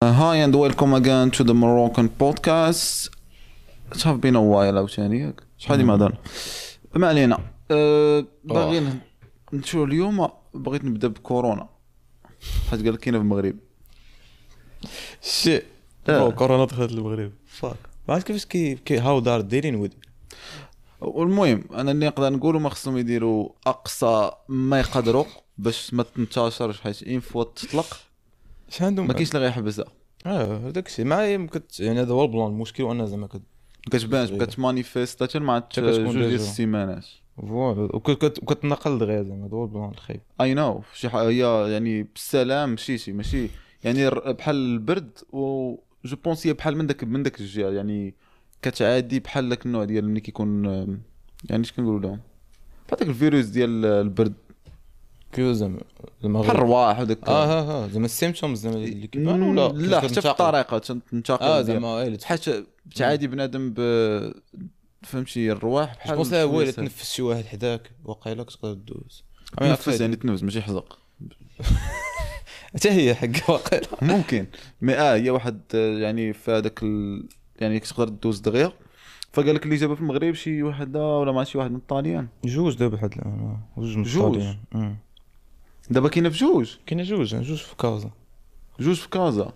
Hi and welcome again to the Moroccan podcast. It have been a while عاوتاني، ياك؟ شحال هادي ما هضرنا. ما علينا. باغي نمشيو اليوم، بغيت نبدا بكورونا حيت قال لك كاينه في المغرب. shit آه. كورونا دخلت المغرب، fuck، ما عرفت كيفاش كي how they're dealing with. والمهم انا اللي نقدر نقولوا ما خصهم يديروا اقصى ما يقدروا باش ما تنتشرش، حيت une fois تطلق اش عندهم؟ ما كاينش اللي غيحبسها. اه، هذاك الشيء مع كت يعني هذا هو ال plan. المشكل وانا زعما كت ما كتبانش، كتمانيفيست حتى مع حتى كتكون جوج ديال déjà. السيمانات. voilà، وكتنقل دغيا، زعما هذا هو ال plan الخايب. I know، شي حاجة هي يعني بالسلام، ماشي يعني بحال البرد، و je pense هي بحال من داك الجهه، يعني كتعادي بحال داك النوع ديال ملي كيكون يعني اش كنقولوا لهم، بحال داك الفيروس ديال البرد. كيف زعما؟ بحال الرواح وداك. اه ها ها زعما ال symptômes زعما اللي كيبان ولا لا، حتى في الطريقة تنتقل زعما اللي حيت تعادي بنادم ب فهمتي الرواح بحال pense هو شوية الا سهل. تنفس شي واحد حداك وقيلا كتقدر دوز. تنفس، يعني تنفس ماشي حزق. حتى هي حق وقيلا. ممكن، mais هي واحد يعني في هذاك يعني كتقدر دوز دغيا. فقال لك اللي جابها في المغرب شي وحده ولا مع شي واحد من الطاليان. جوج دابا لحد الان جوج من جوج؟ الطاليان. دابا كاينه في جوج؟ كاينه جوج، جوج في كازا. جوج في كازا،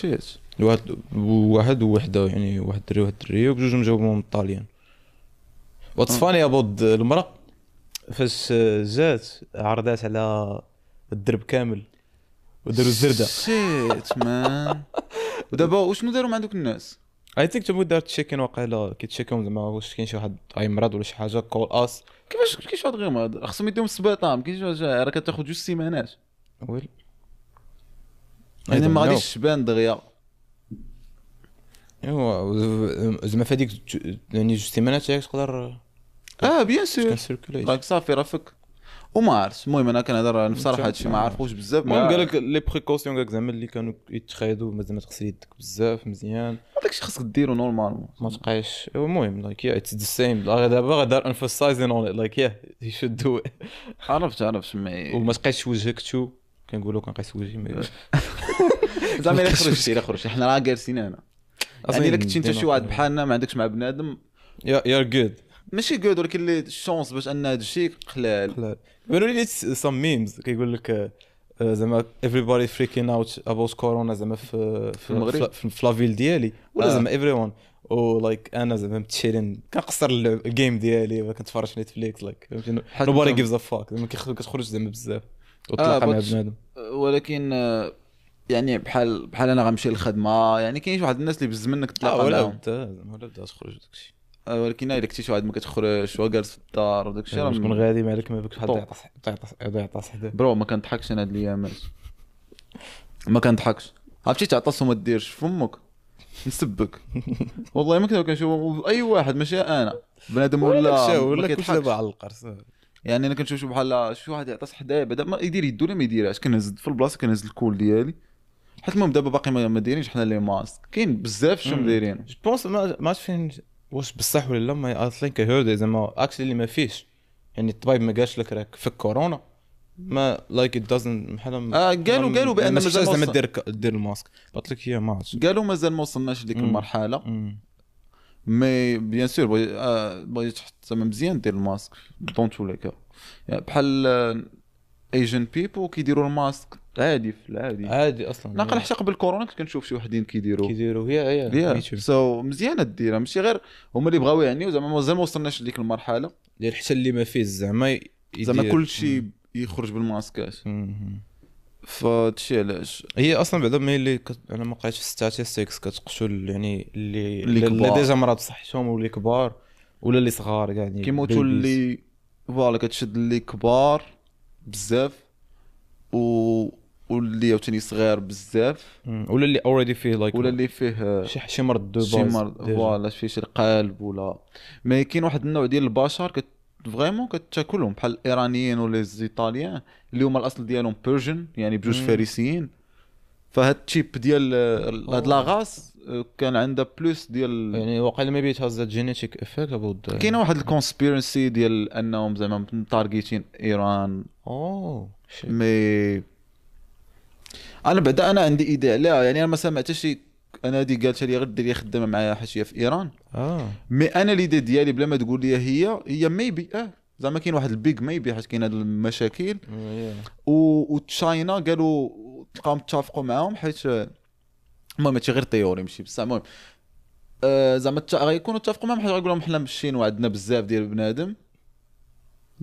shit. واحد واحد ووحده، يعني واحد دري وواحد دريه، وبجوجهم جاوبهم من الطاليان. what's funny about المرأة فاش جات عرضات على الدرب كامل وداروا الزردة. shit man، ودابا وشنو داروا مع دوك الناس؟ I think تما دارت check-in وقيلا، كيتشيكيو زعما واش كاين شي واحد اي مرض ولا شي حاجه، call us. كيفاش كاين شي واحد غير مرض؟ خصهم يديهم السبيطار، ما كاينش شي حاجة، راه كتاخذ 2 سيمانات. well يعني ما غاديش تبان دغيا. ايوا زعما في هذيك يعني 2 سيمانات تاعك تقدر اه bien sûr. circulate. راك صافي راه فك وما عرفت. المهم انا كنهضر بصراحه، هادشي ما عارفوش بزاف. المهم قال لك les précautions، قال لك زعما اللي كانوا يتخايدوا، زعما تغسل يدك بزاف مزيان. داكشي خاصك ديرو normalement. ما تبقايش. المهم like yeah، it's the same دابا غادر emphasizing on it، like yeah، you should do it. عرفت mais وما تقيسش وجهك too، كنقولوا كنقيس وجهي mais زعما الا خرجتي حنا راه جالسين هنا، يعني الا كنتي انت شي واحد بحالنا ما عندكش مع بنادم yeah، you're good. ماشي good، ولكن les chances باش ان هذا الشيء قلال. بانوا لي some memes كيقول لك زعما everybody freaking out about كورونا زعما في المغرب؟ في la ville ديالي ولا زعما everyone، و like انا زعما متشيلين كنقصر ال game ديالي، كنتفرج في Netflix، like فهمتي، nobody gives a fuck. زعما كتخرج زعما بزاف وتلاقى مع بنادم. ولكن يعني بحال انا غنمشي للخدمه، يعني كاين واحد الناس اللي بز منك تلاقى ولا معاهم. بدا زعما ولا بدا تخرج داكشي. ولكن الا كنتي شي واحد ما كتخرجش وجالس في الدار وداك الشيء راه تكون غادي مالك ما بك شحال يعطس يعطس يعطس حدا. bro، ما كنضحكش انا هاد الايامات، ما كنضحكش. عرفتي تعطس وما ديرش فمك، نسبك والله. ما كنشوف اي واحد، ماشي انا، بنادم ولا ولا كلشي دابا على القرص. يعني انا كنشوف بحال شي واحد يعطس حدايا، بعدا ما يدير يدو ولا ما يديرهاش، كنهز في البلاصه، كنهز ال col ديالي، حيت المهم دابا باقي ما دايرينش حنا les masques، كاين بزاف شنو دايرين. je pense ما عرفتش فين واش بصح ولا لا، mais I think I heard زعما actually اللي ما فيش، يعني الطبيب ما قالش لك راك فيك كورونا، ما like it doesn't بحال قالوا بان مازال زعما دير ال masque، قلت لك هي ما عرفتش. قالوا مازال ما وصلناش لديك المرحله، mais bien sûr بغيت تحط زعما مزيان دير ال masque dans tous les cas. يعني بحال Asian people كيديروا الماسك عادي في العادي. عادي اصلا. ناقل حتى قبل كورونا كنت كنشوف شي وحدين كيديروا. كيديروا، yeah. so مزيانه ديرها، ماشي غير هما اللي بغاو يعنيو، زعما مازال ما وصلناش لديك المرحله. ديال حتى اللي ما فيه زعما. زعما كلشي يخرج بالماسكات، فهادشي علاش. هي اصلا بعدا mais اللي انا ما قريتش في statistics كتقتل يعني اللي déjà مرض صحتهم واللي كبار ولا اللي صغار كاع يعني. كيموتوا اللي voilà، كتشد اللي كبار بزاف واللي عاوتاني صغير بزاف. ولا اللي already فيه like ولا اللي فيه شي مرض de شي مرض، voilà، فيه شي القلب ولا. mais كاين واحد النوع ديال البشر كت vraiment كتاكلهم، بحال الايرانيين ولا les Italiens اللي هما الاصل ديالهم Persian، يعني بجوج فارسيين. فهاد ال type ديال هاد la race كان عندها plus ديال يعني واقيلا maybe it has a genetic effect about كاينه واحد ال conspiracy ديال انهم زعما متارجيتين ايران. oh. mais انا بعدا انا عندي idée عليها، يعني انا ما سمعت شي، انا هذه قالت لي غير ديري خدامه معايا حاشية في ايران. mais انا l'idée ديالي بلا ما تقول لي هي maybe زعما كاين واحد ال big maybe حيت كاين هاد المشاكل و China قالوا تلقاهم اتفقوا معاهم، حيت المهم هادشي غير théorie ماشي بصح. المهم زعما غيكونوا اتفقوا معاهم حيت غيقولوا لهم حنا مشين وعندنا بزاف ديال بنادم،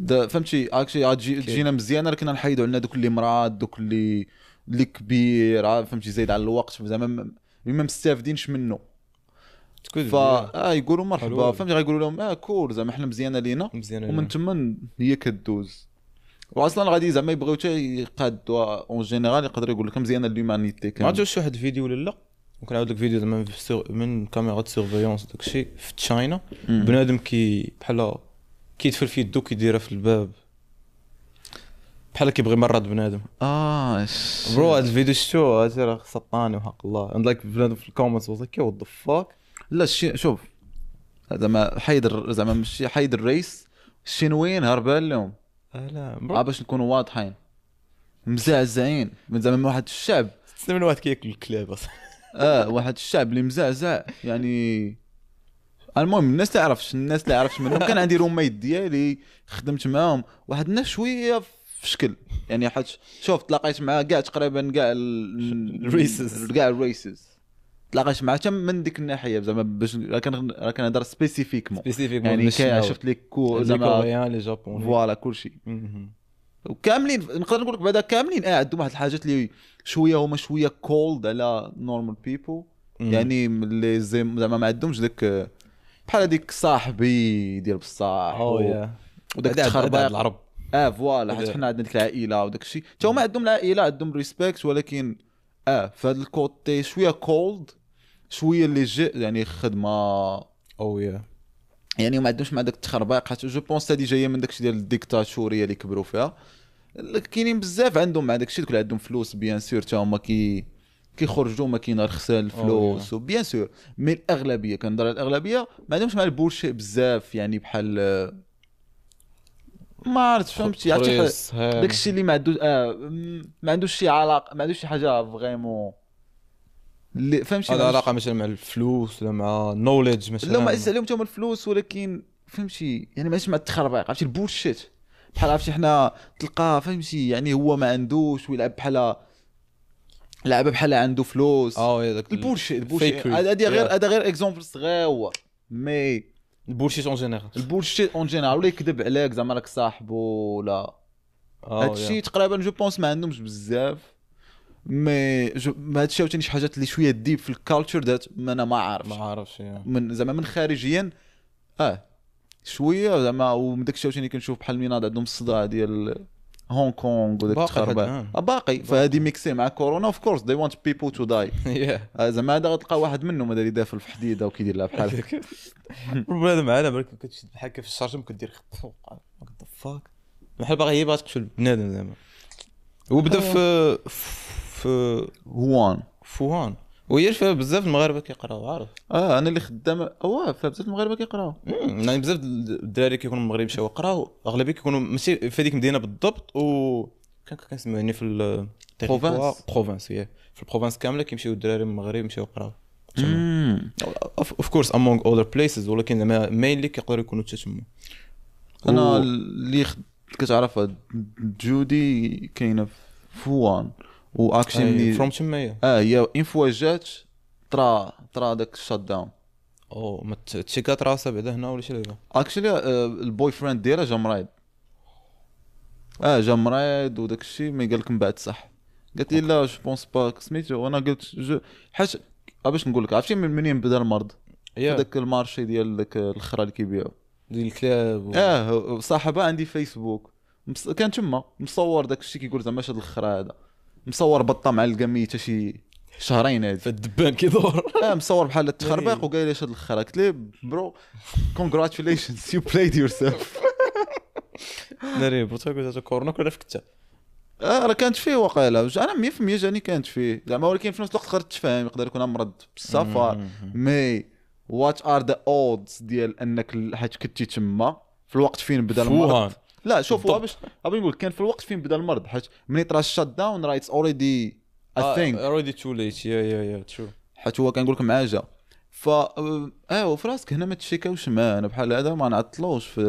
فهمتي هاكشي تجينا مزيانه، لكن نحيدوا عندنا دوك اللي مراد، دوك اللي كبير، فهمتي زايد على الوقت، زعما ما مستافدينش منه. فا يقولوا مرحبا، فهمتي غيقولوا لهم cool زعما حنا مزيانه لينا، ومن تما هي كدوز. واصلا غادي زعما يبغيو حتى يقادوا en général، يقدر يقول لك مزيانه l'humanité. ما عرفتش واحد الفيديو ولا لا، وكنعاود لك فيديو زعما من caméra surveillance داكشي في China، بنادم كي بحال كيدفل في يدو كيديرها في الباب بحال كيبغي مرض بنادم. bro هاد الفيديو شفتو، هادشي راه سطاني وحق الله. and like بنادم في ال comments was like what the fuck. لا شوف زعما حيد، زعما ماشي حيد ال race، الشينويين هربان لهم. لا باش نكونوا واضحين، مزعزعين من زعما واحد الشعب تسمى من واحد كياكل الكلاب اصلا. واحد الشعب اللي مزعزع يعني. المهم الناس تعرفش، الناس اللي عرفت منهم كان عندي roommate ديالي خدمت معاهم، واحد الناس شوية في شكل يعني، حيت شوف تلاقيت معاه كاع تقريبا كاع ال races، كاع ال races تلاقيت معاه حتى من ديك الناحية زعما، باش راه كنهضر spécifiquement يعني شفت les زعما les Coréens les Japonais voilà كلشي وكاملين. نقدر نقول لك بعدا كاملين عندهم واحد الحاجات اللي شوية هما شوية cold على normal people، يعني اللي زعما ما عندهمش داك بحال هذيك صاحبي ديال بصح وداك التخربيق العرب. voilà حيت حنا عندنا ديك العائلة وداك الشيء، حتى هما عندهم العائلة، عندهم respect، ولكن في هذا ال côté شوية cold، شوية اللي جي يعني خدمة يعني ما عندهمش مع داك التخربيق، حيت je pense هادي جاية من داكشي ديال الديكتاتوريه اللي كبروا فيها. كاينين بزاف عندهم مع داكشي، دوك اللي عندهم فلوس bien sûr حتى هما كيخرجوا ما كاين رخصان الفلوس و bien sûr، mais الاغلبية كنهضر على الاغلبية ما عندهمش مع ال bullshit بزاف، يعني بحال ما عرفت فهمتي داكشي اللي ما عندوش ما عندوش شي علاقة، ما عندوش شي حاجة vraiment اللي فهمتي هذا علاقة مثلا مع الفلوس ولا مع knowledge مثلا. لا ما عزيز عليهم حتى هما الفلوس، ولكن فهمتي يعني ماشي مع التخربيق، عرفتي ال bullshit بحال عرفتي حنا تلقاه فهمتي يعني هو ما عندوش ويلعب بحال لعبه بحال عنده فلوس. ال bullshit ال bullshit هذا غير هذا غير exemple صغير، mais ال bullshit en général، ال bullshit en général ولا يكذب عليك زعما راك صاحبو ولا هادشي تقريبا je pense ما عندهمش بزاف. mais هادشي عاوتاني شي حاجات اللي شوية deep في ال culture that انا ما عارفش من زعما من خارجيا شوية زعما. ومن داكشي عاوتاني كنشوف بحال ميناد عندهم الصداع ديال هونغ كونغ وداك التخربيق باقي، فهادي mixée مع كورونا of course they want people to die. زعما هذا غتلقى واحد منهم هذا اللي دافل في حديده وكيدير لها بحال هكا. بنادم معنا برك كتشد بحال هكا في الشارجم كدير what the fuck بحال باغي هي باغا تقتل بنادم زعما. وبدا في ووهان، وهي فيها بزاف المغاربة كيقراو عارف. انا اللي خدام فيها بزاف المغاربة كيقراو، يعني بزاف الدراري كيكونوا المغرب مشاو قراو، اغلبية كيكونوا ماشي في هذيك المدينة بالضبط، و كان كنسميو يعني في ال province، هي في ال province كاملة كيمشيو الدراري من المغرب مشاو قراو of course among other places، ولكن زعما mainly كيقدروا يكونوا حتى تما. انا اللي كتعرفها جودي كاينه في ووهان، و actually from تما هي une fois جات طرا داك ال shutdown. ما تشيكات راسها بعدا هنا ولا شي لعبه. actually ال boyfriend ديالها جا مريض، جا مريض وداك الشيء، mais قال لك من بعد صح، قالت لي لا je pense pas سميتو. وانا قلت je حاج باش نقول لك عرفتي منين بدا المرض؟ داك ال marché ديال داك الخرا اللي كيبيعوا ديال الكلاب. صاحبها عندي فيسبوك كان تما مصور داك الشيء كيقول زعما هاد الخرا هذا، مصور بطه معلقه ميته شي شهرين هادي فالدبان كيدور. مصور بحال التخربيق وقال لي اش هاد الخرا، قلت ليه bro congratulations you played yourself. ناري بوتا كنت كورونا كنا في كتا. راه كانت فيه وقيله، انا 100% جاني كانت فيه زعما، ولكن في نفس الوقت تقدر تفهم يقدر يكون مرض بالسفر. mais what are the odds ديال انك حيت كنتي تما في الوقت فين بدا المرض. لا شوف باش نقول كان في الوقت فين بدا المرض، حيت ملي طرا ال shutdown راه it's already I think already too late، yeah yeah yeah، true. حيت هو كنقول لك معاه جا. ف وفي راسك هنا ما تشيكاوش معاه، انا بحال هذا ما نعطلوش في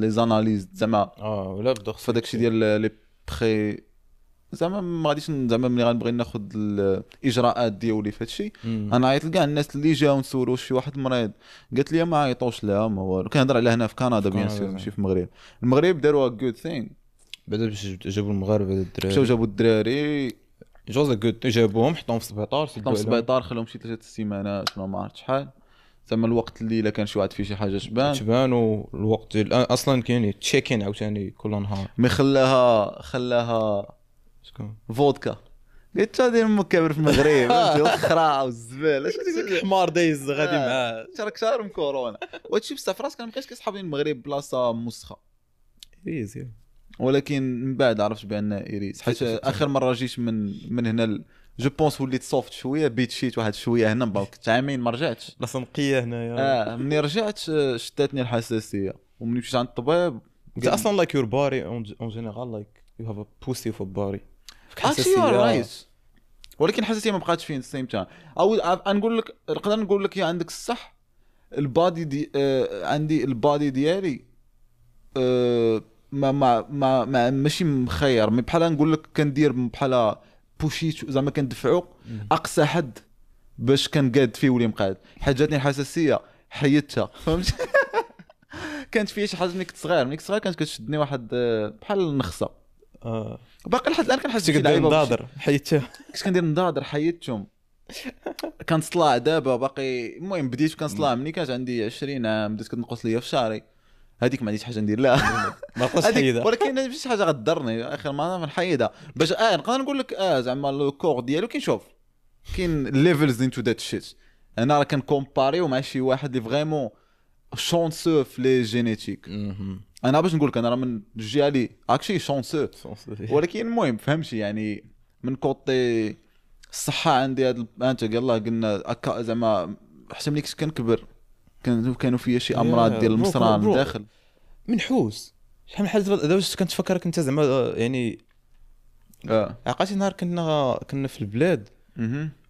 les analyses زعما. ولا بدا في داكشي ديال les pré زعما ما غاديش زعما ملي غنبغي ناخذ الاجراءات ديالي في هادشي انا عيطت لكاع الناس اللي جاو نسولو شي واحد مريض، قالت لي ما عيطوش لها ما والو. كنهضر على هنا في كندا bien sûr، ماشي في المغرب. المغرب داروا good thing بعدا باش جابوا المغاربة الدراري، مشاو جابوا الدراري جوز good، جابوهم حطوهم في السبيطار، حطوهم في السبيطار، خلوهم شي 3 السيمانات ولا ما عرفت شحال زعما. الوقت اللي الا كان شي واحد فيه شي حاجة تبان، والوقت اصلا كاين check-in عاوتاني كل نهار. mais خلاها شكون فودكا، قلت هذه امك كابر في المغرب الخرا والزباله، حمار دايز غادي معاه راك شارم كورونا. وهادشي بصح في راسك انا مابقيتش كيصحابني المغرب بلاصة مسخه it is، ولكن من بعد عرفت بان it is، حيت اخر مرة جيت من هنا je pense وليت soft شوية، بيت شيت واحد شوية هنا، كنت عامين ما رجعتش بلاصة نقية هنايا. ملي رجعت شتاتني الحساسية، وملي مشيت عند الطبيب انت اصلا like your body en général like you have a pussy of body حساسية right، ولكن الحساسية ما بقاتش فين same time. او نقول لك نقدر نقول لك يا عندك الصح، ال body دي عندي ال body ديالي ما ما ما, ما ماشي مخير، mais بحال نقول لك كندير بحال بوشيت زعما كندفعو اقصى حد باش كنقاد فيه ولي مقاد. حيت جاتني الحساسية حيدتها، فهمت؟ كانت فيا شي حاجة ملي كنت صغير، كانت كتشدني واحد بحال النخسه. باقي لحد الان كنحس بشي لعيبة نضادر حيدتها، كنت كندير نضادر حيدتهم. كنصلع دابا باقي، المهم بديت كنصلع ملي كانت عندي 20 عام، بدات كتنقص ليا في شعري، هذيك ما عنديش حاجة ندير لها ما بقاش حيدها، ولكن ماشي شي حاجة غتضرني اخر ما نحيدها باش نقدر نقول لك زعما le corps ديالو كنشوف كاين levels into that shit. انا راه كنكومباريو مع شي واحد اللي vraiment chanceux في les génétiques. انا باش نقول لك انا راه من الجهة اللي actually chanceux، ولكن المهم فهمتي يعني من côté الصحة عندي هاد انت يلاه قلنا زعما حتى ملي كنت كنكبر كانوا فيا شي امراض ديال المصران داخل منحوس. شحال من حاجة دابا كنتفكرك انت زعما يعني عقلتي نهار كنا في البلاد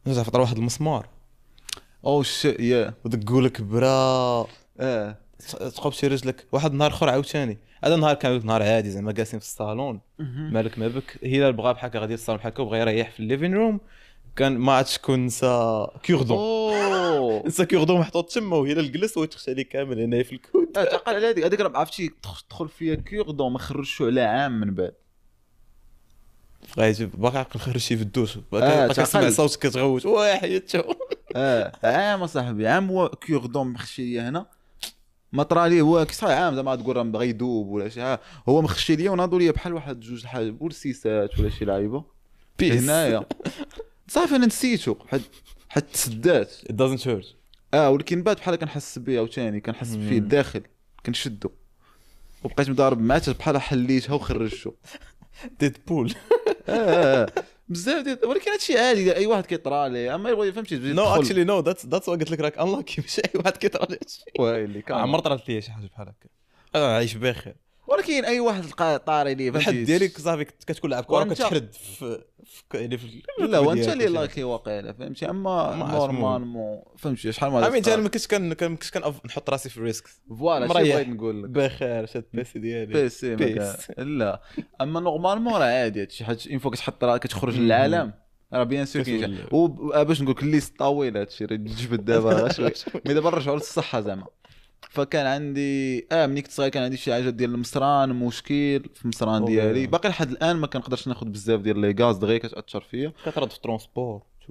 نرجع فطر واحد المسمار oh shit yeah ودقوا لك برا تقوب شي رجلك. واحد النهار اخر عاوتاني، هذا النهار كان نهار عادي زعما جالسين في الصالون مالك ما بك، هلال بغا بحال هكا غادي للصالون بحال هكا وبغى يريح في ال living room، كان ما عرفتش شكون نسى cure-dent، نسى cure-dent محطوط تما، وهلال جلس وتخشى عليه كامل هنايا في ال coude. تعقل على هذيك راه عرفتي تدخل فيها cure-dent ما خرجش على عام من بعد، بغيت باقي عقل خرج شي في الدوش، باقي كنسمع صوت كتغوت واه حيدته. عام صاحبي، عام هو cure-dent مخشي ليا هنا ما طرا ليه هو كي صحيح عام زعما تقول راه بغا يذوب ولا شي حاجة، هو مخشي ليا وناضوا ليا بحال واحد جوج الحاجة بولسيسات ولا شي لعيبة هنايا صافي انا نسيتو حيت تسدات it doesn't hurt. ولكن بعد بحال كنحس بيه عاوتاني، كنحس فيه الداخل كنشدو، وبقيت مضارب معاه بحال حليتها وخرجته Deadpool. بزاف ديال، ولكن هادشي عادي اي واحد كيطرى ليه، اما يبغي فهمتي. no actually no that's قلت لك راك unlucky، ماشي اي واحد كيطرى ليه هادشي. ويلي كان عمر طرات ليا شي حاجة بحال هكا، انا عايش بخير، ولكن اي واحد لقى طاري ليه الحد ديالك صافي كتكون لعب كره كتحرد في يعني في لا وانت اللي lucky واقيلا فهمتي. اما normalement فهمتي شحال ما امين انا ما كنتش كن نحط راسي في risk voilà شي بغيت نقول لك بخير شاد PC ديالي PC لا اما normalement راه عادي هادشي، حيت une fois كتحط راه كتخرج للعالم راه bien sûr كاين. وباش نقول لك liste طويلة هادشي راه تجبد دابا شوية، mais دابا نرجعوا للصحة زعما. فكان عندي ملي كنت صغير كان عندي شي حاجة ديال المصران، مشكل في المصران ديالي باقي لحد الان ما كنقدرش ناخذ بزاف ديال les gaz دغيا كتاثر فيا، كترد في transport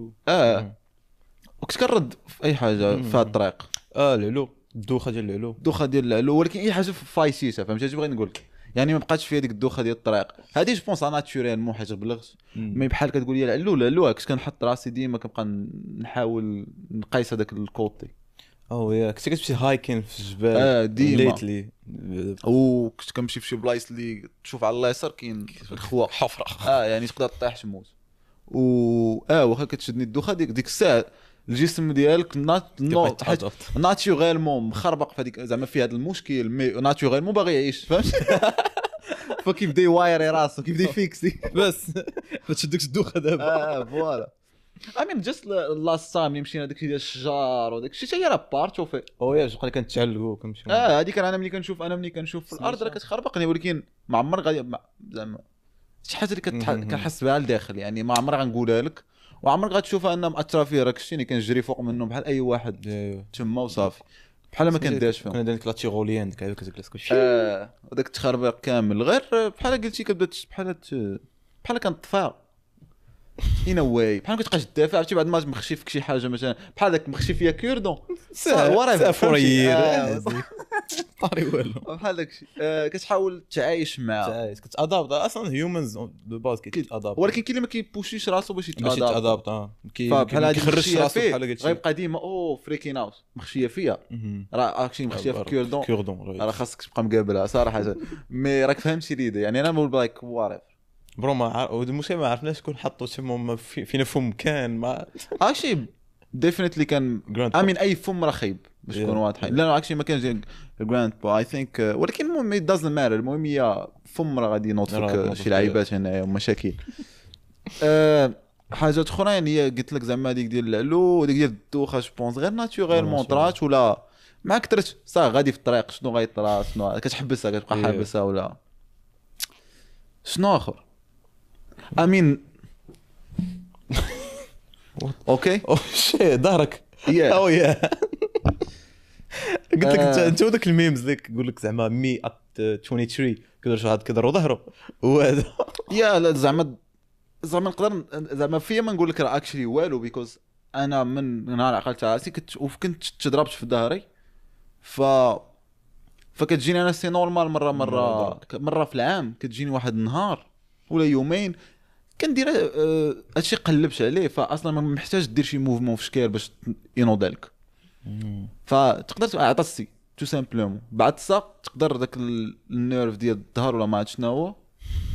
وكنت كنرد في اي حاجة في هاد الطريق العلو، الدوخه ديال العلو، الدوخه ديال العلو، ولكن اي حاجة فايسيسه فهمتي اش بغيت نقول لك يعني ما بقاتش فيا ديك الدوخه ديال الطريق هادي je pense naturellement حيت بلغت. mais بحال كتقول لي العلو العلو كنت كنحط راسي ديما كنبقى نحاول نقيس هذاك ال côté. oh yeah كنت كتمشي hiking في الجبال ديما lately، وكنت كنمشي في شي بلايص اللي تشوف على اليسار كاين الخوا حفره يعني تقدر تطيح تموت. و واخا كتشدني الدوخه ديك الساعة الجسم ديالك naturellement مخربق في هذيك زعما في هذا المشكل، mais naturellement باغي يعيش فهمت. فكيبدا يوايري راسو، كيبدا يفيكسي. بس ما تشدكش الدوخه دابا. voilà، I mean just last time اللي مشينا داكشي ديال الشجار وداك الشيء حتى هي راه part of it. oh yeah، بقى كنتعلقوا كنمشيو. هذيك انا ملي كنشوف، انا ملي كنشوف في الارض راه كتخربقني، ولكن ما عمر غادي زعما شي حاجة اللي كنحس بها لداخل، يعني ما عمر غنقولها لك وعمرك غتشوفها انها مأثره فيا. راك شتيني كنجري فوق منه بحال اي واحد تما وصافي، بحال ما كنديرش فيهم. كنا دايرين la tyrolienne ديك كتجلس كلشي. وداك التخربيق كامل غير بحال قلتي كتبدا بحال بحال كنطفى in a way، بحال كتبقاش تدافع. عرفتي بعد ما مخشي فيك شي حاجة مثلا بحال داك مخشي فيا cure-dent سافورير طاري والو بحال داك الشيء. كتحاول تعايش معاه، تعايش، كت adapt. اصلا humans de base كيت adapt، ولكن كاين اللي ما كيبوشيش راسو باش يت adapt. بحال هادي كيخرج راسو بحال قلتي غيبقى ديما oh freaking out مخشيه فيا. راه actually مخشيه في cure-dent، cure-dent راه خاصك تبقى مقابلها صراحه. mais راك فهمتي l'idée، يعني انا بقول like whatever bro. ما المشكل ما عرفناش شكون حطوا تما فينا فم كان ما actually definitely كان I mean اي فم راه خايب باش نكونوا واضحين. لا actually ما كانش grandpa I think، ولكن المهم it doesn't matter. المهم هي فم راه غادي ينوض فيك شي لعيبات هنايا ومشاكل. حاجات اخرين هي قلت لك زعما هذيك ديال العلو وديك ديال الدوخه je pense غير naturellement طرات ولا مع كثرت صافي غادي في الطريق شنو غيطرا شنو كتحبسها كتبقى حابسها ولا شنو اخر. I mean okay oh shit ظهرك. oh yeah، قلت لك انت وداك ال memes اللي يقول لك زعما me at 23 كيدير شي واحد كيضرو ظهره وهذا. yeah لا زعما نقدر زعما فيا ما نقول لك راه actually والو، because انا من نهار عقلت راسي كنت وكنت تضربت في ظهري، فكتجيني انا c'est normal مرة مرة مرة في العام كتجيني واحد النهار ولا يومين كندير هادشي قلبت عليه، فاصلا ما محتاج دير شي mouvement في شكال باش ينوض لك. فتقدر عطستي tout simplement بعد الساق تقدر داك ال nerf ديال الظهر ولا ما عرفت شنو هو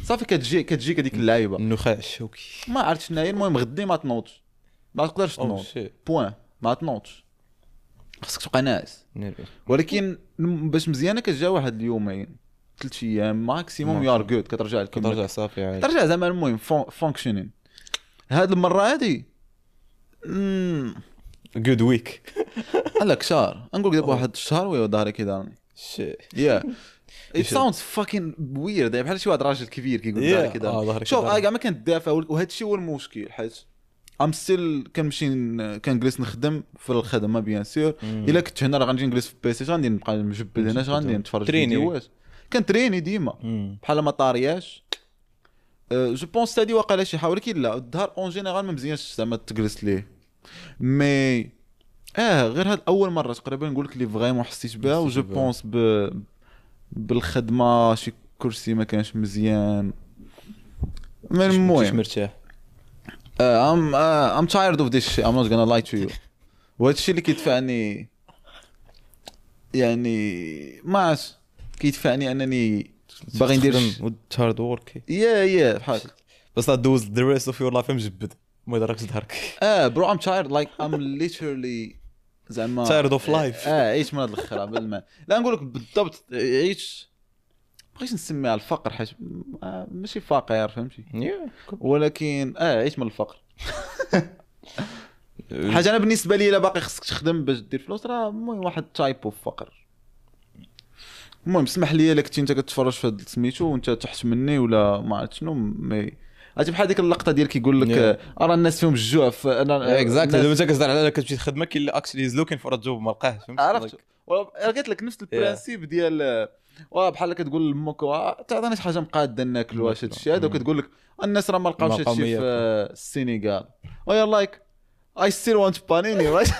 صافي كتجيك هذيك اللعيبة النخاع الشوكي ما عرفت شنو هي. المهم غدي ما تنوضش، ما تقدرش تنوض point، ما تنوضش، خصك تبقى ناعس. ولكن باش مزيانه كتجا واحد اليومين 3 ايام maximum you're good، كترجع لك كترجع صافي عادي ترجع زعما. المهم functioning هاد المرة هادي good week لك شهر نقول دابا واحد الشهر ويا ظهري كيضرني. yeah it sounds fucking weird، بحال شي واحد راجل كبير كيقول ظهري كيضرني. شوف انا كاع ما كندافع، وهذا الشيء هو المشكل، حيت I'm still كنمشي كنجلس نخدم في الخدمة bien sûr. الا كنت هنا راه غنجي نجلس في PC غادي نبقى مجبد هنا، غادي نتفرج فيديوهات، كنتريني ديما بحال ما طارياش. je pense هادي واقيلا شي حاجة، ولكن لا الظهر en général ما مزيانش زعما تجلس ليه. mais غير هاد اول مرة تقريبا نقول لك اللي vraiment حسيت بها، و je pense بالخدمة شي كرسي ما كانش مزيان. من المهم مرتاح. I'm tired of this shit, I'm not gonna lie to you. وهذا الشيء اللي كيدفعني يعني ما عرفت كيدفعني انني باغي ندير hard work. yeah بحال بس دوز the rest of your life مجبد ما يضركش ظهرك. bro I'm tired like I'm literally زعما tired of life. عيش من هذا الخرا بالما لا نقول لك بالضبط عيش، بغيت نسميها الفقر حيت ماشي فقير فهمتي، ولكن عيش من الفقر. حاجة انا بالنسبة لي الا باقي خصك تخدم باش دير فلوس راه المهم واحد type of فقر. المهم اسمح لي الا كنتي انت كتفرج في هاد سميتو وانت تحت مني ولا ما عرفت شنو، mais عرفتي بحال ديك اللقطة ديال كيقول لك راه الناس فيهم الجوع. exactly دابا انت كتهضر على كتمشي تخدم كاين اللي actually is looking for job ما لقاهش فهمتي. عرفت قلت لك نفس ال principe ديال بحال كتقول لامك تعطيني شي حاجة مقاده ناكل واش هادشي هذا، وكتقول لك الناس راه ما لقاوش هادشي في السينيغال، و you're like I still want panini right.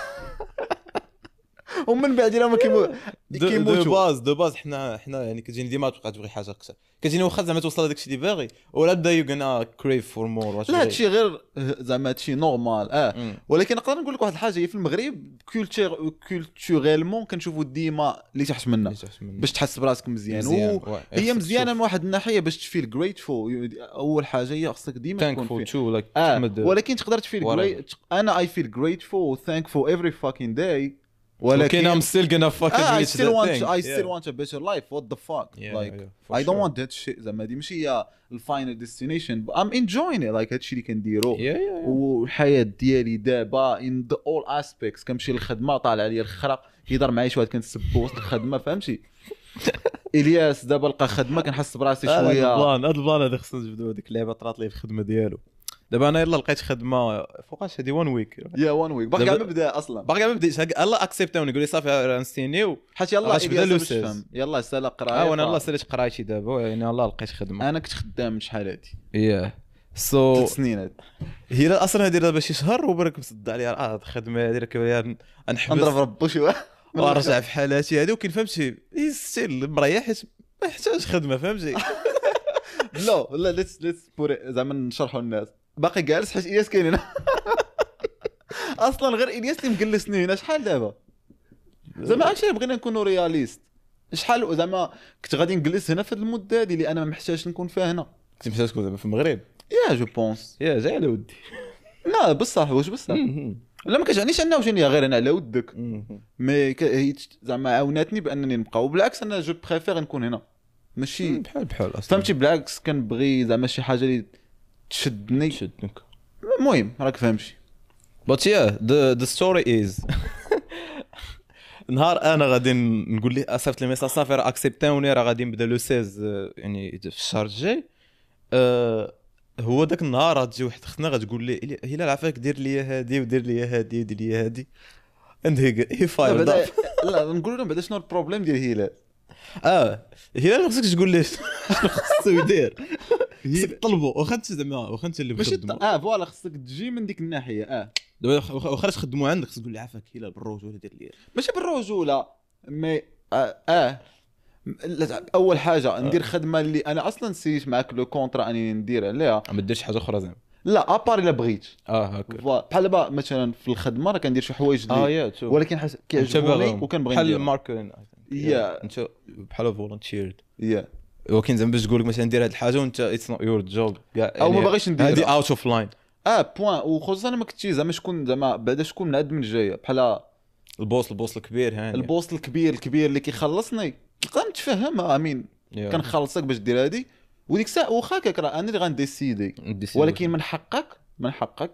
ومن بعد الا ما كيموتوا de base حنا يعني كتجيني ديما تبقى تبغي حاجة اكثر، كتجيني واخا زعما توصل لهداك الشيء اللي باغي ولا بدا you gonna crave for more. لا هادشي غير زعما هادشي normal. ولكن نقدر نقول لك واحد الحاجة، هي في المغرب culturellement كنشوفوا ديما اللي تحت منا باش تحس براسك مزيان، هي مزيانه من واحد الناحية باش ت feel grateful. اول حاجة هي خصك ديما تكون ولكن تقدر ت feel انا I feel grateful thankful every fucking day ولكن I'm still gonna fucking I reach still that want thing. I still want a better life. What the fuck? Like for I don't sure. want that shit. زعما هادي ماشي هي ال final destination. I'm enjoying it. Like هادشي اللي كنديرو. Yeah, yeah, yeah. والحياة ديالي دابا in the all aspects. كنمشي للخدمة طالع عليا الخرا، كيهضر معايا شي واحد كنسبو وسط الخدمة، فهمتي؟ الياس دابا لقى خدمة كنحس براسي هذا شوية. ال plan، هذا ال plan هذا خصنا نجبدو هذيك اللعبة طرات لي في الخدمة ديالو. دابا انا يلا لقيت خدمة فوقاش هذه 1 week. yeah 1 week باقي كاع ما بدا اصلا، باقي ما بديتش. يلاه accept اوني يقول لي صافي راه نسينيو، حيت يلا غتبدا الياس le باش 16. تفهم، يلا سالا قرايه. وانا يلاه ساليت قرايتي دابا، يعني يلاه لقيت خدمة. انا كنت خدام شحال هادي yeah so 3 سنين هادي. هي اصلا هادي دابا شي شهر وبرك مصد عليا الخدمة هادي راه نحبس نضرب ربو شي واحد ونرجع في حالاتي هادي. وكاين فهمتي still مريح حيت ما يحتاج خدمة، فهمتي؟ لا لا let's put زعما نشرحوا للناس. باقي جالس حيت الياس كاين هنا. اصلا غير الياس اللي مجلسني هنا شحال دابا. زعما actually بغينا نكونوا réalistes، شحال زعما كنت غادي نجلس هنا في هذه المدة هذه اللي انا ما محتاجش نكون فيها هنا. كنت محتاج تكون زعما في المغرب. yeah je pense. yeah جاي على ودي. لا بصح، واش بصح؟ لا ما كتعنيش انه وجاني غير انا على ودك، mais هي زعما عاوناتني بانني نبقى. وبالعكس انا je préfère نكون هنا، ماشي بحال بحال اصلا، فهمتي؟ بالعكس كنبغي زعما شي حاجة اللي تشدني. تشدنك. المهم راك فهمتي. But yeah, the story is نهار انا غادي نقول ليه صيفط لي message صافي راه accept اوني، راه غادي نبدا le 16 يعني في الشهر الجاي. هو داك النهار غتجي واحد اختنا غتقول لي هلال عافاك دير لي هادي ودير لي هادي ودير لي هادي، and he fired up. لا نقول لهم بعدا شنو ال problème ديال هلال. هلال ما خصكش تقول ليه شنو خصو يدير، خصك تطلبو واخا انت زعما واخا انت اللي مخدمو. voilà خصك تجي من ديك الناحية. دابا واخا تخدمو عندك خصك تقول لي عافاك هلال بالرجوله دير لي، ماشي بالرجوله mais اول حاجة ندير خدمة اللي انا اصلا سيت معاك le contrat اني ندير عليها، ما ديرش حاجة اخرى زعما. لا à part الا بغيت. هكا بحال دابا مثلا في الخدمة راه كندير شي حوايج اللي ولكن كيعجبوني وكنبغي ندير بحال ال marketing. yeah انت بحال volunteered. yeah ولكن زعما باش تقول لك مثلا دير هذه الحاجة وانت it's not your job كاع، او ما باغيش نديرها، هذه out of line. point. وخصوصا ما كنتي زعما شكون زعما بعدا شكون من عند من جاية، بحال ال boss، ال boss الكبير، هاني ال boss الكبير الكبير اللي كيخلصني تلقى متفهمها. امين كنخلصك باش دير هادي، وديك الساعة واخا هكاك راه انا اللي غن décider، ولكن من حقك، من حقك،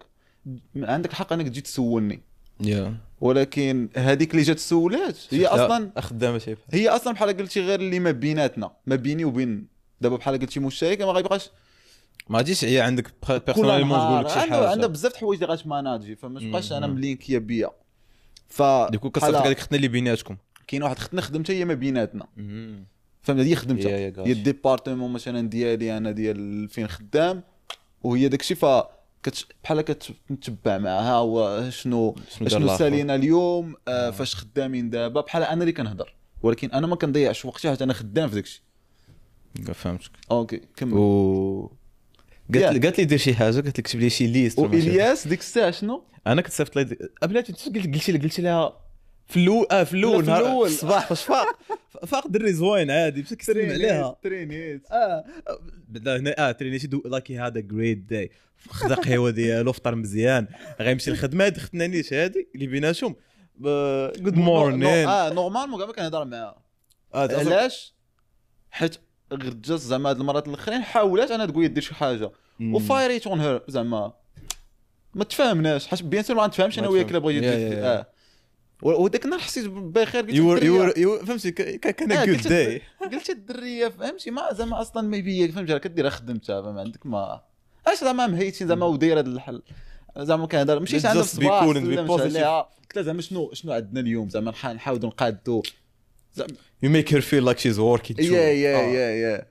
عندك الحق انك تجي تسولني. ولكن هذيك اللي جات سولات هي اصلا خدامه شي، هي اصلا بحال قلتي غير اللي ما بيناتنا، ما بيني وبين دابا بحال قلتي مشترك ما غيبقاش، ما غاديش هي عندك personnellement تقول لك شي حاجة. عندها بزاف د الحوايج اللي غتماناجي، فما تبقاش انا ملينكيه بيا. ف du coup كتصيفط هذيك ختنا اللي بيناتكم، كاين واحد ختنا خدمتها هي ما بيناتنا، فهمت؟ هي خدمتها هي ال département مثلا ديالي انا ديال فين خدام، وهي داكشي. ف بحال كتتبع معاها وشنو شنو سالينا اليوم، فاش خدامين دابا. بحال انا اللي كنهضر، ولكن انا ما كنضيعش وقتي حيت انا خدام في داكشي. فهمتك. okay كمل. قالت لي دير شي حاجة، قالت لي كتب لي شي liste. والياس ديك الساعة شنو انا كنت صيفط لي قبلات، قلت لها في الاول، في الاول نهار الصباح فاش فاق دري زوين عادي باش كيسلم عليها ترينيت. بدا هنا ترينيت like had a great day، خدا قهوة ديالو، فطر مزيان، غيمشي للخدمة. هاد ختنا نيش هادي اللي بيناتهم good morning. normalement كاع ما كنهضر معاها. علاش؟ حيت غير just زعما هاد المرات الاخرين حاولات انا تقول دير شي حاجة وفايريت on her، زعما ما تفاهمناش، حيت bien sûr ما نتفاهمش انا وياك الا بغيتي دير. وداك النهار حسيت بخير، قلت فهمتي كان good day. قلت الدريه فهمتي ما زعما اصلا ما بيا، فهمتي راه كدير خدمتها، ما عندك ما اش زعما مهيتين زعما ودايره هذا الحل زعما كنهضر. مشيت عندها في الصباح عليها، قلت لها زعما شنو عندنا اليوم، زعما نحاولوا نقادو. You make her feel like she's working too. yeah yeah yeah yeah.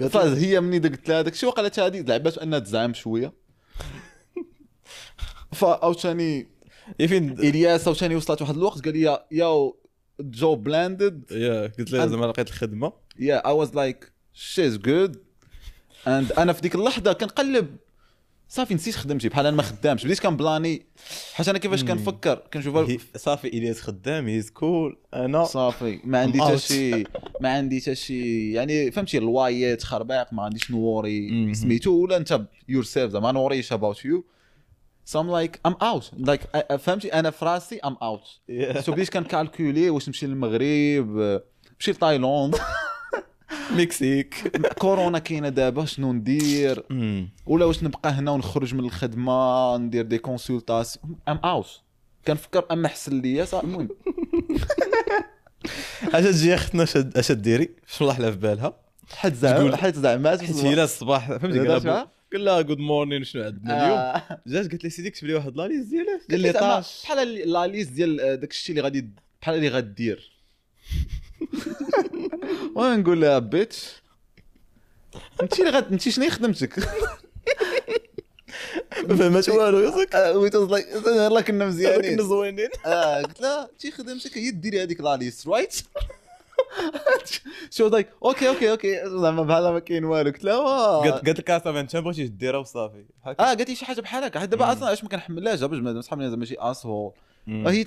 فهي مني قلت لها داك الشيء وقالت هذه لعبات انها تزعم شوية. فاوتاني فين الياس عاوتاني وصلت واحد الوقت قال لي yo job landed. yeah قلت له زعما لقيت الخدمة. yeah I was like she's good. and انا في ديك اللحظة كنقلب صافي نسيت خدمتي، بحال انا ما خدامش، بديت كنبلاني حيت انا كيفاش كنفكر كنشوف صافي الياس خدام he's cool، انا صافي ما عندي حتى شي، ما عندي حتى شي يعني فهمتي الوايات خربيق، ما عنديش نوري سميتو ولا انت yourself زعما نوريش about you. So I'm like I'm out like فهمتي، انا في راسي I'm out. so بديت كن calculer واش نمشي للمغرب، نمشي لتايلاند، مكسيك، كورونا كاينه دابا شنو ندير، ولا واش نبقى هنا ونخرج من الخدمة ندير des consultations. I'm out كنفكر اما احسن ليا صافي. المهم اش تجي اختنا اش ديري شنو طاح لها في بالها؟ حيت زعما حيت زعما حيت هي الصباح فهمتي قال لها good morning شنو عندنا اليوم، جات قالت لي سيدي كتب لي واحد la liste ديال ديال les tâches بحال la liste ديال داك الشيء اللي غادي بحال اللي غدير. وانا نقول لها bitch انت اللي غاد انت شنو خدمتك؟ ما فهمت والو ياك wait like يلاه كنا مزيانين كنا زوينين. قلت لها انت خدمتك هي ديري هذيك la liste right؟ she like okay okay okay زعما بحال ما كاين والو. قلت لها قالت لك صافي انت بغيتي ديرها وصافي. قالت لي شي حاجة بحال هكا. حيت دابا اصلا علاش ما كنحملهاش باش بنادم صحابني زعما ماشي asshole،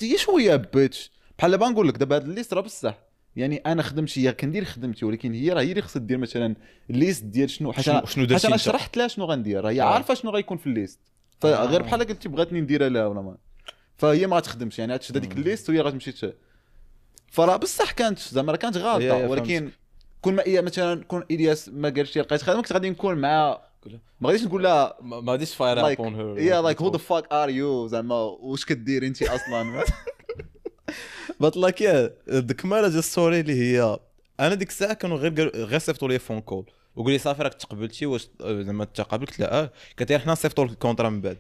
هي شوية bitch بحال دابا نقول لك دابا هاد ال liste راه بصح، يعني انا خدمتي هي كندير خدمتي، ولكن هي راه هي اللي خصها دير مثلا ال liste ديال شنو، حيت انا شرحت لها شنو غندير، راه هي عارفه شنو غيكون في ال liste، فغير بحال قلتي بغاتني نديرها لها ولا ما، فهي ما غتخدمش يعني غتشد هذيك ال liste وهي غتمشي. فراه بصح كانت زعما راه كانت غلطه، ولكن كون ما هي مثلا كون الياس ما قالش لي لقيت خدمة كنت غادي نكون مع ما غاديش نقول لها ما غاديش fire up on her yeah like who the fuck are you زعما واش كدير انت اصلا. but like yeah ديك المرة story اللي هي انا ديك الساعة كانوا غير صيفطوا لي phone call وقول لي صافي راك تقبلتي واش زعما تقبلت؟ قلت لا. قالت لي حنا صيفطوا لك ال contrat من بعد.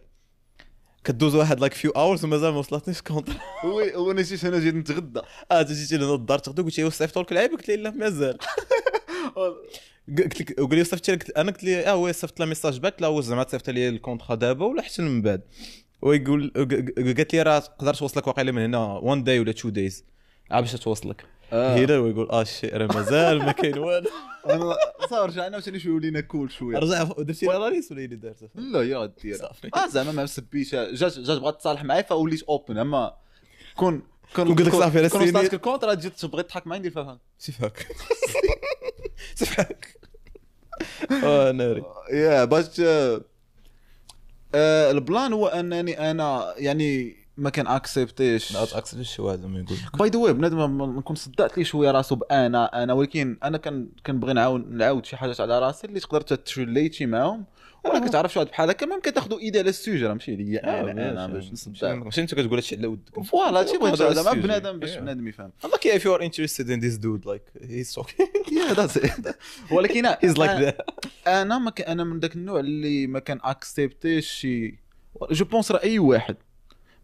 كدوز واحد like few hours ومازال ما وصلتنيش ال contrat. oui وانا جيت هنا جيت نتغدى. جيتي لهنا الدار تغدى قلت لي واش صيفطوا لك العيب؟ قلت لي لا مازال. قلت لك وقال لي صيفطتي لك؟ انا قلت لي oui صيفط لها message back، لا واش زعما تصيفط لي ال contrat دابا ولا حتى من بعد؟ ويقول قالت لي راه تقدر توصلك واقيلا من هنا 1 day ولا 2 days عاد باش توصلك. هنا ويقول shit راه مازال ما كاين والو. انا صافي رجعنا عاوتاني شوية ولينا cool شوية. رجع درتي la liste ولا اللي دارت؟ لا هي غدير زعما ما مسبيش، جات بغات تصالح معايا فوليت open. اما كون كون قلت لك صافي راه كون وصلتك ال contrat تجي تبغي تضحك معايا ندير فيها سيفاك سيفاك ناري. yeah باش ال plan هو انني انا يعني ما كان accept يش ما accept يش شي واحد ما يقول by the way بنادم نكون صدعت لي شوية راسو بانا انا، ولكن انا كنبغي نعاود شي حاجات على راسي اللي تقدر ت relate ي معاهم، ولا كتعرف شي واحد بحال هكا même كتاخذوا idée على ال sujet راه ماشي ليا انا باش نصدع. ماشي انت كتقول هادشي على ودك voilà هادشي بغيت زعما بنادم باش بنادم يفهم. like if you are interested in this dude like he's okay yeah that's it. ولكن he's like that. انا ما انا من داك النوع اللي ما كان accept يش شي je pense راه اي واحد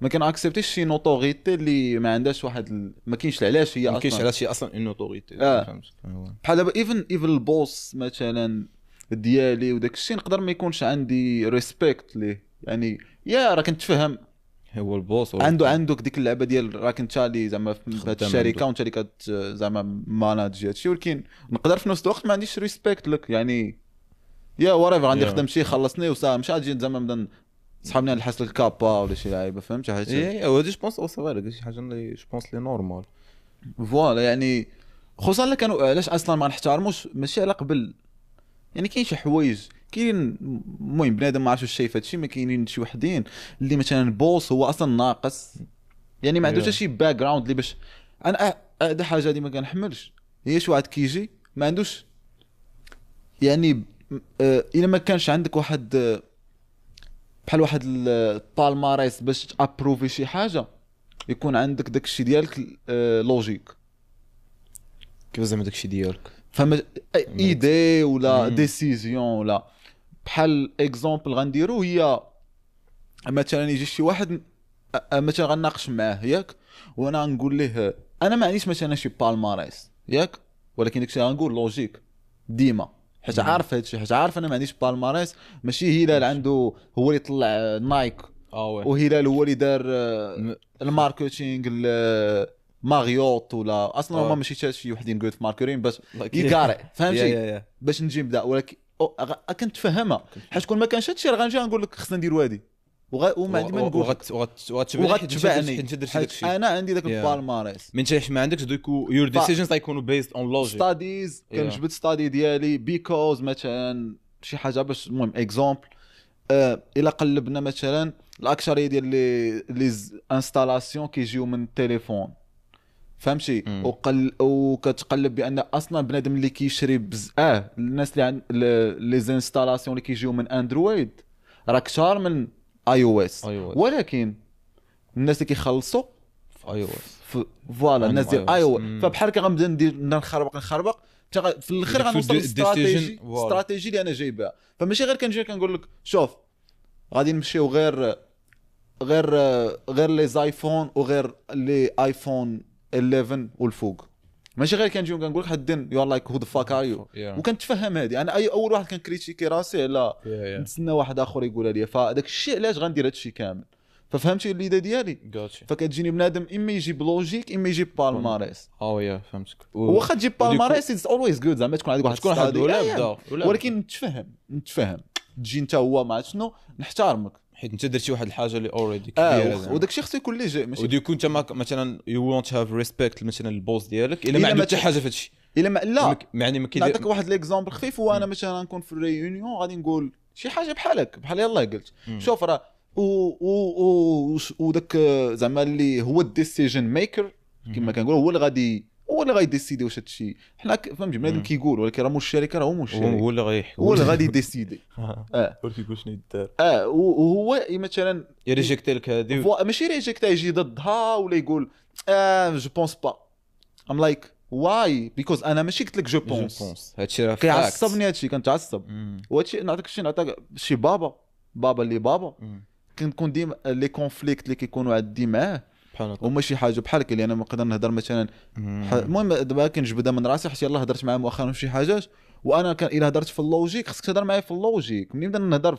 ما كان accept يش شي notoriété اللي ما عندهاش واحد ما كاينش علاش هي اصلا ما كاينش علاش هي اصلا une autorité. بحال دابا even ال boss مثلا ديالي وداك الشيء نقدر ما يكونش عندي respect ليه، يعني yeah راه كنتفهم هو ال boss عنده ديك اللعبة ديال راك انت اللي زعما في هاد الشركة وانت اللي كت زعما manage هادشي، ولكن نقدر في نفس الوقت ما عنديش respect لك يعني yeah whatever عندي خدمتي خلصني وصافي مش غادي زعما نبدا صحابني نحس الكابا ولا شي لعيبة فهمت حيت اي هادي je pense او صافي شي حاجة اللي je pense لي normal voilà. يعني خصوصا الا كانوا علاش اصلا ما نحترموش ماشي على قبل، يعني كاين شي حوايج كاين المهم بنادم ما عرفتش واش شايف هادشي، ما كاينين شي وحدين اللي مثلا boss هو اصلا ناقص يعني ما عندوش شي background اللي باش انا هذا حاجة اللي ما كنحملش هي شي واحد كيجي ما عندوش يعني الا ما كانش عندك واحد بحال واحد ال palmarès باش ت approuver شي حاجة يكون عندك داكشي ديالك logique. كيف زعما داكشي ديالك فما idée ولا décision ولا بحال exemple غنديرو هي مثلا يجي شي واحد مثلا غنناقش معاه ياك، وانا غنقول ليه انا ما عنديش مثلا شي palmarès ياك، ولكن داكشي غنقول logique ديما حيت عارف هادشي، حيت عارف انا ما عنديش palmarès. ماشي هلال عنده هو اللي طلع نايك وهلال هو اللي دار ال marketing ماريوت ولا اصلا هما ماشي حتى شي وحدين good في marketing باش يقارئ فهمتي باش نجي نبدا، ولكن كنت فاهمها حيت كون ما كانش هادشي راه غنجي نقول لك خصنا نديرو هادي وما عندي ما نقول وغتبعني انا عندي داك ال palmarès من انت ما عندكش دوك your decisions غيكونوا based on logic studies. كنجبد study ديالي because مثلا شي حاجة باش المهم exemple الا قلبنا مثلا الاكثرية ديال les installations كيجيو من التليفون، فهمتي؟ وكتقلب بان اصلا بنادم اللي كيشري الناس اللي عند les installations اللي كيجيو من Android راه كثار من iOS، ولكن الناس اللي كيخلصوا في iOS، voilà الناس ديال iOS. فبحال هكا غنبدا ندير نخربق في الاخر غنوصل لل stratégie stratégie اللي انا جايبها. فماشي غير كنجي كنقول لك شوف غادي نمشيو غير غير غير les iPhone وغير les iPhone 11 والفوق، ماشي غير كنجيو كنقول لك حد you like who the fuck are you. وكنتفهم هذه انا اي اول واحد كن critiquer راسي على نتسنى واحد اخر يقولها لي، فداك الشيء علاش غندير هذا الشيء كامل. ففهمتي l'idée ديالي؟ فكتجيني بنادم اما يجيب logique اما يجيب palmarès. yeah فهمتك. واخا تجيب palmarès it's always good، زعما تكون عندك واحد ولكن نتفهم تجي انت هو ما عرفت شنو، نحترمك حيت انت درتي واحد الحاجة اللي already كبيرة، وداك الشيء خصو يكون léger ماشي و du coup انت مثلا you won't have respect مثلا ال boss ديالك الا ما عنده حتى حاجة في هادشي. الا ما لا يعني ما كيدير. نعطيك واحد l'exemple خفيف، وانا مثلا نكون في ال réunion غادي نقول شي حاجة بحالك بحال يلاه قلت شوف راه وداك زعما اللي هو ال decision maker كما كنقول، هو اللي غادي هو اللي غاي décider واش هادشي حنا فهمتي بنادم كيقول، ولكن راه مول الشركة راه هو مول الشركة، هو اللي غيحكم، هو اللي غادي décider. هو اللي كيقول شنو يدار. وهو مثلا ي rejecter لك هادي، ماشي rejecter يجي ضدها ولا يقول je pense pas. I'm like why because انا ماشي قلت لك je pense، هادشي راه كيعصبني هادشي، كنتعصب. وهادشي نعطيك شي نعطيك شي بابا اللي بابا كنكون ديما les conflits اللي كيكونوا عندي معاه هما شي حاجة بحال اللي انا نقدر نهضر مثلا. المهم دابا كنجبدها من راسي حيت يلاه هضرت معاه مؤخرا في شي حاجات، وانا كان الا هضرت في ال logique خصك تهضر معايا في ال logique ملي نبدا نهضر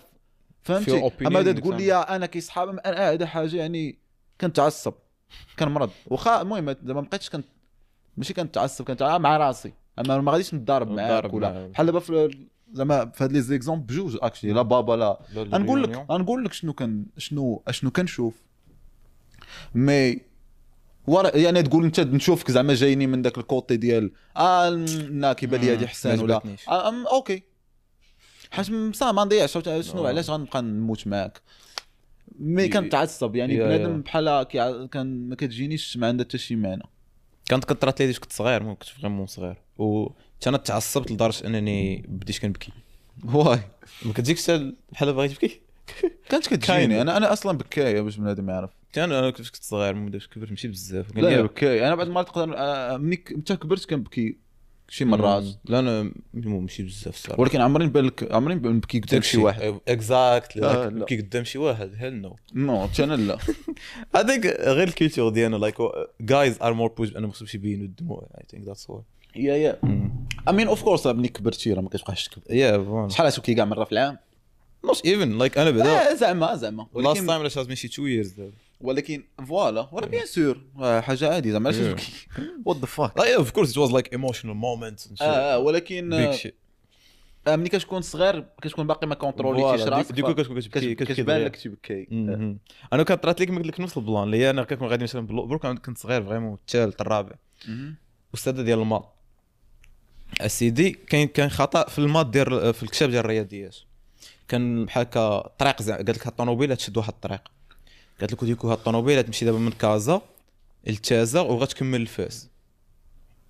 فهمتي. اما بدا تقول لي انا كيصحاب انا هذا حاجة يعني كنتعصب كنمرض. واخا المهم زعما ما بقيتش كنت ماشي كنتعصب، كنتعصب مع راسي، اما ما غاديش نتضارب معاك ولا بحال دابا في زعما في هاد les exemples بجوج actually لا بابا لا نقول لك شنو كان شنو كنشوف mais ورا يعني تقول انت نشوفك زعما جايني من داك ال côté ديال لا كيبان لي هادي حسان ولا okay حيت بصح ما نضيعش شنو علاش غنبقى نموت معاك. mais كنتعصب يعني بنادم بحال كان ما كتجينيش ما عندها حتى شي معنى. كانت كطرات لي كنت صغير، مو كنت vraiment صغير، و انا تعصبت لدرجة انني بديت كنبكي. why ما كتجيكش بحال باغي تبكي؟ كانت كتجيني انا اصلا بكايه باش بنادم يعرف. انا كنت صغير مو باش كبرت ماشي بزاف. لا بكايه انا بعد ما تقدر ملي انت كبرت كنبكي شي مرات. لا انا ماشي بزاف الصراحة، ولكن عمري نبان لك عمري نبكي قدام شي واحد. exactly نبكي قدام شي واحد hell no no انا لا. هذاك غير ال culture ديالنا like guys are more push انا ما خصهمش يبينوا الدموع. I think that's why. yeah I mean of course ملي كبرتي راه ما كتبقاش تبكي. yeah شحال تبكي كاع مرة في العام؟ not even like انا بعدا زعما last time علاش ماشي 2 years دابا، ولكن voilà ولا bien sûr حاجة عادي زعما علاش تبكي what the fuck. لا of course it was like emotional moment. ولكن ملي كتكون صغير كتكون باقي ما contrôlيتيش راسك، du coup كتكون كتبكي كتبان لك تبكي. انا كانت لك قلت لك نفس ال plan اللي انا كنكون غادي مثلا بروك كنت صغير vraiment الثالث الرابع، استاذه ديال ال maths اسيدي كاين خطا في ال maths ديال في الكتاب ديال الرياضيات، كان بحال هكا طريق قالت لك هاد الطوموبيله تشد واحد الطريق، قالت لك du coup هاد الطوموبيله تمشي دابا من كازا لتازا وغتكمل الفاس.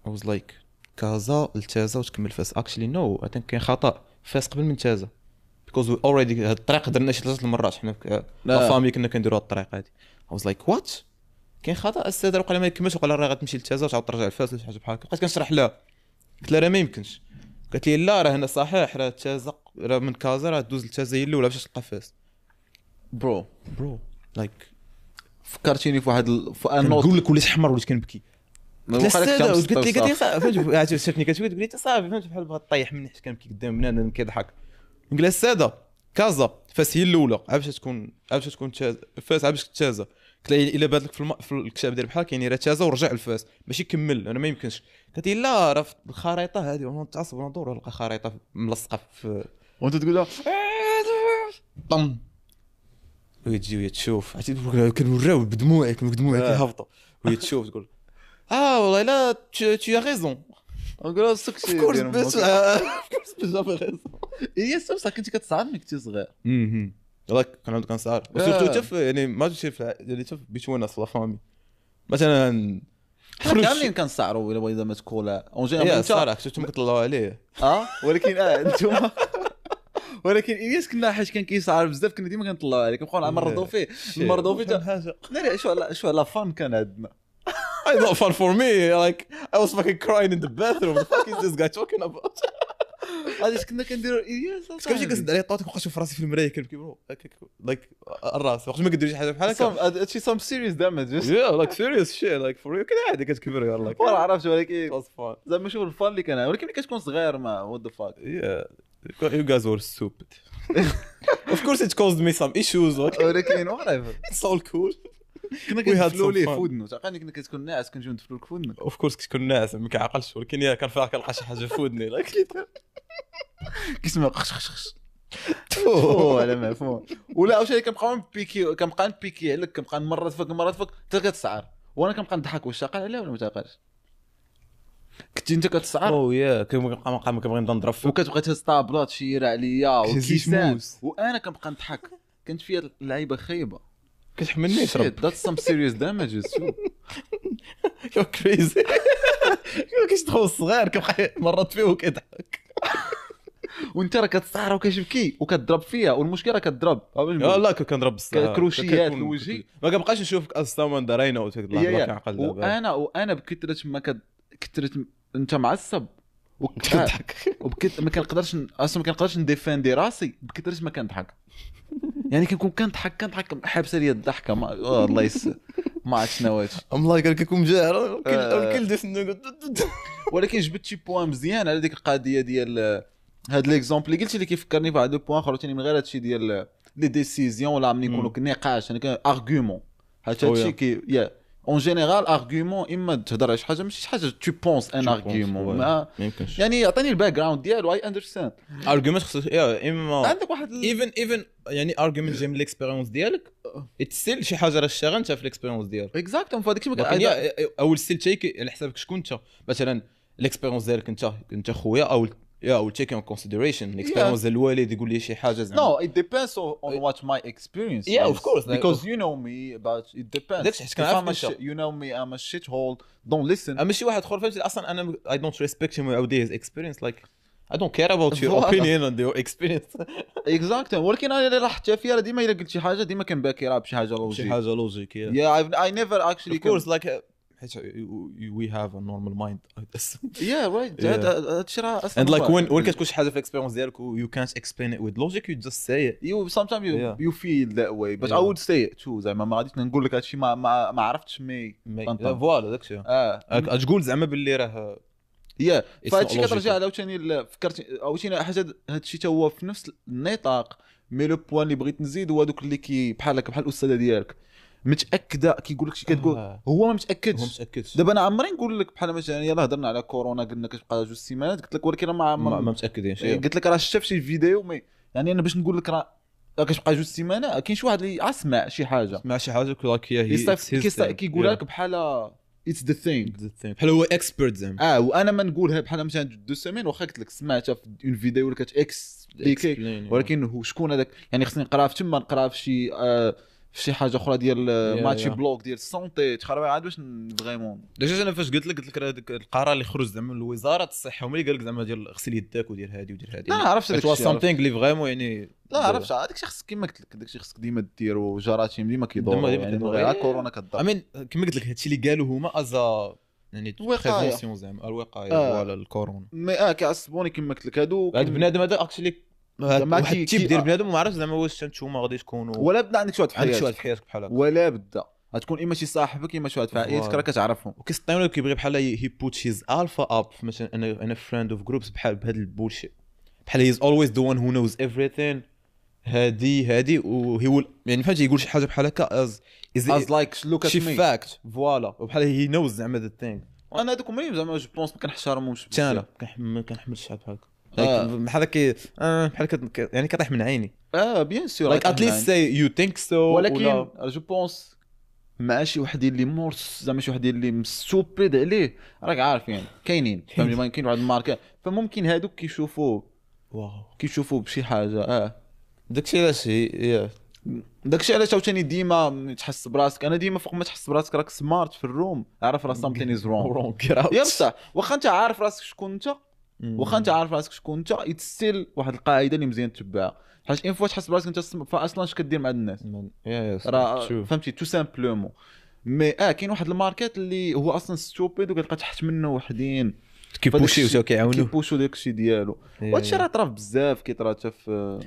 I was like كازا لتازا وتكمل فاس. actually no I think كاين خطا، فاس قبل من تازا because we already هاد الطريق درنا شي 3 المرات حنا la famille كنا كنديروا هاد الطريق هادي. I was like what كاين خطا السيد وقال ما يكملش، وقال راه غتمشي لتازا وتعاود ترجع لفاس ولا شي حاجة بحال هكا. بقيت كنشرح لها قلت لها راه ما يمكنش، قالت لي لا راه هنا صحيح، راه تازا راه من كازا راه دوز لتازا هي الاولى باش تلقى فاس. bro bro like فكرتيني في واحد نقول لك وليت حمر وليت كنبكي. قلت لي قالت لي صافي فهمت، شافتني كتبكي تقول لي صافي فهمت بحال بغات طيح مني حيت كنبكي قدام بنادم كيضحك. نقول لها السادة كازا فاس هي الاولى عاد باش تكون فاس عاد باش تازا. قلت لها الا بات لك في الكتاب ديال بحال كاين راه تازا ورجع لفاس ماشي كمل، انا ما يمكنش. قالت لي لا راه في الخريطة هذه، وانا نتعصب وندور نلقى خريطة ملصقه في وانت تقول لها طم، وهي تجي وهي تشوف عرفتي كنوراو بدموعي بدموعي كيهبطوا، وهي تشوف تقول والله لا tu as raison. نقول سكتي of course بس j'avais raison. هي بصح كنتي كتصعب ملي كنتي صغير. like كنعاود كنسعر و surtout حتى يعني ما تمشي يعني حتى between us la famille مثلا. حنا كاملين كنسعروا الا بغينا ما تكون en général. الصراحة شفتهم كيطلعوا عليه ولكن انتم ولكن الياس كنا حيت كان كيسعر بزاف كنا ديما كنطلعوا عليه، كنبقاو نمرضوا فيه نمرضوا فيه. ناري شو على fun كان عندنا. It's not fun for me. Like I was fucking crying in the bathroom. What the fuck is this guy talking about? علاش كنا كنديروا الياس؟ كنمشي كنسد عليه الطاوله كنبقى نشوف راسي في المراية كنبكي bro like الراس وقت ما كدير شي حاجة بحال هكا. هادشي some serious damage. Yeah like serious shit like for real. كان عادي كتكبر يلاه like عرفت، ولكن زعما شوف ال fun اللي كان. ولكن ملي كتكون صغير ما what the fuck. Yeah you guys were stupid. Of course it caused me some issues. ولكن whatever. It's all cool. كنا كندفلو ليه في ودنو، تعقلني كنا كتكون ناعس كنجيو ندفلو لك في ودنك. of course كتكون ناعس ما كنعقلش، ولكن يا كان فيها كنلقى شي حاجة في ودني like كيسمع خش خش خش تفو على مفهوم. ولا عاوتاني كنبقاو نبيكي، كنبقى نبيكي عليك، كنبقى نمرض فيك نمرض فيك حتى كتسعر، وانا كنبقى نضحك. واش عاقل عليها ولا ما تعقلش؟ كنتي انت كتسعر. oh yeah كنبقى كنبغي نبدا نضرب فيك وكتبقى تهز طابلات شيره عليا وكيسان وانا كنبقى نضحك. كانت فيا اللعيبة خايبة كتحملني شرب. That's some serious damages too. You're crazy. كيشدخل الصغير كيبقى مرات فيه وكيضحك وانت راه كتسعر وكتبكي وكتضرب فيها، والمشكلة راه كتضرب. لا كنضرب بصح كروشيات الوجه ما كنبقاش نشوفك as someone that I know. كنعقل دابا. وانا بكثرة ما كثرة انت معصب وكتضحك وبكث ما كنقدرش اصلا ما كنقدرش نديفندي راسي بكثرة ما كنضحك. يعني كنكون كنضحك حابسه لي الضحكة. ما الله يس ما عرفت شنو هادشي. ام لايك كنكون جاهر الكل ديس. ولكن جبت شي point مزيان على ديك القضية ديال هاد l'exemple اللي قلتي اللي كيفكرني بواحد le point اخر ثاني من غير هادشي ديال les décisions ولا ملي يكونوا نقاش يعني argument. هادشي كي yeah en général argument اما تهضر على شي حاجة ماشي شي حاجة tu penses un argument ما يعني عطيني ال background ديالو I understand. argument خصك yeah اما عندك واحد even يعني argument جاي من l'expérience ديالك still شي حاجة راه شتاغل انت في l'expérience ديالك exactement. فهاداك الشيء اول still take على حسابك شكون انت. مثلا l'expérience ديالك انت خويا او yeah will take in consideration l'expérience ديال الوالد يقول لي شي حاجة زعما. No, it depends on what my experience yeah is. Of course because you know me but it depends. داكشي حيت كنعرف you know me I'm a shithole don't listen. اما شي واحد اخر فهمتي اصلا انا I don't respect him ويعاود his experience like I don't care about your opinion and your experience. Exactly. ولكن انا اللي لاحظتها فيها ديما الا قلت شي حاجة ديما كنباكي راه بشي حاجة logique، شي حاجة logique. Yeah I never actually of course like حيت we have a normal mind. Yeah right. هادشي راه and like when كتكون شي حاجة في l'expérience ديالك you can't explain it with logic you just say it. You sometimes you feel that way but I would say it too. زعما ما غاديش نقول لك هادشي ما عرفتش mais voilà داكشي تقول زعما باللي راه yeah. فهادشي كترجع عاوتاني فكرت عاوتاني حاجة هادشي تا هو في نفس النطاق. mais le point اللي بغيت نزيد هو دوك اللي كي بحال هكا بحال الاستاذة ديالك متاكدة كيقول لك شي كتقول هو ما متاكدش. دابا انا عمري نقول لك بحال مثلا يلاه هضرنا على كورونا قلنا كتبقى 2 سيمانات قلت لك ولكن ما متاكدينش. قلت لك راه شفت شي فيديو mais يعني انا باش نقول لك راه كتبقى 2 سيمانات كاين شي واحد اللي اسمع شي حاجة سمع شي حاجة like هي كيقول لك بحال it's the thing بحال هو expert زعما. وانا ما نقولها بحال مثلا 2 semaines واخا قلت لك سمعتها في une vidéo ولا كت expliquer ولكن هو شكون هذاك يعني خصني نقرا في تما نقرا في شي في شي حاجة اخرى ديال ماتشي blog ديال ال santé تخربي عاد باش vraiment. déjà انا فاش قلت لك هذاك القرار اللي خرج زعما من وزارة الصحة هما اللي قال لك زعما ديال غسل يدك ودير هادي ودير هادي. لا عرفت هذاك الشيء something اللي vraiment يعني لا عرفت هذاك الشيء خصك كما قلت لك داك الشيء خصك ديما ديرو جراثيم ديما كيدوروا يعني غير كورونا كضر. I mean كما قلت لك هادشي اللي قالوا هما as يعني prévention زعما الوقاية voilà الكورونا. mais كيعصبوني كما قلت لك هادو هاد بنادم هذا actually واحد ال type ديال بنادم ما عرفتش زعما واش نتوما غادي تكونوا ولا بدا عندك شي واحد في حياتك، عندك شي واحد في حياتك بحال هكا ولا بدا غتكون اما شي صاحبك اما شي واحد في عائلتك راه كتعرفهم وكيسطيونو كيبغي بحال he put his alpha up مثلا انا front of groups بحال بهذا ال bullshit بحال he's always the one who knows everything هادي و he يعني فهمتي يقول شي حاجة بحال هكا as like look at me fact voilà وبحال he knows زعما the thing. انا هذوك هما زعما je pense ما كنحترمهمش حتى انا ما كنحملش شي بحال هكا بحال كي بحال يعني كطيح من عيني bien sûr like at least say you think so. ولكن je pense مع شي وحدين اللي مورس زعما شي وحدين اللي stupid عليه راك عارف يعني كاينين فهمتي ما كاين واحد الماركة فممكن هادوك كيشوفوا واو كيشوفوا بشي حاجة داكشي علاش yeah. داكشي علاش عاوتاني ديما تحس براسك، انا ديما فوق ما تحس براسك راك smart في ال room، عارف راه something is wrong. wrong get out. يا بصح واخا انت عارف راسك شكون انت، واخا انت عارف راسك شكون انت، it's still واحد القاعدة اللي مزيان تتبعها، حيت une fois تحس براسك انت فاصلا اش كدير مع الناس راه فهمتي tout simplement. mais كاين واحد ال market اللي هو اصلا stupid وكتلقى تحت منه وحدين كيبوشيو تا كيعاونوه، كيبوشو داكشي ديالو. وهادشي راه طرا بزاف، كيطرا حتى في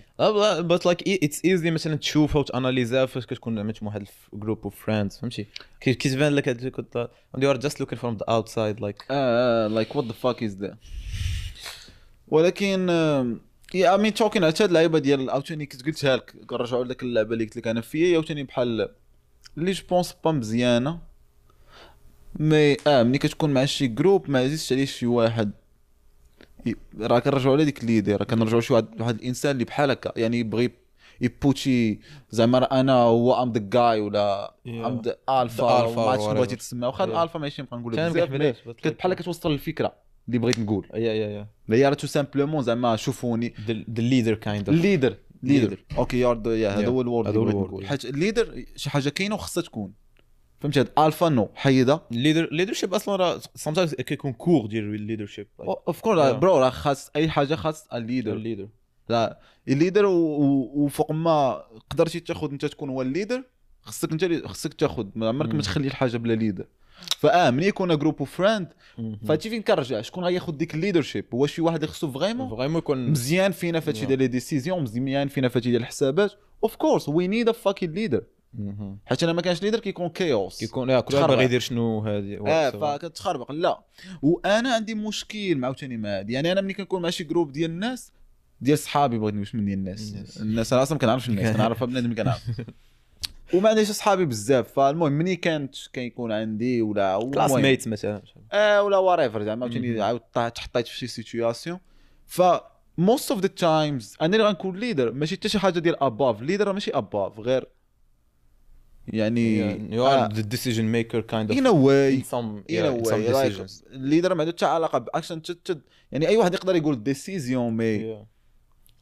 but like it's easy مثلا تشوفها وتاناليزها فاش كتكون عملت واحد group of friends، فهمتي كيتبان لك هاد and you are just looking from the outside like like what the fuck is that. ولكن yeah I mean talking على هاد اللعيبة ديال عاوتاني كنت قلتها لك، كنرجعوا لذاك اللعبة اللي قلت لك انا فيا عاوتاني بحال اللي je pense pas مزيانه، mais ملي كتكون مع شي groupe ما عزيزش عليه شي واحد، راه كنرجعوا على ديك l'idée، راه كنرجعوا شي واحد الانسان اللي بحال هكا، يعني يبغي يبوشي زعما راه انا هو I'm the guy ولا I'm the alpha، ما عرفتش شنو بغيتي تسمى، واخا الالفا ماشي نبقى نقول بزاف، بحال كتوصل الفكرة اللي بغيت نقول. yeah هي راه tout simplement زعما شوفوني the leader kind of leader okay you're the هذا هو ال word اللي بغيت نقول، حيت ال leader شي حاجة كاينه وخصها تكون، فهمتي؟ هاد alpha no حيده leader leadership اصلا راه sometimes كيكون كور ديال ال leadership of course bro، راه خاص اي حاجة خاص ال leader، لا ال leader وفوق ما قدرتي تاخذ انت تكون هو ال leader، خصك انت اللي خصك تاخذ، ما عمرك ما تخلي الحاجة بلا leader. ملي يكون group of friends فهادشي فين كنرجع، شكون غياخذ ديك ال leadership؟ هو شي واحد اللي خصو vraiment يكون مزيان فينا فهادشي ديال les décisions، مزيان فينا فهادشي ديال الحسابات. of course we need a fucking leader، حيت انا ما كانش leader كيكون chaos، كيكون كل واحد باغي يدير شنو هادي فكتخربق. لا وانا عندي مشكل عاوتاني مع هادي، يعني انا ملي كنكون مع شي groupe ديال الناس ديال صحابي، بغيت نقول من ديال الناس انا اصلا ما كنعرفش الناس، كنعرف بنادم كنعرف وما عنديش صحابي بزاف. فالمهم ملي كانت كيكون عندي ولا classmates مثلا ولا whatever زعما عاوتاني عاود تحطيت في شي situation، ف most of the times انا اللي غنكون leader، ماشي حتى شي حاجة ديال above leader، ماشي above غير يعني you are the decision maker kind of in a way in some decisions. ال leader ما عنده حتى علاقة باكشن، يعني اي واحد يقدر يقول décision mais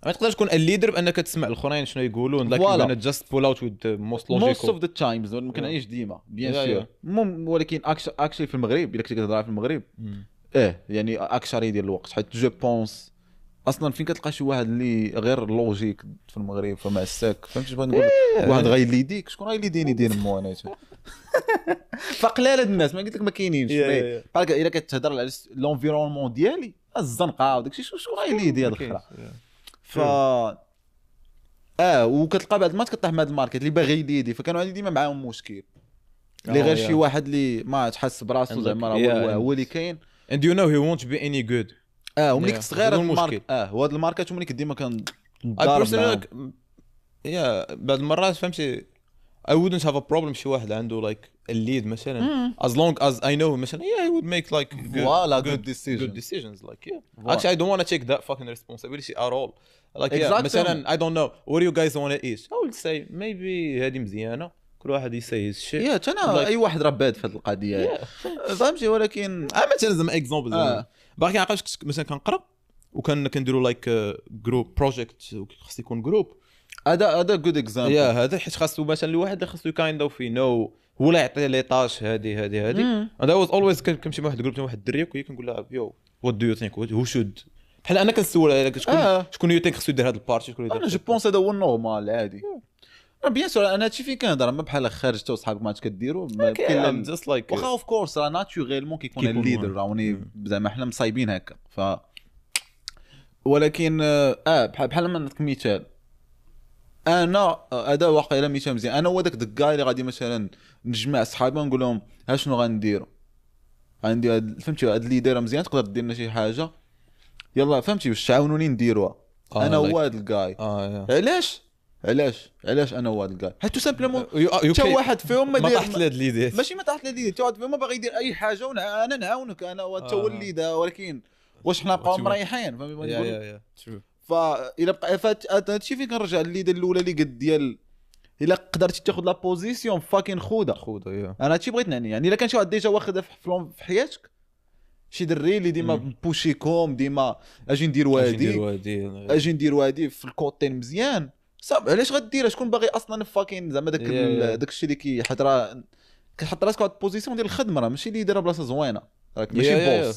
ما تقدرش تكون ال leader بانك تسمع الاخرين شنو يقولون like you're gonna just pull out with the most logical most of the times. ما كنعيش ديما bien sûr، ولكن actually في المغرب الا كنتي كتهضر في المغرب يعني اكثر ديال الوقت، حيت je pense اصلا فين كتلقى شي واحد اللي غير logique في المغرب فما الساك، فهمتي بغيت نقول واحد غايليديك، شكون غايليديني دير مو انا فقلال هاد الناس، ما قلت لك ما كاينينش. بحال الا كتهضر على l'environnement ديالي الزنقة وداكشي، شكون غايليدي هاد الخرا؟ ف وكتلقى بعد ما كطيح مع هاد ال market اللي باغي يليدي، فكانوا عندي ديما معاهم مشكل اللي غير شي واحد اللي ما تحس براسو زعما راه هو اللي كاين and you know he won't be any good. وملي كنت صغير ال market وهاد ال market وملي كنت ديما كنضارب yeah بعض المرات فهمتي I wouldn't have a problem شي واحد عنده like ال lead مثلا as long as I know مثلا yeah he would make like good decisions, good decisions like yeah. Actually I don't want to take that fucking responsibility at all like yeah, مثلا I don't know what do you guys want to eat, I would say maybe هذه مزيانه، كل واحد يسي his shit. yeah انا اي واحد راه باد في هذه القضية فهمتي. ولكن مثلا زعما example باقي عقلت مثلا كنقرا وكان كنديروا like group project خص يكون group، هذا good example. yeah هذا حيت خاصو مثلا الواحد اللي خاصو kind of know هو اللي يعطي les tâches هذه هذه هذه. انا was always كنمشي مع واحد ال groupe واحد الدري وكنقول لها yo what do you think who should، بحال انا كنسول على شكون you think خصو يدير هذا ال partie، شكون يدير. انا je pense هذا هو ال normal عادي. bien sûr انا هادشي فين كنهضر، ما بحال خارج حتى وصحابك ما عادش كديروا كاين just like واخا of course راه naturellement كيكون ال leader راوني زعما حنا مصايبين هكا. ف ولكن بحال ما نعطيك مثال، انا هذا واقيلا مثال مزيان. انا هو داك ال guy اللي غادي مثلا نجمع صحابي ونقول لهم ها شنو غنديروا، عندي فهمتي هاد l'idée مزيان تقدر دير لنا شي حاجة، يلا فهمتي باش تعاونوني نديروها. انا هو هاد ال guy. علاش علاش علاش انا هو هاد ال guy؟ حيت tout simplement حتى واحد فيهم ما طاحت لهاد l'idée، ماشي ما طاحت l'idée، حتى واحد فيهم ما باغي يدير اي حاجة وانا نعاونك انا هو هو ال leader. ولكن واش حنا بقاو مريحين؟ فهمتي بغيت نقول؟ فإلا بقى هادشي فين كنرجع l'idée الاولى اللي قد ديال الا قدرتي تاخذ la position fucking خوده خوده. انا هادشي بغيت نعني، يعني الا كان شي واحد déjà واخدها في حياتك، شي دري اللي ديما بوشيكم ديما اجي ندير وادي اجي ندير وادي في ال côté مزيان، صافي علاش غديرها؟ شكون باغي اصلا fucking زعما داك داك الشيء اللي كيحط، راه كتحط راسك واحد ال position ديال الخدمه، راه ماشي leader بلاصة زوينه، راك ماشي boss،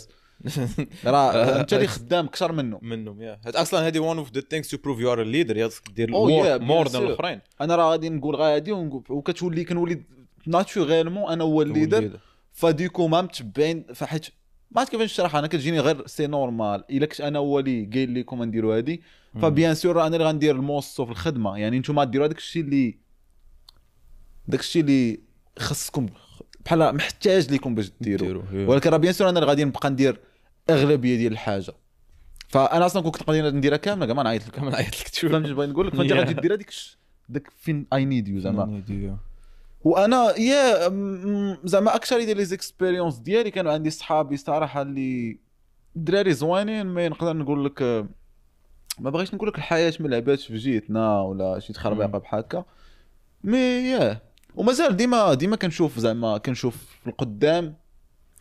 راه انت اللي خدام اكثر منهم. yeah اصلا هذه one of the things to prove you are a leader، خاصك دير more than الاخرين. انا راه غادي نقول غادي وكتولي كنولي naturellement انا هو ال leader، ف du coup ما متبعين، فحيت ما عرفت كيفاش نشرح، انا كتجيني غير c'est normal الا كنت انا هو اللي قايل لكم نديروا هادي، ف bien sûr انا اللي غندير الموسو في الخدمة، يعني نتوما ديروا داك الشيء اللي داك الشيء اللي خصكم بحال محتاج لكم باش ديروا، ولكن راه bien sûr انا اللي غادي نبقى ندير اغلبية ديال الحاجة. فانا اصلا كنت نقدر نديرها كاملة كاع ما نعيط لك، تشوف فهمتي بغيت نقول لك. فانت غادي دير هذيك داك فين I need you زعما. وانا yeah زعما اكثر ديال les expériences ديالي كانوا عندي صحابي صراحة اللي دراري زوينين، mais نقدر نقول لك ما بغيتش نقول لك الحياة ما لعباتش في جيتنا ولا شي تخربيقه بحال هكا، mais yeah ومازال ديما كنشوف زعما كنشوف في القدام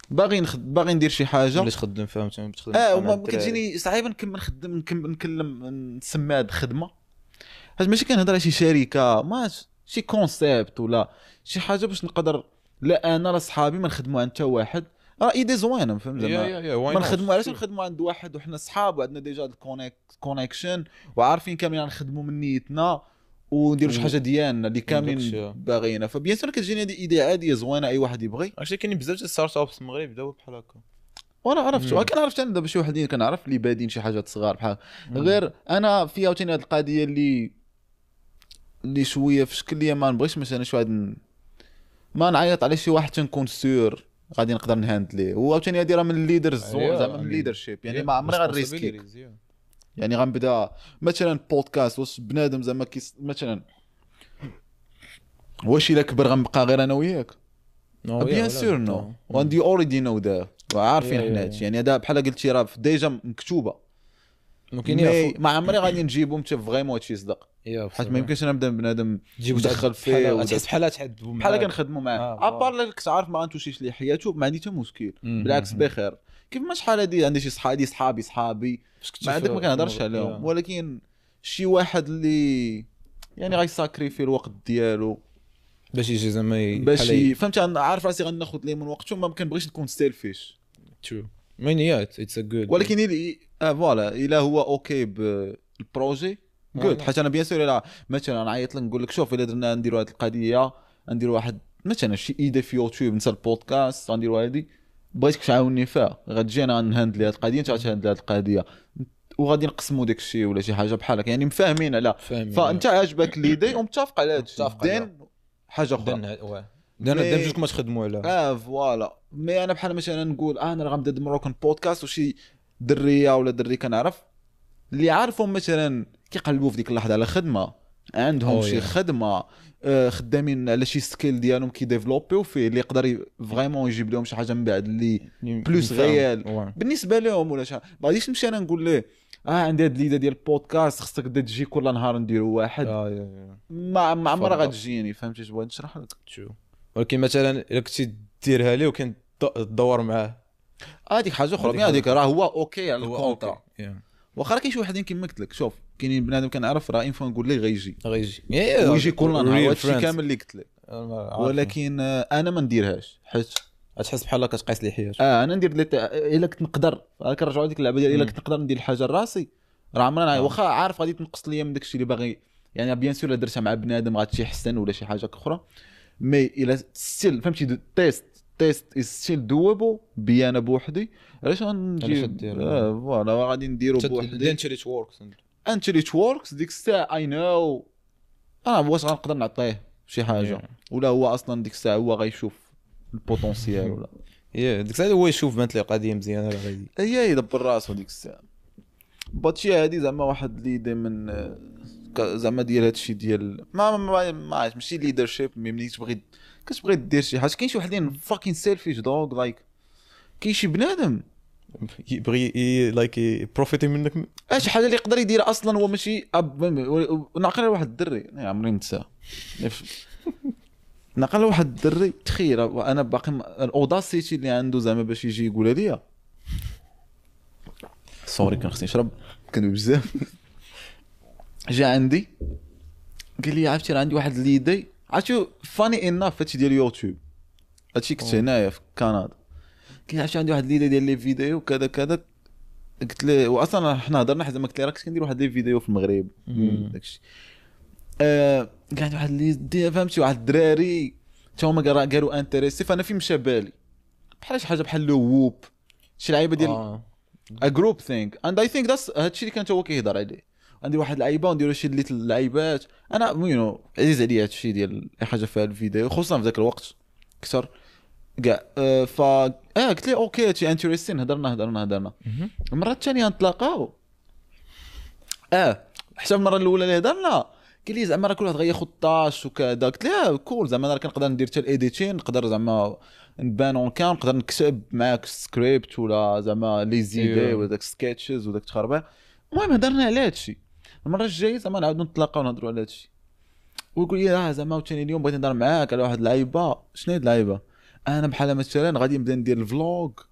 باغي ندير شي حاجة باش تخدم، فهمت تخدم. وما كتجيني صعيبة نكمل نخدم نكلم نسمي هاد الخدمة، حيت ماشي كنهضر على شي شركة، ما شي concept ولا شي حاجة باش نقدر لا انا لا صحابي ما نخدموا عند حتى واحد. راه idée زوينة فهمت زعما، ما نخدموا علاش نخدموا عند واحد وحنا صحاب وعندنا déjà ال connexion وعارفين كاملين نخدموا من نيتنا ونديروا شي حاجة ديالنا اللي كاملين باغينا. ف bien sûr كتجيني هذه idée عادية زوينة اي واحد يبغي. عرفتي كاينين بزاف ديال startups في المغرب بداو بحال هكا، وانا عرفت كنعرف انا دابا شي وحدين كنعرف اللي بادين شي حاجات صغار بحال غير انا في عاوتاني هذه القضية اللي شوية في شكل ليا ما نبغيش مثلا شي واحد ما نعيط على شي واحد تنكون sûr غادي نقدر نهاندليه. وعاوتاني هذه راه من ال leaders زعما من ال leadership، يعني ما عمري غنريسكي، يعني غنبدا مثلا بودكاست واش بنادم زعما مثلا واش الا كبر غنبقى غير انا وياك؟ bien sûr no and you already know that، وعارفين حنا هادشي. يعني هذا بحال قلتي راه déjà مكتوبة، ممكن ما عمري غادي نجيبهم حتى vraiment هادشي يصدق، حيت ما يمكنش انا نبدا بنادم ندخل فيه تحس بحال تحدبوا بحال كنخدموا معاه à part كنت عارف ما غنتوشيش ليه حياته، ما عندي حتى مشكل، بالعكس بخير. كيف ما شحال هادي عندي شي صحابي ما عندك ما كنهضرش عليهم، ولكن شي واحد اللي يعني غيساكريفي الوقت ديالو باش يجي زعما باش فهمتي، انا عارف راسي غناخذ ليه من وقته، ما كنبغيش نكون selfish. true mais yeah it's a good، ولكن voilà الا هو okay بال projet good. حيت انا bien sûr الا مثلا نعيط لك نقول لك شوف الا درنا نديروا هذه القضية، نديروا واحد مثلا شي idée في يوتيوب نسى البودكاست غنديروا هذه، بغيتك تعاوني فيها، غتجي انا نهندلي هذه القضية، انت غتهندلي هذه القضية، وغادي نقسموا داك الشيء ولا شي حاجة بحال هكا، يعني مفاهمين على فانت عاجبك l'idée ومتفق على هذا الشيء، then حاجة اخرى then بجوجكم ما تخدموا على voilà. mais انا بحال مثلا نقول انا راه غنبدا Moroccan podcast وشي دريه ولا دري كنعرف اللي عارفهم مثلا كيقلبوا في ديك اللحظة على خدمة، عندهم شي خدمة خدامين على شي skill ديالهم كيديفلوبيو فيه اللي يقدر vraiment يجيب لهم شي حاجة من بعد اللي plus réel بالنسبة لهم ولا شي. ما غاديش نمشي انا نقول ليه عندي هاد l'idée ديال البودكاست خصك تجي كل نهار نديرو واحد، ما عمرها غتجيني، فهمتي اش بغيت نشرح لك؟ ولكن مثلا الا كنتي ديرها ليه وكان تدور معاه هذيك حاجة اخرى، هذيك راه هو okay على ال contrat. واخا راه كاين شي وحدين كيما قلت لك، شوف كاينين بنادم كنعرف راه une fois نقول ليه غيجي ويجي كل نهار، هادشي كامل اللي قلت لك، ولكن انا ما نديرهاش حيت تحس بحال كتقيس لي حياتك. انا ندير لي الا كنت نقدر، كنرجعوا لديك اللعبة ديال الا كنت نقدر ندير الحاجة لراسي راه عمرنا، واخا عارف غادي تنقص ليا من داكشي اللي باغي، يعني bien sûr الا درتها مع بنادم غادي حسن ولا شي حاجة اخرى، mais الا still فهمتي test is still doable بيا انا بوحدي، علاش غندير voilà غادي نديرو بوحدي until it works، until it works ديك الساعة I know انا واش غنقدر نعطيه شي حاجة ولا هو اصلا ديك الساعة هو غيشوف ال potentiel ولا yeah ديك الساعة هو يشوف بانت ليه قضية مزيانه راه غادي هي يدبر راسو ديك الساعة. but هادي زعما واحد l'idée من زعما ديال هادشي ديال ما ما ما عرفتش ماشي leadership، mais ملي تبغي كتبغي دير شي حاجة كاين شي وحدين fucking selfish dog like كاين شي بنادم يبغي like يبروفيتي منك شي حاجة اللي يقدر يدير اصلا هو ماشي نعقل على واحد الدري عمري ننساه، نعقل على واحد الدري تخيل انا باقي ال audacity اللي عنده زعما باش يجي يقول لي sorry كان خصني نشرب كندوي بزاف. جا عندي قال لي عرفتي راه عندي واحد l'idée، عرفتي funny enough هادشي ديال يوتيوب، هادشي كنت هنايا في كندا. قال لي عرفتي عندي واحد l'idée ديال les vidéos كذا كذا. قلت له واصلا حنا هضرنا حيت زعما قلت له راه كنت كندير واحد les vidéos في المغرب داكشي. قال عندي واحد l'idée فهمتي، واحد الدراري حتى هما قالوا intéressés، فانا في مشى بالي بحال شي حاجة بحال le Whoop، شي لعيبة ديال a group thing and I think that's هادشي اللي كان هو كيهضر عليه. عندي واحد اللعيبة ونديرو شي اللي اللعيبات، انا you know عزيز عليا هادشي ديال اي حاجة فيها الفيديو، خصوصا في ذاك الوقت اكثر كاع. ف قلت لي okay هادشي interesting. هضرنا المرة الثانية نتلاقاو، حتى المرة الاولى اللي هضرنا قال لي زعما راه كل واحد غياخذ tâche وكذا. قلت له cool، زعما انا كنقدر ندير حتى ال editing، نقدر زعما نبان en cam، نقدر نكتب معاك سكريبت ولا زعما les idées ولا داك sketches وداك التخربيق. المهم هضرنا على هادشي. المرة الجاية زعما نعاودو نتلاقاو ونهضروا على هادشي، ويقول لي زعما عاوتاني اليوم بغيت نهضر معاك على واحد اللعيبة. شنو هي اللعيبة؟ انا بحال مثلا غادي نبدا ندير ال vlog،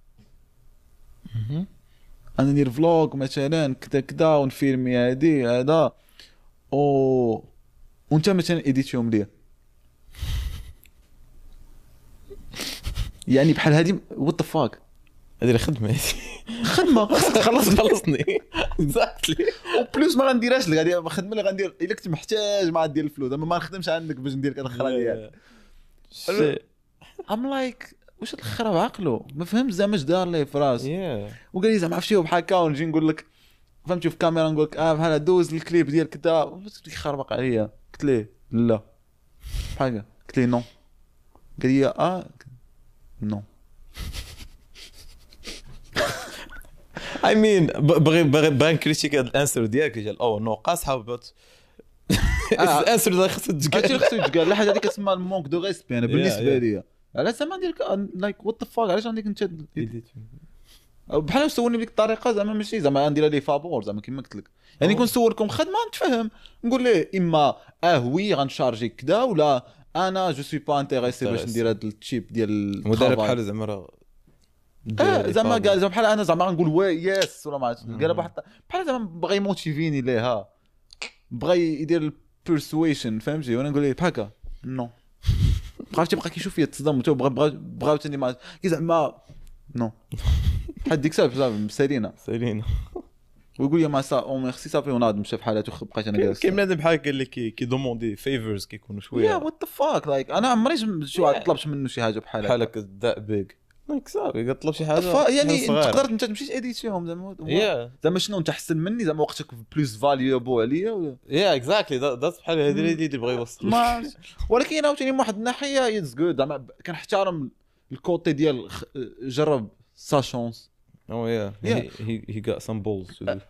انا ندير vlog مثلا كذا كذا ونفيلمي هادي هذا، وانت مثلا ايديتيهم ليا، يعني بحال هادي what the fuck. هادي الخدمة، خدمة خصك تخلصني exactly. و plus ما غنديرهاش لك، غادي الخدمة اللي غندير الا كنت محتاج ما غندير الفلوس، زعما ما نخدمش عندك باش ندير الخرا ديالك. I'm like واش هاد الخرا بعقلو ما فهمت زعما اش دار ليه في راسو. وقال لي زعما عرفتي بحال هكا، ونجي نقول لك فهمتي في الكاميرا نقول لك بحال دوز الكليب ديال كذا، يخربق عليا. قلت ليه لا بحال هكا، قلت ليه non، قال لي non. I mean بغي بغي نكريتيك هاد ال answer ديالك ديال oh no قاصحة، but ال answer اللي خصك تقال، هادشي خصو يتقال. لا حاجة هذيك كتسمى ال manque de respect. انا بالنسبة لي علاش زعما ندير like what the fuck، علاش عندك انت بحال سولني بديك الطريقة زعما ماشي زعما ندير ليه فابور زعما كما قلت لك، يعني كون نسولكم خدمة نتفهم نقول ليه اما oui غنشارجي كذا، ولا انا je suis pas intéressé باش ندير هذا ال type ديال المدرب بحال زعما راه زعما قال زعما بحال انا زعما غنقول oui yes ولا ما عرفتش. قال بحال زعما بغى يموتيفيني ليها، بغى يدير ال persuasion فهمتي، وانا نقول ليه بحال هكا non. عرفتي بقى كيشوف فيا تصدم، بغى عاوتاني ما زعما non حد ديك الساعة سالينا سالينا. ويقول لي ما ça oh merci صافي، وناض مشى في حالته. بقيت انا جالس كاين بنادم بحال هكا اللي كي demander favors كيكونوا شوية yeah what the fuck. like انا عمري شي واحد طلبت منه شي حاجة بحال بحال هكا that big like صافي كطلب شي حاجة يعني تقدر انت تمشي تاديتيهم زعما زعما شنو انت احسن مني زعما وقتك plus valuable عليا ولا yeah exactly that's بحال هذه اللي بغى يوصل. ولكن عاوتاني من واحد الناحية it's good زعما كنحترم ال côté ديال جرب sa chance. Oh yeah. He got some balls to do.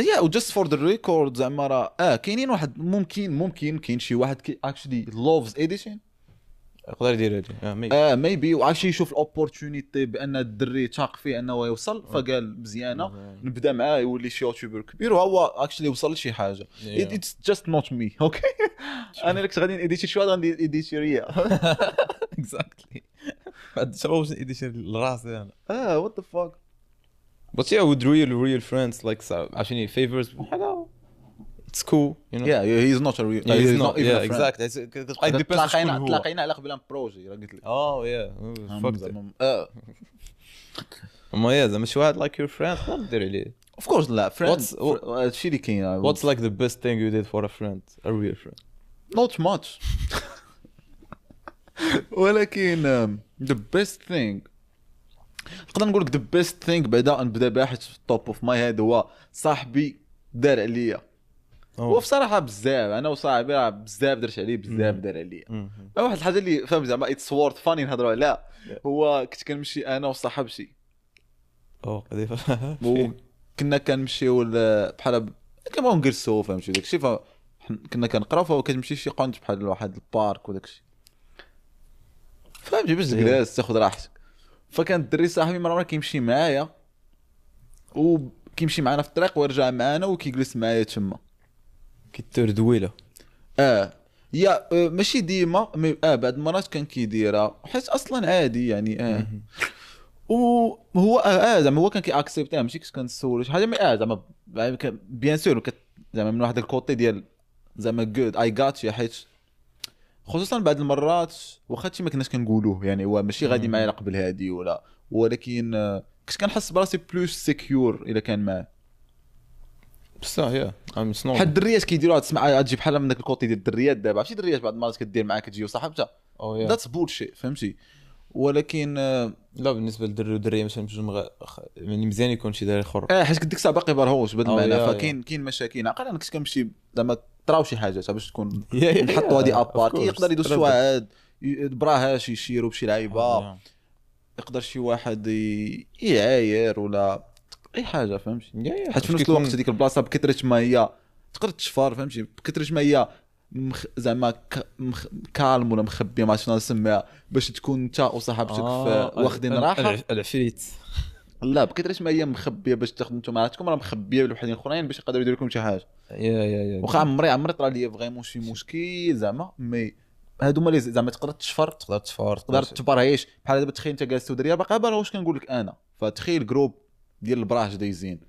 Yeah, just for the record زعما راه كاينين واحد ممكن كاين شي واحد actually loves editing يقدر يدير هادي maybe وعرفتي يشوف ال opportunity بان الدري تاق فيه انه يوصل، فقال مزيانه نبدا معاه يولي شي YouTuber كبير، وهو actually وصل لشي حاجة. It's just not me okay. انا اللي كنت غادي نيديتي شي واحد غادي نديتي ريا exactly. بعد شنو باش نيديتي لراسي انا what the fuck. But yeah, with real friends like عشان favors بحال it's cool you know. Yeah, he's not a real he's not even yeah, a friend. Exactly. It depends. تلاقينا على قبل projet راه قلت لك. Oh yeah. Fuck اما yeah زعما شي واحد like your friend تقدر دير عليه. Of course لا friend هادشي اللي كاين. What's like the best thing you did for a friend, a real friend? Not much. ولكن the best thing نقدر نقول لك the best thing بعدا نبدا بها حيت في ال top of my head هو صاحبي دار عليا. هو بصراحة بزاف انا وصاحبي راه بزاف درت عليه بزاف دار عليا. واحد الحاجة اللي فاهم زعما it's worth funny نهضروا عليها، هو كنت كنمشي انا وصاحبتي كنا كنمشيو بحال كنبغيو نجلسو فهمتي داكشي، كنا كنقراو فهو كتمشي شي قنت بحال واحد ال parc وداكشي فهمتي باش تجلس تاخذ راحتك. فكان الدري صاحبي مرة كيمشي معايا وكيمشي معنا في الطريق ويرجع معنا وكيجلس معايا تما كيتور دويله يا ماشي ديما mais بعد المرات كان كيديرها حيت اصلا عادي يعني وهو زعما هو كان كي accepter ماشي كنت كنسولو شي حاجة mais زعما bien sûr زعما من واحد ال côté ديال زعما good I got you، حيت خصوصا بعض المرات واخا هادشي ما كناش كنقولوه، يعني هو ماشي غادي معايا قبل هادي ولا، ولكن كنت كنحس براسي plus secure الا كان معاه. بصح yeah I'm حيت الدريات كيديروها، تسمع تجي بحال من داك ال côté ديال الدريات. دابا عرفتي الدريات بعض المرات كدير معاك تجي وصاحبتها، that's bullshit فهمتي. ولكن لا بالنسبة للدري والدريه مثلا بجوج يعني مزيان يكون شي دري اخر، حيت ديك الساعة باقي برهوش بهذا المعنى، فكاين كاين مشاكل. عقل انا كنت كنمشي زعما طراو شي حاجات باش تكون نحطوا هذه à part، يقدر يدوز شي واحد براهاش يشيروا بشي لعيبة، يقدر شي واحد يعاير ولا اي حاجة فهمتي. حيت في نفس الوقت هذيك البلاصة بكثرة ما هي تقدر تشفر فهمتي، بكثرة ما هي زعما calme ولا مخبيه ما شنو نسميها، باش تكون انت وصاحبتك واخدين راحة. العفريت لا بكثرة ما هي مخبيه باش تاخذ انتم راحتكم، راه مخبيه لوحدين اخرين باش يقدروا يديروا لكم شي حاجة. yeah yeah واخا عمري طرا ليا vraiment شي مشكل زعما، mais هادو هما زعما تقدر تشفر، تقدر تشفر، تقدر تبرهيش. بحال دابا تخيل انت جالس ودريه باقي برا، واش كنقول لك انا، فتخيل groupe ديال البراش دايزين.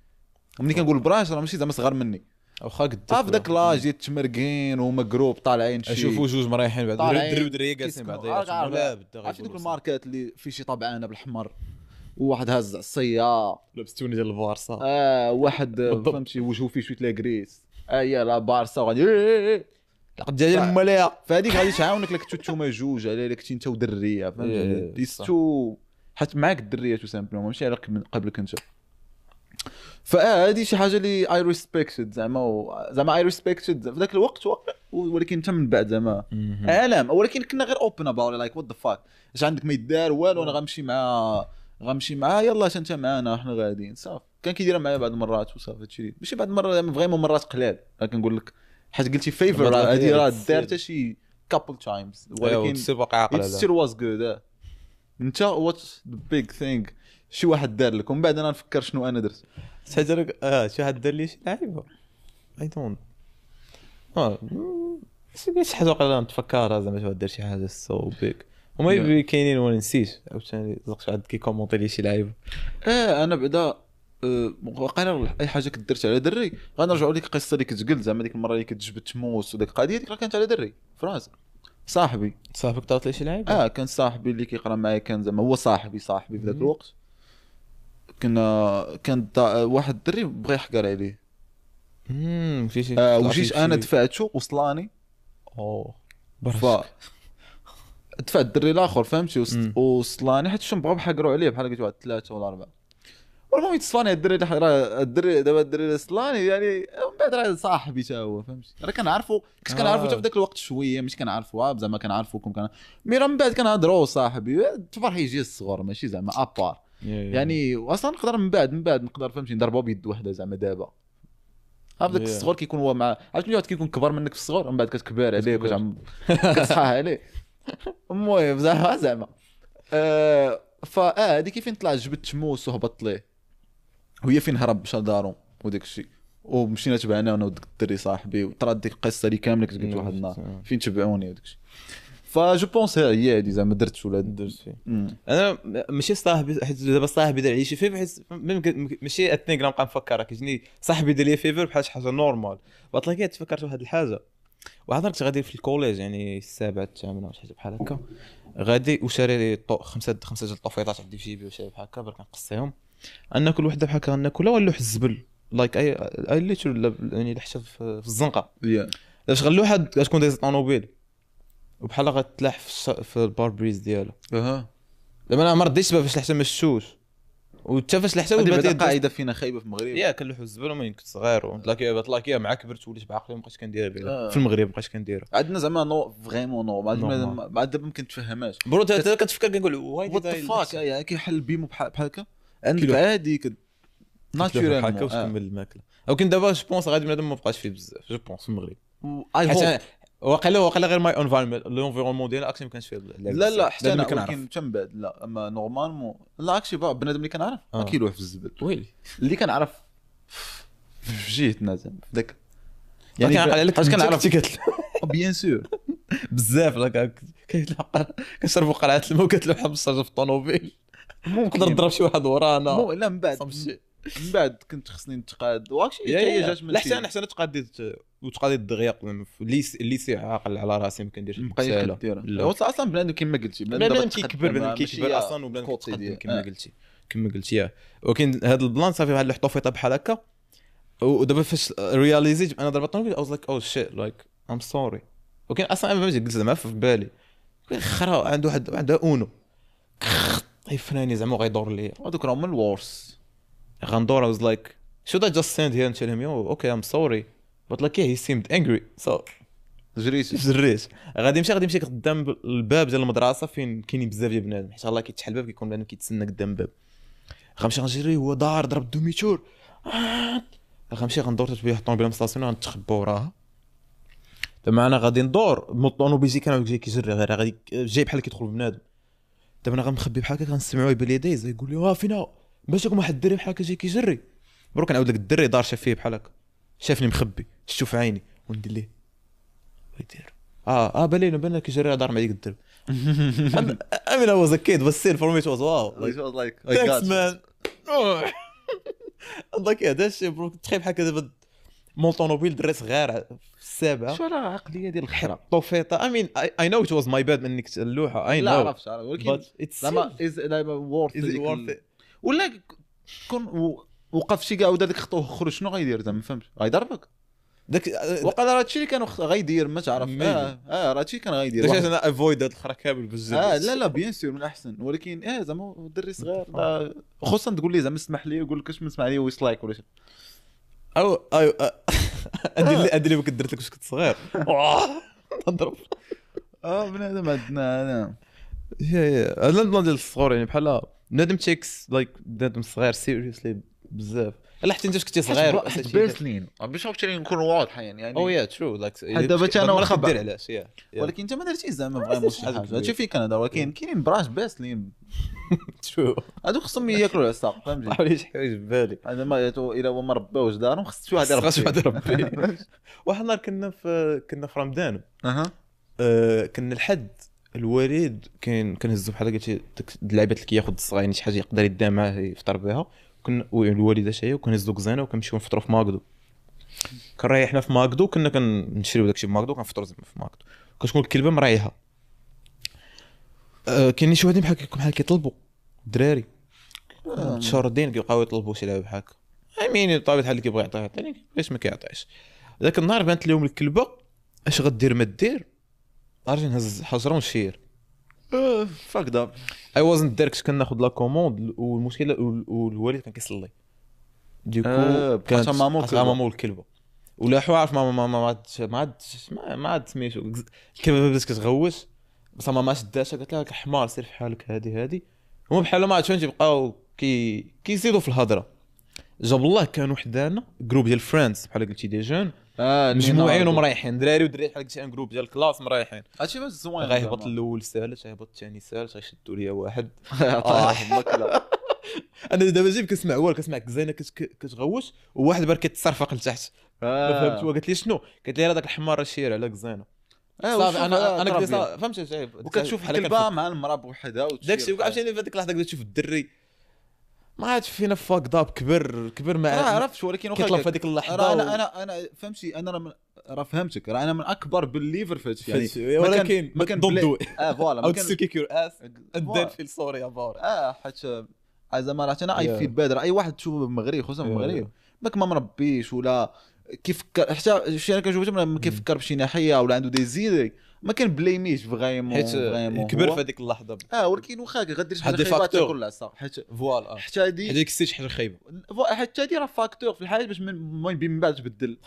ملي كنقول البراش راه ماشي زعما صغار مني، واخا قد في ذاك l'âge ديال التمرقين وهما groupe طالعين شي اشوفوا جوج مريحين بعد دري ودريه جالسين بعضياتهم ولا بدا. عرفتي دوك الماركات اللي في شي طبعانه بالحمر وواحد هاز عصية لابس tenue ديال البارسا، واحد فهمتي وجهه فيه شوية la graisse، يا لا بارسا وغادي لقد ديال الملايا. فهذيك غادي تعاونك لك نتوما جوج على لك انت ودريه فهمتي، too حيت معاك الدريه tout simplement ماشي على قبلك انت. فهذه شي حاجة اللي I respected زعما، زعما I respected في ذاك الوقت، ولكن حتى من بعد زعما عالم. ولكن كنا غير open about like what the fuck، اش عندك ما يدار والو، انا غنمشي مع يلا انت معانا حنا غاديين صافي. كان كيديرها معايا بعض المرات وصافي، هادشي ماشي بعض المرات زعما vraiment مرات قلال. كنقول لك حيت قلتي favor هذه راه دارتها شي couple times، ولكن still was good. انت what the big thing شي واحد دار لك ومن بعد انا نفكر شنو انا درت. شحال لك شي واحد دار لي شي لعيبة I don't شي حاجة وقيلا نتفكرها زعما شي واحد دار شي حاجة so big وما كاينين وانا نسيت عاوتاني زقت واحد كي commenter لي شي لعيبة. انا بعدا وقيلا اي حاجة كدرت على دري غنرجعوا لك القصة اللي كنت قلت زعما ديك المرة اللي كنت جبت موس وديك القضية ديك راه كانت على دري فرنسا. صاحبك طرات لي شي لعيبة؟ كان صاحبي اللي كيقرا معايا، كان زعما هو صاحبي في ذاك الوقت. كان واحد الدري بغى يحقر عليه. وجيت انا دفعته وصلاني. دفعت الدري الاخر فهمتي، وصلاني حيت شنو بغاو يحقروا عليه بحال قلت واحد 3 ولا 4. والمهم يتصلاني الدري الدري دابا الدري صلاني يعني من بعد راه صاحبي تا هو فهمتي، راه كنعرفو، كنت كنعرفو حتى في ذاك الوقت شوية، ماشي كنعرفو زعما كنعرفوكم كان mais راه من بعد كنهضروا صاحبي تفرح يجي الصغر ماشي زعما à part يعني. واصلا نقدر من بعد نقدر فهمتي نضربو بيد وحده زعما. دابا هذاك الصغر كيكون هو مع عرفتي ملي واحد كيكون كبر منك في الصغر من بعد كتكبر عليه كتصحح عليه. المهم زعما فا هذه كيفين طلع جبت موس وهبط ليه، وهي فين هرب مشى لدارو وداك الشيء، ومشينا تبعنا انا وداك الدري صاحبي، وطرات ديك القصة اللي كاملة كنت قلت واحد النهار فين تبعوني وداك الشيء. ف je pense هي هادي زعما درت ولا درت فيه. انا ماشي صاحبي حيت دابا صاحبي دار لي شي favor، حيت ماشي اتنين نبقى نفكر كيجيني صاحبي دار لي favor بحال شي حاجة normal. بطلع تفكرت واحد الحاجة، واحد النهار كنت غادي في ال collège يعني السابعة الثامنة ولا شي حاجة بحال هكا، غادي وشاري خمسة ديال الطوفيطات عندي في جيبي وشي بحال هكا، برك نقصيهم ناكل وحده بحال هكا ناكلها ونلوح الزبل like I literally يعني لحتها في الزنقة. باش غنلوحها غتكون دايزه طوموبيل وبحال غتلاح في ال pare-brise ديالو. زعما انا ما رديتش باش لحتها ما شفتوش، وحتى فاش لحتها وبدات قاعدة فينا خايبة في المغرب. يا كنلوحوا الزبل ومن كنت صغير وطلاكيه مع كبرت وليت بعقلي ما بقيتش كنديرها في المغرب، ما بقيتش كنديرها. عندنا زعما non vraiment non بعد دابا ما كنتفهمهاش bro. انت كتفكر كنقول why the fuck يعني كيحل بيمو بحال هكا عندك عادي naturellement بحال هكا وتكمل الماكلة. ولكن دابا je pense غادي بنادم ما بقاش فيه بزاف je pense في المغرب. واقيلا غير my environment l'environnement ديالنا اكشن ما كانش فيه. لا حتى انا ولكن حتى من بعد لا اما normalement لا اكشي بنادم اللي كنعرف ما كيلوح في الزبل. ويلي اللي كنعرف في جهتنا زعما في ذاك يعني كنعقل عليك كنعرف bien sûr بزاف لا كيتلقى كنشربوا قرعه الماء وكتلوحها بالشارجه في الطوموبيل. نقدر نضرب شي واحد ورانا لا من بعد من بعد كنت خصني نتقاد وهادشي حتى هي جات من لا حتى انا حتى انا تقاديت وتقاديت دغيا في ال lycée عاقل على راسي ما كنديرش بقيت كدير اصلا بنادم كما قلتي بنادم كيكبر بنادم كيكبر اصلا وبنادم كيتقدم كما قلتي كما قلتي. ولكن هذا ال plan صافي بحال الحطوفيطه بحال هكا. ودابا فاش réalisيت انا ضربت الطوموبيل I was like oh shit like I'm sorry. ولكن اصلا انا فهمتي قلت زعما في بالي خرا عنده واحد عنده اونو يفناني زعما غيدور لي هذوك راهم ال worst غندور. I was like should I just stand here and tell him yo okay I'm sorry but like yeah he seemed angry so جريت غادي نمشي قدام الباب ديال المدرسة فين كاينين بزاف ديال بنادم حيت الله كيتحل الباب كيكون بنادم كيتسنى قدام الباب. غنمشي غنجري هو دار ضرب demi-tour غنمشي غندور تتبيع الطوموبيل مستاسيون غنتخبى وراها. دابا انا غادي ندور مول الطوموبيل جاي كان جاي كيجري غير غادي جاي بحال كيدخل بنادم. دابا انا غنخبي بحال هكا غنسمعو يبان لي دايز يقول لي واه فينا باش لكم واحد الدري بحال هكا جاي كيجري. بروك نعاود لك الدري دار شاف فيه بحال هكا شافني مخبي شتو في عيني وندير ليه ويدير بالينا بان كيجري دار مع ديك الدرب. I mean I was a kid but still for me it was wow like, it was like thanks man. like هذا الشيء bro تخيل بحال هكا دابا مول طوموبيل دري صغير في السابعة شو على عقلية ديال الخرا طوفيطه. I mean I know it was my bad منك اللوحة I know لا عرفت ولكن زعما is worth ولا كون وقف شي كاع ودار ديك خطوة خرج شنو غيدير زعما فهمت غيضربك داك وقال راه هادشي اللي كان غيدير ما تعرف راه هادشي كان غيدير داك انا avoid هاد الخرا كامل بزاف. لا bien sûr من الاحسن ولكن زعما الدري صغير خصوصا تقول لي زعما اسمح لي يقول لك اش ما لي ويسلايك ولا شي او عندي اللي درت لك واش كنت صغير نضرب بنادم عندنا انا yeah هذا ال plan ديال الصغور يعني بحال بنادم takes like بنادم صغير seriously بزاف. لا حتى انت كنتي صغير باسلين باش عرفتي نكونوا واضحين يعني oh yeah true like دابا حتى انا واخا دير علاش yeah ولكن انت ما درتيش زعما vraiment شي حاجة هادشي فين كنهضر ولكن كاينين براش باسلين true هادوك خصهم ياكلوا العصا فهمتي علاش حوايج بالي هذا ما الا هو ما رباوش دارهم خص شي واحد يربي خص شي واحد يربي. واحد النهار كنا في رمضان كنا الحد الوالد كاين كنهزو بحال قلتي ديك اللعيبات اللي كياخذ الصغير يعني شي حاجة يقدر يديها معاه يفطر بها. كنا الوالدة شي وكنهزو كزانه وكنمشيو نفطروا في ماكدو. كنريحنا في ماكدو كنا كنشريو داكشي في ماكدو كنفطروا زعما في ماكدو. كتكون الكلبة مريحه. كاينين شي وحدين بحال كيطلبوا الدراري متشردين كيبقاو يطلبوا شي لعبه بحال هكا. I mean بطبيعة الحال اللي كيبغي يعطيه يعطيني علاش ما كيعطيش. ذاك النهار بانت لهم الكلبة اش غدير ما دير ارجع نهز حجره ونشير fucked up. I wasn't there كنت كناخذ la commande والمشكلة والوالد كان كيصلي du coup كانت ماما والكلبه ولا عارف ماما ما عاد سميتو الكلبة بدات كتغوش بصح ماما شداتها قالت لها حمار سير في حالك هادي هما بحال ما عرفتش تيبقاو كيزيدوا في الهضرة. جاب الله كانوا حدانا groupe ديال friends بحال قلتي des jeunes مجموعين ومريحين دراري ودريات بحال قلتي un groupe ديال classe مريحين. هادشي باش زوين غيهبط الاول سالت غيهبط الثاني سالت غيشدوا ليا واحد انا دابا جيب كنسمع والو كنسمع كزينة كتغوش وواحد بار كيتصرفق لتحت ما فهمت. قالت لي شنو قالت لي راه داك الحمار شير على كزينة صافي انا قلت فهمت وكتشوف الكلبة مع المراة بوحدها داكشي عرفتي في هذيك اللحظة كتشوف تشوف الدري ما عادش فينا fucked up كبر ما عرفتش ولكن كيطلب في هذيك اللحظة. انا فهمتي انا راه فهمتك راه انا من اكبر believer في هادشي يعني ولكن ما كان don't do voilà ما كان kick your ass and then feel sorry about حيت زعما راه انا I feel bad اي واحد تشوفه بالمغرب خصوصا في المغرب ماك ما مربيش ولا كيفكر حتى شي انا كنشوف ما كيفكر بشي ناحية ولا عنده des idées ما كنبليميش vraiment حيت كبر في هذيك اللحظة ولكن واخا غدير شي حاجة خايبة تاكل العصا حيت voilà حتى هادي هذيك شي حاجة خايبة حتى هادي راه facteur في الحياة باش من بعد تبدل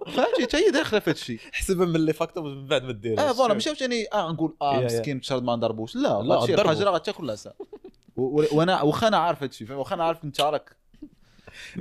فهمتي حتى هي داخله في هادشي حسبها من les facteurs من بعد ما ديرهاش voilà ماشي عاوتاني نقول مسكين تشرد ما نضربوش لا لا حاجة راه غتاكل العصا وانا واخا انا عارف هادشي واخا انا عارف انت راك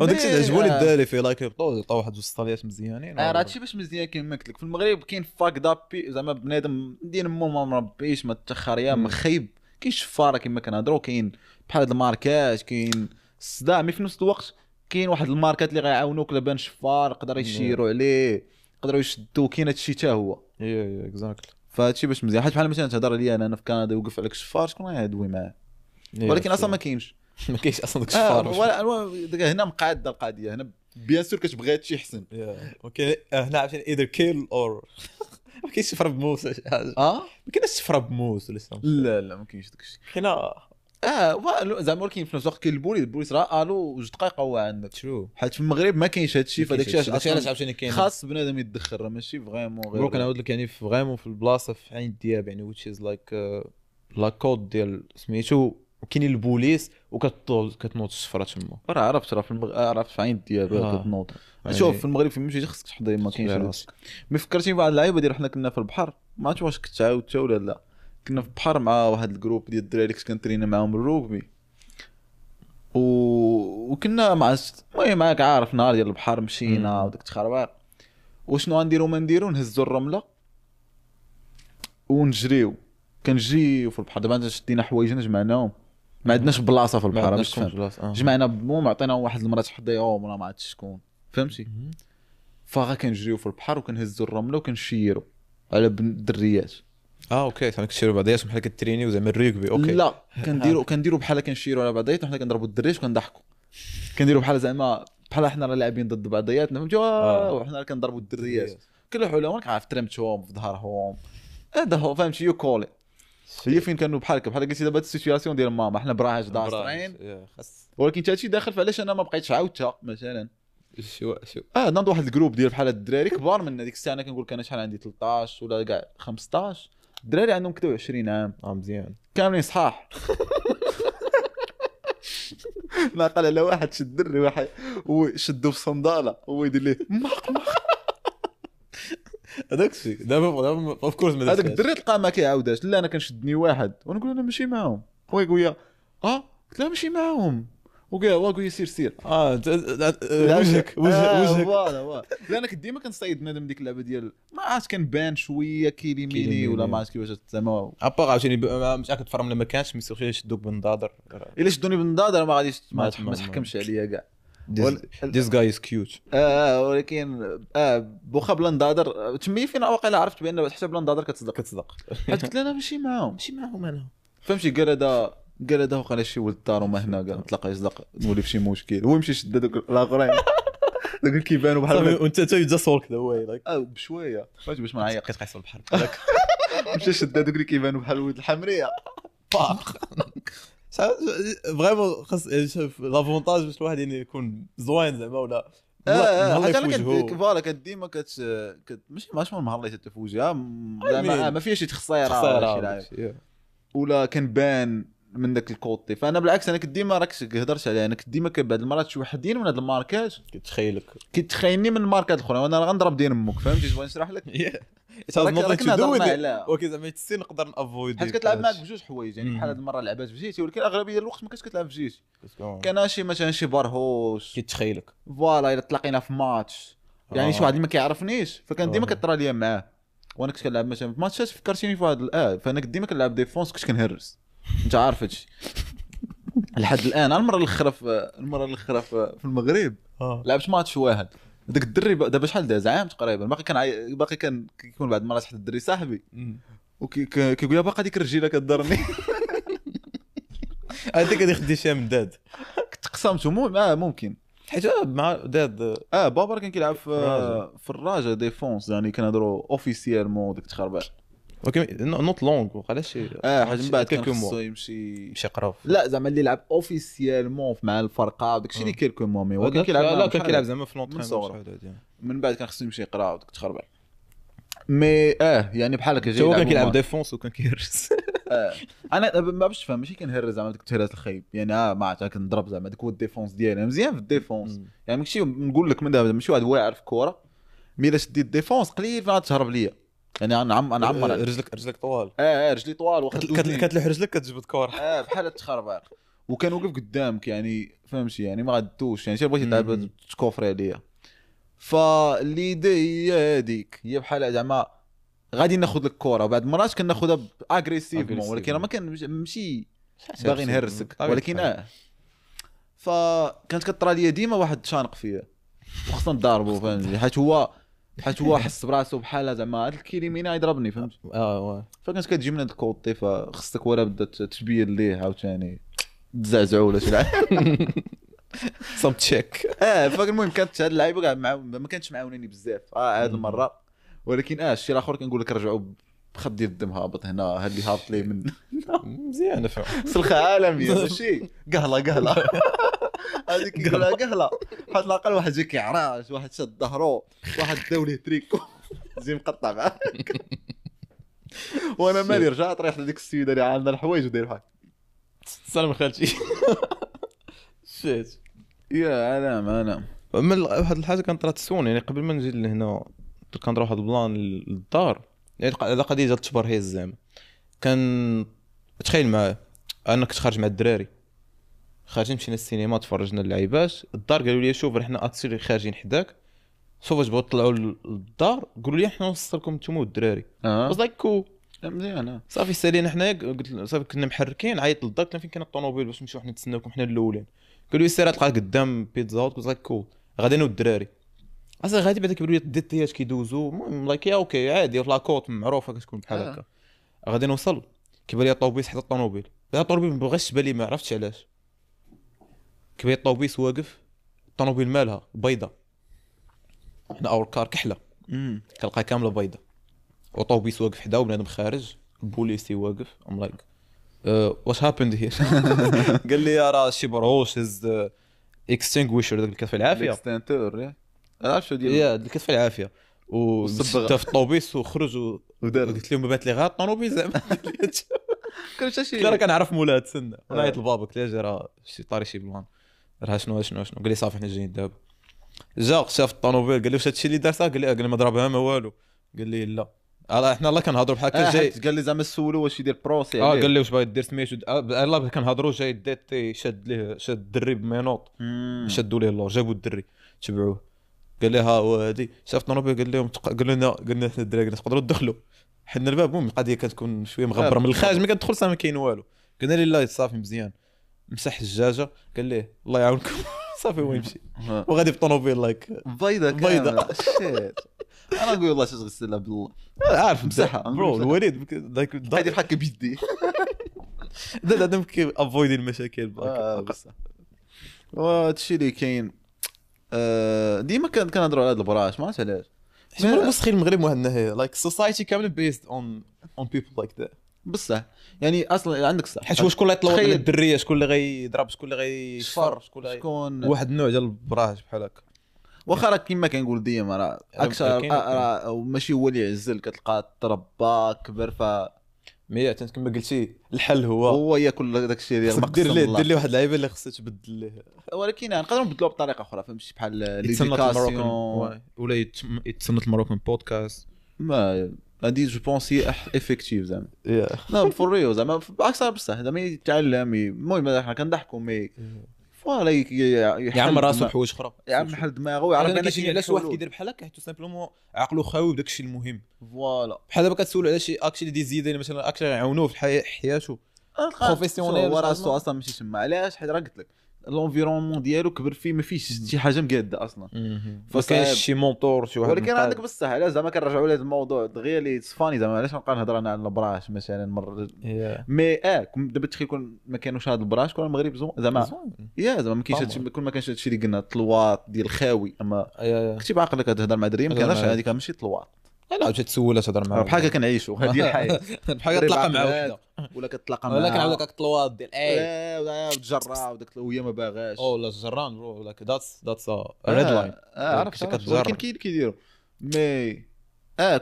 وداك الشيء عجبوني الدراري في like يبطوا عطاو واحد جوج ستاليات مزيانين. راه هادشي باش مزيان كما قلت لك في المغرب كاين fucked up زعما بنادم دين مو ما مربيش ما تخريا ما خايب كاين شفاره كما كنهضروا كاين بحال هاد الماركات كاين الصداع mais في نفس الوقت كاين واحد الماركات اللي غيعاونوك لبان شفار يقدر يشيروا عليه يقدروا يشدوا كاين هادشي حتى هو yeah exactly. فهادشي باش مزيان حيت بحال مثلا تهضر عليا انا في كندا يوقف عليك شفار شكون غيدوي معاه ولكن اصلا ما كاينش ما كاينش اصلا داك الشفار. ولا هنا مقاده القضية، هنا bien sûr كتبغي هادشي احسن. okay هنا عرفتي either kill or ما كاينش شفرة بموس ولا شي حاجة. ما كاينش شفرة بموس ولا شي. لا لا ما كاينش داكشي. كاينه زعما ولكن في نفس الوقت كاين البوليس، البوليس راه الو جوج دقائق هو عندك. true. حيت في المغرب ما كاينش هادشي، فداك الشيء علاش عاوتاني كاين خاص بنادم يتدخل، راه ماشي vraiment غير bro. كنعاود لك يعني vraiment في البلاصة في عين الدياب يعني which is like la côte ديال سميتو، وكاينين البوليس وكتنوض الشفرة تما. راه عرفت، راه في عرفت في عين الدياب كتنوض. شوف في المغرب فين مشيتي خصك تحضي، ما كاينش راسك. mais فكرتيني بواحد اللعيبة ديال حنا كنا في البحر، ما عرفتش واش كنت عاودتها ولا لا. كنا في البحر مع واحد ال groupe ديال الدراري كنت كنترينا معاهم الروكبي، وكنا مع المهم معاك عارف نهار ديال البحر مشينا وداك التخربيق، وشنو غنديرو ما نديرو، نهزو الرملة ونجريو. كنجريو في البحر. دابا شدينا حوايجنا جمعناهم، ما عندناش بلاصة في البحر باش تفهم. جمعنا المهم عطينا واحد المرة تحضيهم ولا ما عرفتش شكون، فهمتي؟ فغا كنجريو في البحر وكنهزو الرملة وكنشيرو على الدريات. okay زعما كتشيروا بعضياتكم بحال كترينيو زعما ال rugby. okay لا كنديروا بحال كنشيروا على بعضياتنا، وحنا كنضربوا الدريات وكنضحكوا، كنديروا بحال زعما بحال حنا راه لاعبين ضد بعضياتنا، فهمتي؟ وحنا كنضربوا الدريات كل حولهم عارف ترمتهم في ظهرهم، هذا هو فهمتي؟ you call هي فين كانوا بحال بحال قلتي دابا ال situation ديال ماما، حنا براهش داصرين، ولكن حتى هادشي داخل. فعلاش انا ما بقيتش عاودتها مثلا؟ شو ناض واحد ال groupe ديال بحال الدراري كبار من هذيك الساعة، انا كنقول لك انا شحال عندي 13 ولا كاع 15، الدراري عندهم كدا 20 عام. مزيان كاملين صحاح. ناقل على واحد شد دري واحد وشدو في صنداله هو يدير ليه ماق ماق. هذاك الشيء دابا of course هذاك الدري تلقاه ما كيعاودهاش. لا انا كنشدني واحد ونقول انا ماشي معاهم، هو يقول لي قلت له ماشي معاهم، وقال لي سير سير. وجهك وجهك voilà. لا انا كنت ديما كنصيد بنادم ديك اللعبة ديال ما عرفت كنبان شوية كيليميني ولا ما عرفت كيفاش زعما à part عاوتاني مش كتفرم ولا ما كانش mais surtout يشدوك بالنضاضر. الا شدوني بالنضاضر ما غاديش ما تحكمش عليا كاع. This guy is cute. ولكن بوخا بلا نضاضر تمي فين واقيلا عرفت بان حتى بلا نضاضر كتصدق. حيت قلت انا ماشي معاهم، ماشي معاهم انا، فهمتي؟ قال هذا وقع شي ولد الدار وما هنا، قال تلاقى يصدق نولي في شي مشكل، هو يمشي يشد هذوك الاخرين دوك كيبانوا بحال وانت تا just walk the way like بشوية، فهمتي؟ باش ما نعيق كتقيس البحر مشى شد هذوك اللي كيبانوا بحال ولد الحمريه باق. vraiment خاص l'avantage باش الواحد يعني يكون زوين زعما ولا مهلي في وجهه. voilà كديما ماشي ماشي مهلي حتى في وجهها زعما، ما فيهاش شي تخصيره ولا شي ولا كنبان من داك ال côté. فانا بالعكس انا كنت ديما راك هضرت عليها، انا كنت ديما بعد المرات شي وحدين من هاد الماركات كيتخيلني من الماركات الاخرى، وانا راه غنضرب دين امك، فهمتي؟ بغيت نشرح لك okay زعما تسي نقدر ن avoid حيت كتلعب معاك بجوج حوايج يعني. بحال هاد المرة لعبات بجيتي، ولكن اغلبية الوقت ما كنتش كتلعب بجيتي. كان شي مثلا شي برهوش كيتخيلك voilà، الا تلاقينا في ماتش يعني شي واحد اللي ما كيعرفنيش، فكان ديما كطرى ليا معاه. وانا كنت كنلعب مثلا في ماتشات فكرتيني في واحد فانا كنت ديما كنلعب défense، كنت كنهرس، انت عارف هادشي لحد الان. المرة الاخرى في المغرب لعبت ماتش واحد، داك الدري دابا شحال داز عام تقريبا، باقي كان كيكون بعد المرات حتى الدري صاحبي وكيقول لي باقا ديك الرجيله كضرني. هذيك غادي خدي شي من داد كنت قسمته ممكن حيت مع داد بابا كان كيلعب في الراجا défense، يعني كنهضروا officiellement ديك التخربيق. okay not long وقع شي حاجة من بعد كان خصو يمشي يقرا. لا زعما اللي لعب officiellement مع الفرقة وداك الشيء اللي quelques mois، mais هو كان كيلعب. لا كان كيلعب زعما في l'entraînement، من بعد كان خصو يمشي يقرا وداك التخربيق. mais يعني بحال هكا هو كان كيلعب défense وكان كيهرس. انا ما باش تفهم ماشي كنهرس زعما ديك التهراس الخايب يعني، ما عرفت كنضرب زعما ديك هو ال défense ديالي مزيان في ال défense يعني. ماشي نقول لك من دابا ماشي واحد واعر في الكره، mais الا شديت défense قليل فين غتهرب ليا يعني. انا نعمر رجلك طوال. رجلي طوال كتلوح رجلك كتجبد كره بحال التخربيق، وكان وقف قدامك يعني، فهمتي؟ يعني ما غادوش يعني شي بغيتي تلعب تكوفري عليا. ف l'idée هي هذيك، هي بحال زعما غادي ناخذ لك الكره، وبعد المرات كناخذها agressivement، ولكن ما كان ماشي باغي نهرسك، ولكن فكانت كطرى ليا ديما واحد شانق فيا وخصنا نضاربو، فهمتي؟ حيت هو حس براسو بحال زعما هاد الكيليمينا يضربني، فهمت؟ فكانت كتجي من هاد ال côté، فخصك ولا بدا تبين ليه عاوتاني. تزعزعوا ولا شي لعب. some check. فالمهم كانت هاد اللعيبة كاع ما كانتش معاونيني بزاف هاد المرة، ولكن الشيء الاخر كنقول لك رجعوا بخط ديال الدم هابط هنا، هاد اللي هابط ليه من مزيانه فهم سلخه عالمية ماشي قهله قهله هذيك كيقولها قهله، حتى الاقل واحد جا كيعراش، واحد شاد ظهرو، واحد داو ليه تريكو زي مقطع معاك. وانا مالي رجعت ريحت هذيك السيدة اللي عندها الحوايج وداير بحال سلام خالتي shit يا انا انا من واحد الحاجة كانت طرات soon، يعني قبل ما نجي لهنا كان واحد ال plan للدار، يعني على قضية ديال التبرهيز زعما. كان تخيل معايا انا كنت خارج مع الدراري، خارجين مشينا للسينما تفرجنا اللعيبات، الدار قالوا لي شوف حنا actually خارجين حداك، شوف واش بغاو تطلعوا للدار، قالوا لي حنا نوصلكم نتوما والدراري. was like cool مزيان. صافي سالينا حنايا، قلت صافي كنا محركين، عيط للدار قلت لهم فين كاين الطوموبيل باش نمشيو حنا نتسناوكم حنا الاولين. قالوا لي سير تلقى قدام Pizza Hut. قلت like cool غادي انا والدراري. اصلا غادي بعدا كيبانوا لي DTH كيدوزو، المهم like yeah okay عادي في la côte معروفة كتكون بحال هكا. غادي نوصل كيبان لي الطوبيس حدا الطوموبيل، لا الطوموبيل ما بغاش تبان لي، ما عرفتش علاش. كيبان لي الطوبيس واقف، الطوموبيل مالها بيضة، حنا our car كحلة كنلقاها كاملة بيضة، وطوبيس واقف حدا وبنادم خارج، البوليسي واقف. I'm like what happened here؟ قال لي راه شي برهوش هز extinguisher داك اللي كتطفي العافية، extincteur عرفت شو ديال yeah اللي كتطفي العافية، وصبغ في الطوبيس وخرج ودار. قلت لهم بات لي غير الطوموبيل زعما. كان شي راه كنعرف مولاها تسنى. نعيط لبابا قلت له راه شي طاري شي plan راه شنو شنو شنو. قال لي صافي حنا جايين دابا. جا شاف الطوموبيل قال لي واش هادشي اللي دار؟ قال لي قال لي ما ضربها ما والو. قال لي لا حنا الله كنهضروا بحال هكا. جاي قال لي زعما سولو واش يدير procès. قال لي واش باغي دير سميتو. الله كنهضروا جاي DT شاد ليه، شاد الدري ب menottes، شادوا ليه اللور، جابوا الدري تبعوه. قال لي ها هو هادي. شاف الطوموبيل قال لهم قال لنا قلنا حنا الدراري قلنا تقدروا تدخلوا حنا الباب. المهم القضية كتكون شوية مغبره من الخارج، ملي كتدخل صافي ما كاين والو. قلنا لي لا صافي مزيان. مسح الزجاجة قال ليه الله يعاونكم صافي هو يمشي وغادي بالطوموبيل like بيضة بيضة. shit انا نقول والله تغسلها بالله عارف مسحها bro الوليد like غادي بحال بيدي لا لا كي avoid المشاكل بصح. وهادشي اللي كاين ديما كنهضروا على هاد البراش ما عرفتش علاش. حيت مسخين المغرب واحد النهاية like society كاملة based on people like that بصح. يعني اصلا عندك صح، حيت هو شكون اللي يطلع على الدريه، شكون اللي غيضرب، شكون اللي غيشفر، شكون واحد النوع ديال البراش بحال هكا. واخا راه كيما كنقول ديما راه اكثر راه ماشي هو اللي يعزل، كتلقى تربى كبر ف mais كما قلتي الحل هو ياكل داك الشيء ديال المقصد. دير ليه واحد اللعيبة اللي خصها تبدل ليه، ولكن نقدروا نبدلوها بطريقة اخرى فهمتي، بحال l'éducation ولا يتصنت ال Moroccan Podcast. ما هادي je pense هي effective زعما. لا for real زعما اكثر بصح زعما يتعلم. المهم حنا كنضحكوا mais voilà يعمر راسو بحوايج اخرى، يعمر حل دماغه ويعرف انا كيجيني علاش واحد كيدير بحال هكا، حيت simplement عقلو خاوي بداك الشيء المهم. voilà بحال دابا كتسولو على شي actually des idées مثلا actually يعاونوه في حياته professionnelle، هو راسو اصلا ماشي تما. علاش؟ حيت راه قلت لك l'environnement ديالو كبر فيه ما فيهش شي حاجة مقاده اصلا، ما كاينش شي mentor شي واحد. ولكن عندك بصح علاش زعما كنرجعوا لهذا الموضوع دغيا اللي funny زعما علاش نبقى نهضر انا على البراش مثلا مرة mais دابا تخيل كون ما كانوش هاد البراش كون المغرب زوين زعما yeah زعما ما كاينش هادشي، كون ما كانش هادشي اللي قلنا طلواط ديال الخاوي. اما كنتي بعقلك تهضر مع دري ما كانش هذيك ماشي طلواط، لا مشات تسولها تهضر معاه بحال هكا كنعيشوا هذه الحياة، بحال كتلاقى مع وحده ولا كتلاقى معاه ولا كنعاود لك الطلواط ديال اي وتجرى وداك وهي ما باغاش او لا جران bro like that's red line. عرفت ولكن كاين كيديروا mais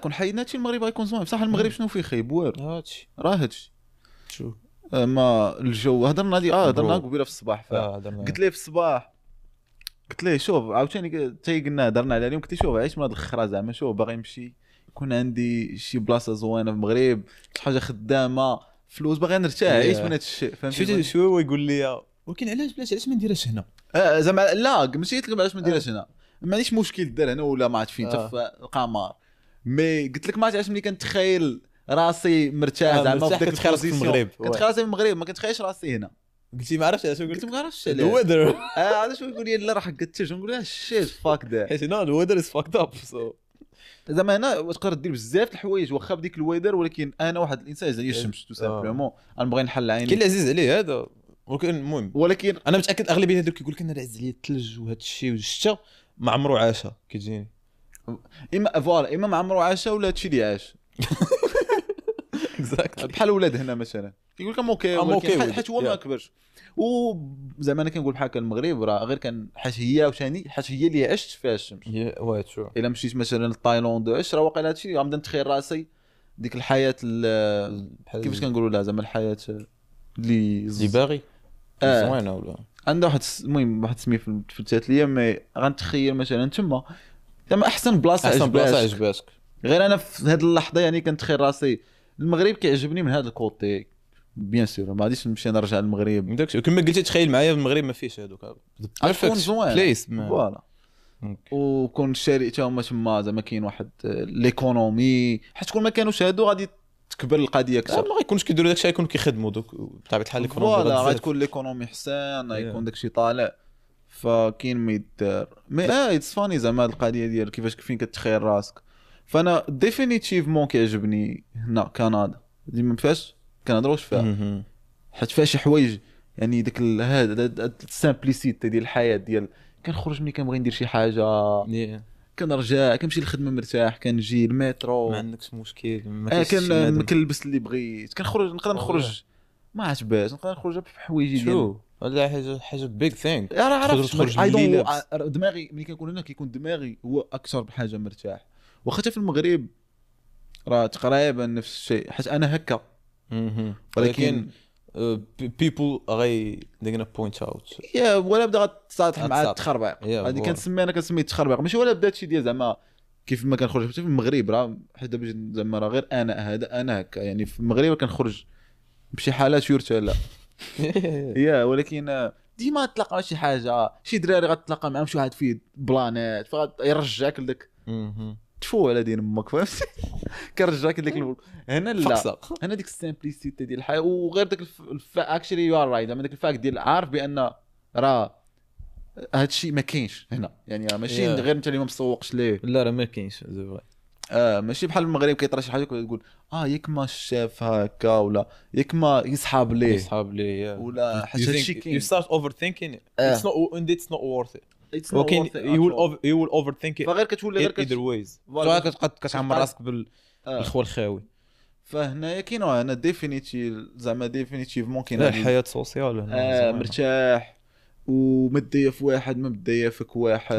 كون حيدنا هادشي المغرب غيكون زوين بصح. المغرب شنو فيه خايب؟ والو هادشي راه هادشي شو ما الجو. هضرنا هادي هضرنا قبيلة في الصباح، قلت ليه في الصباح قلت ليه شوف عاوتاني حتى قلنا هضرنا على اليوم، قلت ليه شوف عيش من هاد الخرا زعما، شوف باغي نمشي يكون عندي شي بلاصة زوينة في المغرب، شي حاجة خدامه، فلوس، باغي نرتاح، عيش من هذا الشيء فهمتي. شو هو يقول لي ولكن علاش ما نديرهاش هنا؟ زعما لا ماشي قلت لك علاش ما نديرهاش هنا، ما عنديش مشكل دير هنا ولا ما عرفت فين حتى في القمر، mais قلت لك ما عرفت علاش ملي كنتخيل راسي مرتاح زعما في ديك ال position المغرب، كنتخيل راسي في المغرب ما كنتخيلش راسي هنا. قلتي ما عرفتش علاش، قلت ما عرفتش علاش ال weather. علاش يقول لي لا راه قلت نقول لها shit fuck that، حيت هنا ال weather is fucked up. so زعما هنا تقدر دير بزاف الحوايج واخا بديك ال weather، ولكن انا واحد الانسان زي الشمس tout simplement انا بغي نحل عيني. كاين اللي عزيز عليه هذا ولكن المهم ولكن انا متاكد اغلبية هذوك كيقول لك انا عز عليا الثلج وهذا الشيء والشتاء ما عمرو عاشها كيجيني. اما voilà اما ما عمرو عاشها ولا هادشي اللي عاش. exactly. بحال ولاد هنا مثلا كيقول لك I'm okay، I'm okay with حيت it. هو ما Yeah. كبرش. وزعما انا كنقول بحال هكا المغرب راه غير كان حيت هي وثاني حيت هي اللي عشت فيها الشمس. oui true. الا مشيت مثلا لتايلاند وعشت راه واقيلا هادشي غنبدا نتخيل راسي ديك الحياة كيفاش كنقولوا لها زعما الحياة اللي اللي باغي زوينة ولا عندها واحد المهم واحد السمية في التاتليه، mais غنتخيل مثلا تما زعما احسن بلاصة احسن بلاصة عجباتك. عجباتك. غير انا في هذه اللحظة يعني كنتخيل راسي المغرب كيعجبني من هذا ال côté، bien sûr ما غاديش نمشي نرجع للمغرب. داكشي كما قلتي تخيل معايا المغرب ما فيهش هذوك غتكون زوين place. voilà. وكون الشارع تا هما تما زعما كاين واحد l'économie، حيت كون ما كانوش هادو غادي تكبر القضية اكثر. ما غيكونش كيديروا داكشي، غيكونوا كيخدموا دوك بطبيعة الحال. l'économie voilà غتكون l'économie حسن، غيكون داكشي طالع، فكاين ما يدار. mais it's funny زعما هاد القضية ديال كيفاش فين كتخيل راسك. فانا définitivement كيعجبني هنا كندا، ديما فاش كنهضروش فيها حيت فيها شي حوايج يعني ديك هذا ال simplicité ديال الحياة، ديال كنخرج ملي كنبغي ندير شي حاجة، كنرجع كنمشي للخدمة مرتاح، كنجي المترو ما عندكش مشكل، ما كاينش كنلبس اللي بغيت، كنخرج نقدر نخرج ما عرفتش باش نقدر نخرج بحوايجي ديال هذا حاجة big thing. راه عرفت دماغي ملي كنكون هنا كيكون دماغي هو اكثر بحاجة مرتاح. واخا حتى في المغرب راه تقريبا نفس الشيء حيت انا هكا، ولكن people غي they're gonna point out. yeah ولا بدا غتساطح مع التخربيق. هذه كنسمي انا كنسمي التخربيق، ماشي ولا بدا هادشي ديال زعما كيف ما كنخرج حتى في المغرب راه حيت دابا زعما راه غير انا هذا انا هكا يعني في المغرب كنخرج بشي حالات يرثى لا yeah ولكن ديما تلاقى شي حاجة، شي دراري غتلاقى معاهم شي واحد فيه بلانات فيرجعك لداك تفو على دين امك فهمتي، كنرجعك لديك هنا لا هنا ديك ال simplicité ديال الحياة. وغير داك actually you are right زعما داك ال fact ديال عارف بان راه هادشي ما كاينش هنا، يعني راه ماشي غير انت اللي ما مسوقش ليه، لا راه ما كاينش ماشي بحال المغرب كيطرا شي حاجة كتقول ياك ما شاف هكا ولا ياك ما يصحاب ليه يصحاب ليه ولا حتى هادشي كاين. you start overthinking it's not and it's not worth it. ولكن you will overthink it فغير كتولي غير either ways كتبقى كتعمر راسك بالخوى الخاوي. فهنايا كاين هنا définitive زعما définitivement كاين الحياة sociale هنا مرتاح وما تضيف واحد ما مضيفك واحد.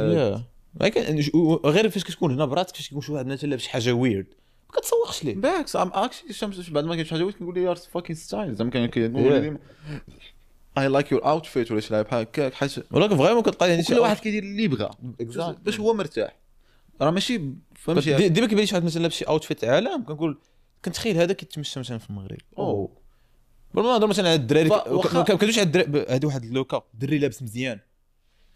غير فاش كتكون هنا براسك فاش كيكون شي واحد مثلا لابس شي حاجة weird ما كتسوقش ليه بالعكس. I'm actually الشمس بعد ما كاين شي حاجة weird كنقول ليه you're fucking style زعما كنقول ديما I like your outfit ولا شي لعب بحال هكاك، حيت ولكن vraiment كتلقى يعني كل واحد كيدير اللي بغا باش هو مرتاح. راه ماشي فهمتي ديما كيبان لي شي واحد مثلا لابس شي outfit عالم كنقول كنتخيل هذا كيتمشى مثلا في المغرب او بلا ما نهضر مثلا على الدراري ما كندويش على الدراري. هذه واحد اللوكا دري لابس مزيان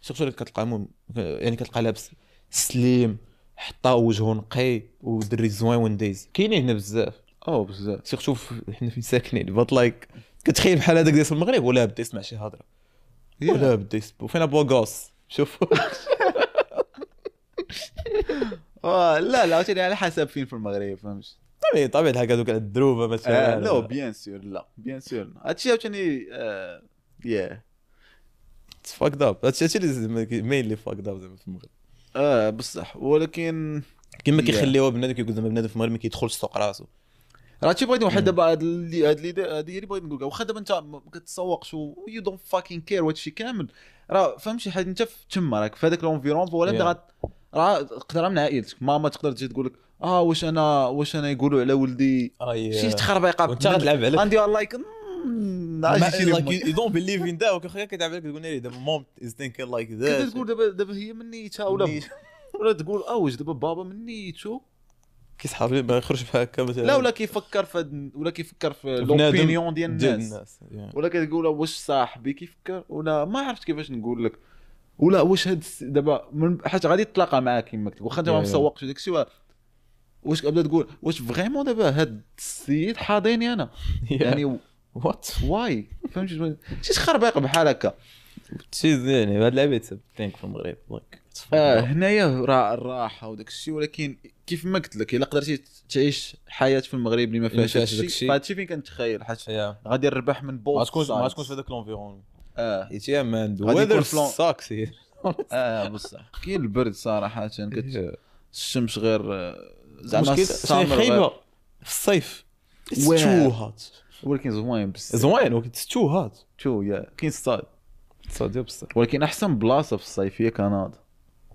surtout اللي كتلقى يعني كتلقى لابس slim حطا وجهه نقي ودري زوين ونديز كاينين هنا بزاف بزاف surtout حنا فين ساكنين. but like كتخيل بحال هذاك ديال المغرب ولا بدا يسمع شي هضره ولا بدا يسب فين beau gosse شوف. لا لا عاوتاني على حسب فين في المغرب فهمت. طبيعي طبيعي الحال هذوك على الدروبه مثلا لا bien sûr لا bien sûr هادشي عاوتاني yeah fucked up. هادشي اللي mainly fucked up زعما في المغرب بصح. ولكن كما كيخليوها بنادم كيقول زعما بنادم في المغرب ما كيدخلش سوق راسو. راه شي بغيت واحد دابا هاد اللي هادي اللي بغيت نقول، واخا دابا انت ما كتسوقش و you don't fucking care وهادشي كامل راه فهمتي حيت انت تما راك في هذاك l'environnement ولا بدا راه تقدر من عائلتك ماما تقدر تجي تقول لك واش انا يقولوا على ولدي شي تخربيقه وانت غتلعب عليك عندي like you don't believe in that وكخا كتلعب عليك تقول لي دابا mom is thinking like that كتقول دابا هي من نيتها ولا تقول واش دابا بابا من نيتو كيسحاب لي ما يخرج بحال هكا مثلا لا ولا كيفكر في ولا كيفكر في l'opinion ديال الناس ولا كتقول واش صاحبي كيفكر ولا ما عرفت كيفاش نقول لك ولا واش هاد دابا حيت غادي تلاقى معاك كما قلت واخا انت ما مسوقش داك الشيء واش كتبدا تقول واش vraiment دابا هاد السيد حاضيني انا يعني what why فهمتي شي تخربيق بحال هكا شي يعني هاد اللعيبة think في المغرب like هنايا راه الراحة وداك الشيء. ولكن كيف ما قلت لك الا قدرتي تعيش حياة في المغرب اللي ما اللي ما فيهاش فيهاش هادشي داكشي. فهادشي فين كنتخيل حيت yeah غادي نربح من both ما تكونش ما تكونش في هذاك l'environnement. اه حيت yeah man غادي يكون weather فلون- sucks here. اه بصح كاين البرد صراحة الشمس غير زعما المشكل ال summer غير- خايبة في الصيف. It's واعر. too hot. ولكن زوين بزاف. زوين ولكن it's too hot. too yeah كاين الصاد صادي بصح ولكن احسن بلاصة في الصيف هي كندا.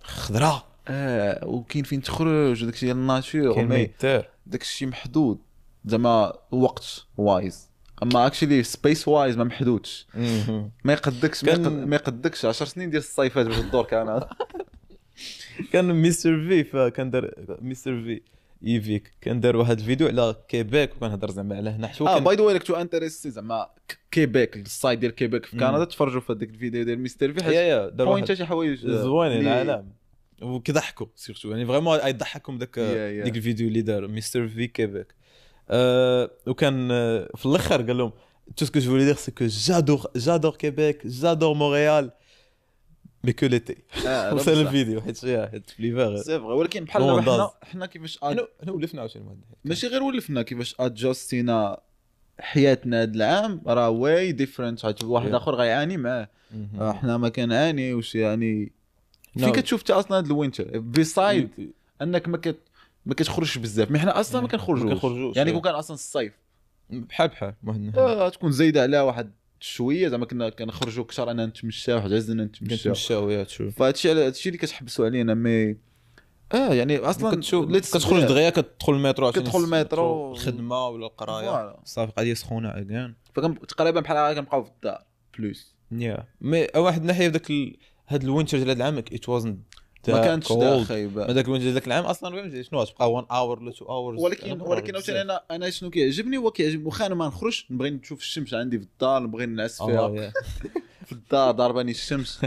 خضراء. اه وكاين فين تخرج وداك الشيء ديال ال nature كاين ما mais يدار. داك الشيء محدود زعما وقت wise، اما actually space wise ما محدودش. ما يقدكش ما ما يقدكش 10 سنين ديال الصيفات باش تدور كندا. كان مستر في، فكان دار مستر في ايفيك كان دار واحد الفيديو على كيبيك وكان هضر زعما على هنا حتى هو اه كان by the way كنتو intéressés زعما كيبيك ال side ديال كيبيك في كندا تفرجوا في هذاك الفيديو ديال مستر في yeah حيت yeah دار واحد point شي حوايج زوينين اللي- العالم وكيضحكوا surtout يعني vraiment يضحكهم داك yeah. ديك الفيديو اللي دار مستر في كيبيك. وكان في الاخر قال لهم tout ce que je voulais dire c'est que j'adore j'adore Québec j'adore Montréal mais que l'été. آه، وصل الفيديو حيت yeah حيت في l'hiver c'est vrai ولكن بحال No دابا one حنا does. حنا كيفاش حنا ولفنا عاوتاني واحد الناحية. ماشي غير ولفنا كيفاش adjust ينا حياتنا هذا العام راه way different حيت واحد Yeah. اخر غيعاني معاه. حنا ما كنعانيوش يعني No. فين كتشوف انت اصلا هذا ال winter beside انك ما كتخرجش بزاف mais حنا اصلا ما كنخرجوش. ما كنخرجوش، يعني yeah. كون كان اصلا الصيف بحال بحال واحد الناحية. تكون زايدة عليها واحد شوية زعما كنا كنخرجوا كثر اننا نتمشاو واحد عزنا نتمشاو. كنتمشاو yeah تشوف. فهادشي على هادشي اللي كتحبسوا علينا mais يعني اصلا كتشوف let's- كتخرج دغيا كتدخل المترو عشان كتدخل المترو. الخدمة ولا القراية. voilà. صافي قضية سخونة again. تقريبا بحال هكا كنبقاو في الدار plus. yeah mais واحد الناحية في ذاك هاد ال winter ديال هاد العام it wasn't ما كانتش دا خايبة. ما ذاك ال winter ديال ذاك العام اصلا فهمتي شنو تبقى 1 hour ولا 2 hours. ولكن عاوتاني انا شنو كيعجبني هو كيعجبني واخا انا ما نخرجش نبغي نشوف الشمس عندي في الدار نبغي نعس فيها في الدار ضرباني الشمس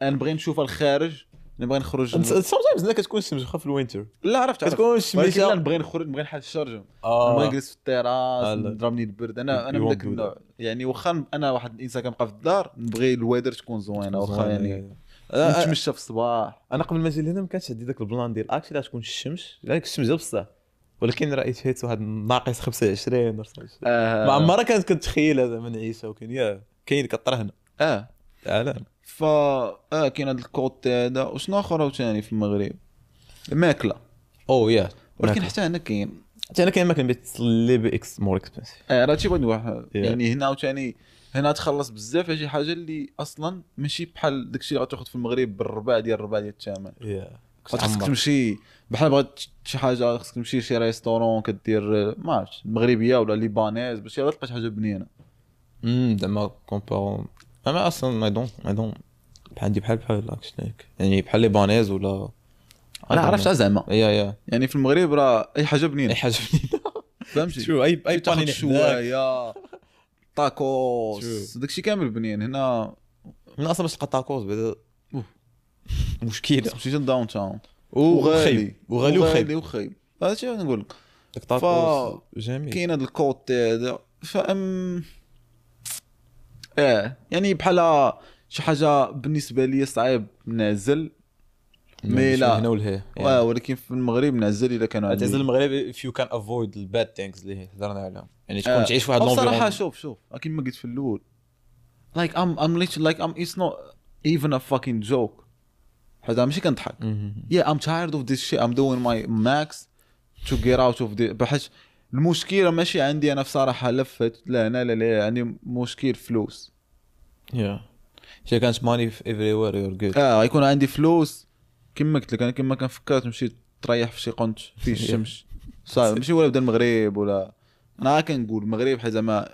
انا نبغي نشوفها الخارج نبغي نخرج. sometimes لا كتكون الشمس واخا في ال winter لا عرفت عرفت. كتكون ولكن الشمس. لا نبغي نخرج نبغي نحل الشرجم نبغي نجلس في التيراس لا. نضربني البرد انا You من won't ذاك do النوع يعني واخا انا واحد الانسان كنبقى في الدار نبغي ال weather تكون زوينة واخا يعني نتمشى في الصباح. انا قبل ما نجي لهنا ما كانش عندي ذاك ال plan ديال actually تكون الشمس لا الشمس ديال بصح ولكن راه hit واحد ناقص 25 ولا 26. ما عمرها كانت كنتخيلها زعما نعيشها ولكن yeah كاين كطرا هنا تعال. فا كاين هذا ال côté هذا وشنو اخر عاوتاني في المغرب الماكلة oh yeah ولكن حتى هنا كاين حتى انا كاين ماكله but little bit more expensive. راه هادشي بغيت نقول يعني هنا عاوتاني هنا تخلص بزاف على شي حاجة اللي اصلا ماشي بحال داكشي اللي غتاخذ في المغرب بالربع ديال الربع ديال الثمن. yeah خاصك تمشي بحال بغات شي حاجة خاصك تمشي لشي restaurant كدير ما عرفتش مغربية ولا libanaise باش يلا تلقى شي حاجة بنينه. زعما comparons انا اصلا I don't عندي بحال بحال actually يعني بحال libanaise ولا انا عرفت زعما yeah yeah يعني في المغرب راه اي حاجة بنينه اي حاجة بنينه. فهمتي شو اي تاخذ بانيني حداك. شوايه تاكوس داكشي كامل بنين هنا. من اصلا باش تلقى تاكوز بعدا أوف. مشكلة مشيت ل downtown وغالي وغالي وخايب وخايب هادشي اللي نقول لك. داك تاكوز جميل. كاين هذا ال côté هذا فام يعني بحال شي حاجة بالنسبة لي صعيب نعزل mais لا. هنا ولهيه ولكن في المغرب نعزل الا كانوا عندي تعزل المغرب if you can avoid the bad things اللي هضرنا عليهم يعني تكون تعيش في واحد صراحة l'environnement. شوف كيما قلت في الاول like I'm literally like I'm it's not even a fucking joke حيت أنا ماشي كنضحك. yeah I'm tired of this shit I'm doing my max to get out of this بحيث المشكلة ماشي عندي انا بصراحة لفت لا هنا لا لا عندي مشكل فلوس. yeah شي كانت money everywhere you're good. يكون عندي فلوس كما قلت لك انا كما كنفكر تمشي تريح في شي قنت فيه الشمس صافي ماشي ولا بدا المغرب ولا انا كنقول المغرب حيت زعما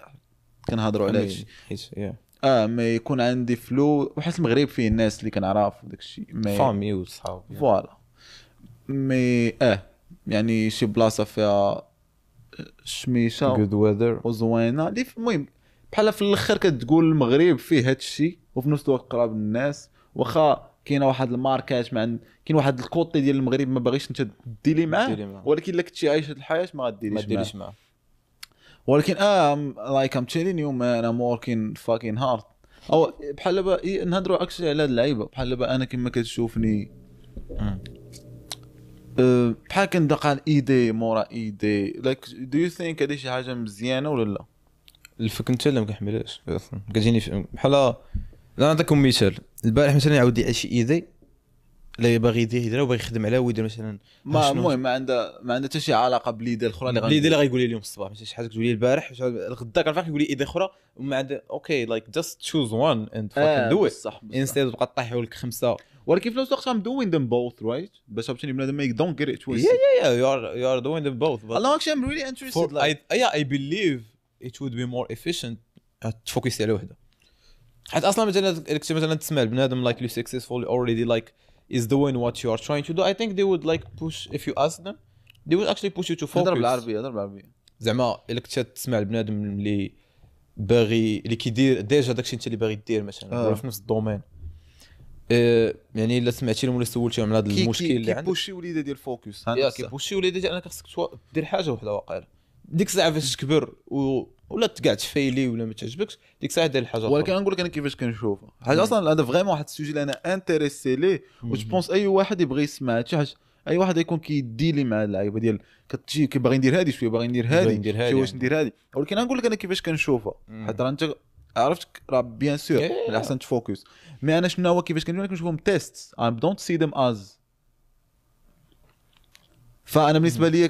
كنهضروا على هادشي. حيت yeah ما يكون عندي فلوس وحيت المغرب فيه الناس اللي كنعرف وداك الشيء mais famille وصحاب. voilà mais يعني شي بلاصة فيها شميشه good weather وزوينه اللي المهم بحال في الاخر كتقول المغرب فيه هاد الشيء وفي نفس الوقت قراب للناس واخا كاينه واحد الماركات مع كاين واحد ال côté ديال المغرب ما باغيش انت ديري معاه ديري معاه. ولكن الا كنتي عايش هاد الحياة ما ما غاديريش معاه. ديريش معاه. ولكن like I'm telling you man I'm working fucking hard او بحال دابا نهضروا actually على هاد اللعيبة بحال دابا انا كما كتشوفني بحال كندقى idée مورا idée، like do you think هادي شي حاجة مزيانه ولا لا؟ الفك انت لا ما كنحملهاش اصلا، كتجيني بحال، لا نعطيكم مثال. البارح مثلا عاود لي شي idée اللي باغي يدير يديرها وباغي يخدم عليها ويدير مثلا، ما المهم ما عندها حتى شي علاقة ب l'idée الاخرى اللي l'idée اللي غايقول لي اليوم الصباح، ماشي شي حاجة تقول لي البارح الغدا كنفيق يقول لي idée اخرى وما عندها. okay like just choose one and fucking do it instead تبقى طيحوا لك خمسة. ولكن في نفس الوقت I'm doing them both right، باش عرفتيني بنادم ما don't get it twisted. yeah you are doing them both. الله actually I'm really interested like I believe it would be more efficient تفوكسي على وحده، حيت اصلا مثلا تسمع البنادم like you successful already like is doing what you are trying to do. I think they would like push if you ask them they would actually push you to focus. هضر بالعربية، هضر بالعربية. زعما الا كنت تسمع البنادم اللي باغي اللي كيدير déjà داكشي انت اللي باغي دير مثلا ولا في نفس ال domaine، يعني الا سمعتي لهم ولا سولتيهم على هذا المشكل اللي عندك كي push يو l'idée ديال focus، كي push يو l'idée ديال انك خصك دير حاجة وحده واقيلا ديك الساعة فاش تكبر ولا تقعد تفيلي ولا ما تعجبكش ديك الساعة دير الحاجة. ولكن نقول لك انا كيفاش كنشوفها حاجة اصلا، هذا vraiment واحد ال sujet اللي انا intéressé ليه، و je pense اي واحد يبغي يسمع شي حاجة، اي واحد يكون كيديلي مع اللعيبة ديال كتجي كيبغي ندير هذه شوية، باغي ندير هذه شوية، واش ندير هذه. ولكن نقول لك انا كيفاش كنشوفها، حيت راه انت عرفت راه bien sûr من الاحسن ت focus. mais انا شنو هو كيفاش كنشوفهم tests، I don't see them as. فانا بالنسبة لي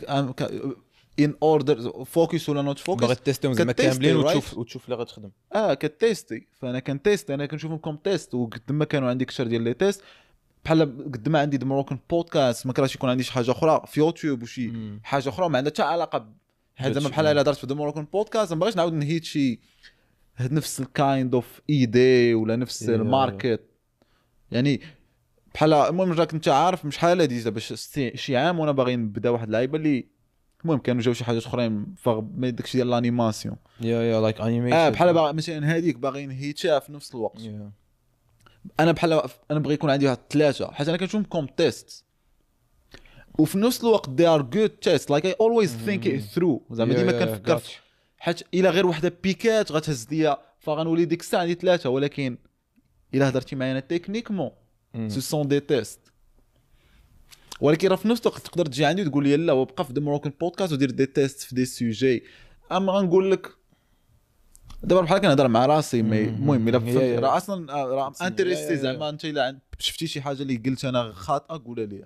in order focus ولا not focus، باغي تيستيهم زعما كاملين وتشوف اللي غتخدم. كتيستي. فانا كنتيست، انا كنشوفهم comme test، وقد ما كانوا عندي كثر ديال les tests بحال قد ما عندي The Moroccan Podcast ما كرهتش يكون عندي شي حاجة اخرى في يوتيوب وشي حاجة اخرى ما عندها حتى علاقة. هذا زعما بحال الا درت في The Moroccan Podcast ما بغيتش نعاود نهيت شي نفس ال kind of idea ولا نفس ال market. يعني بحال المهم راك انت عارف شحال هادي باش شي عام وانا باغي نبدا واحد اللعيبة اللي المهم كانوا جاو شي حاجات اخرين mais داكشي ديال l'animation yeah like animation بحال مثلا هذيك باغي نهيتها في نفس الوقت. انا بحال انا بغي يكون عندي واحد ثلاثة، حيت انا كنشوفهم comme test وفي نفس الوقت they are good tests like I always think it through. زعما ديما كنفكر حيت الا غير وحده بيكات غتهز ليا فغنولي ديك الساعة عندي ثلاثة، ولكن الا هضرتي معايا انا techniquement ce sont des tests. ولكن راه في نفس الوقت تقدر تجي عندي وتقول لي لا وبقى في The Moroccan Podcast ودير des tests في des sujets. اما غنقول لك دابا بحال كنهضر مع راسي، mais المهم الا فهمت راه اصلا راه intéressé. زعما انت الا شفتي شي حاجة اللي قلت انا خاطئه قولها لي،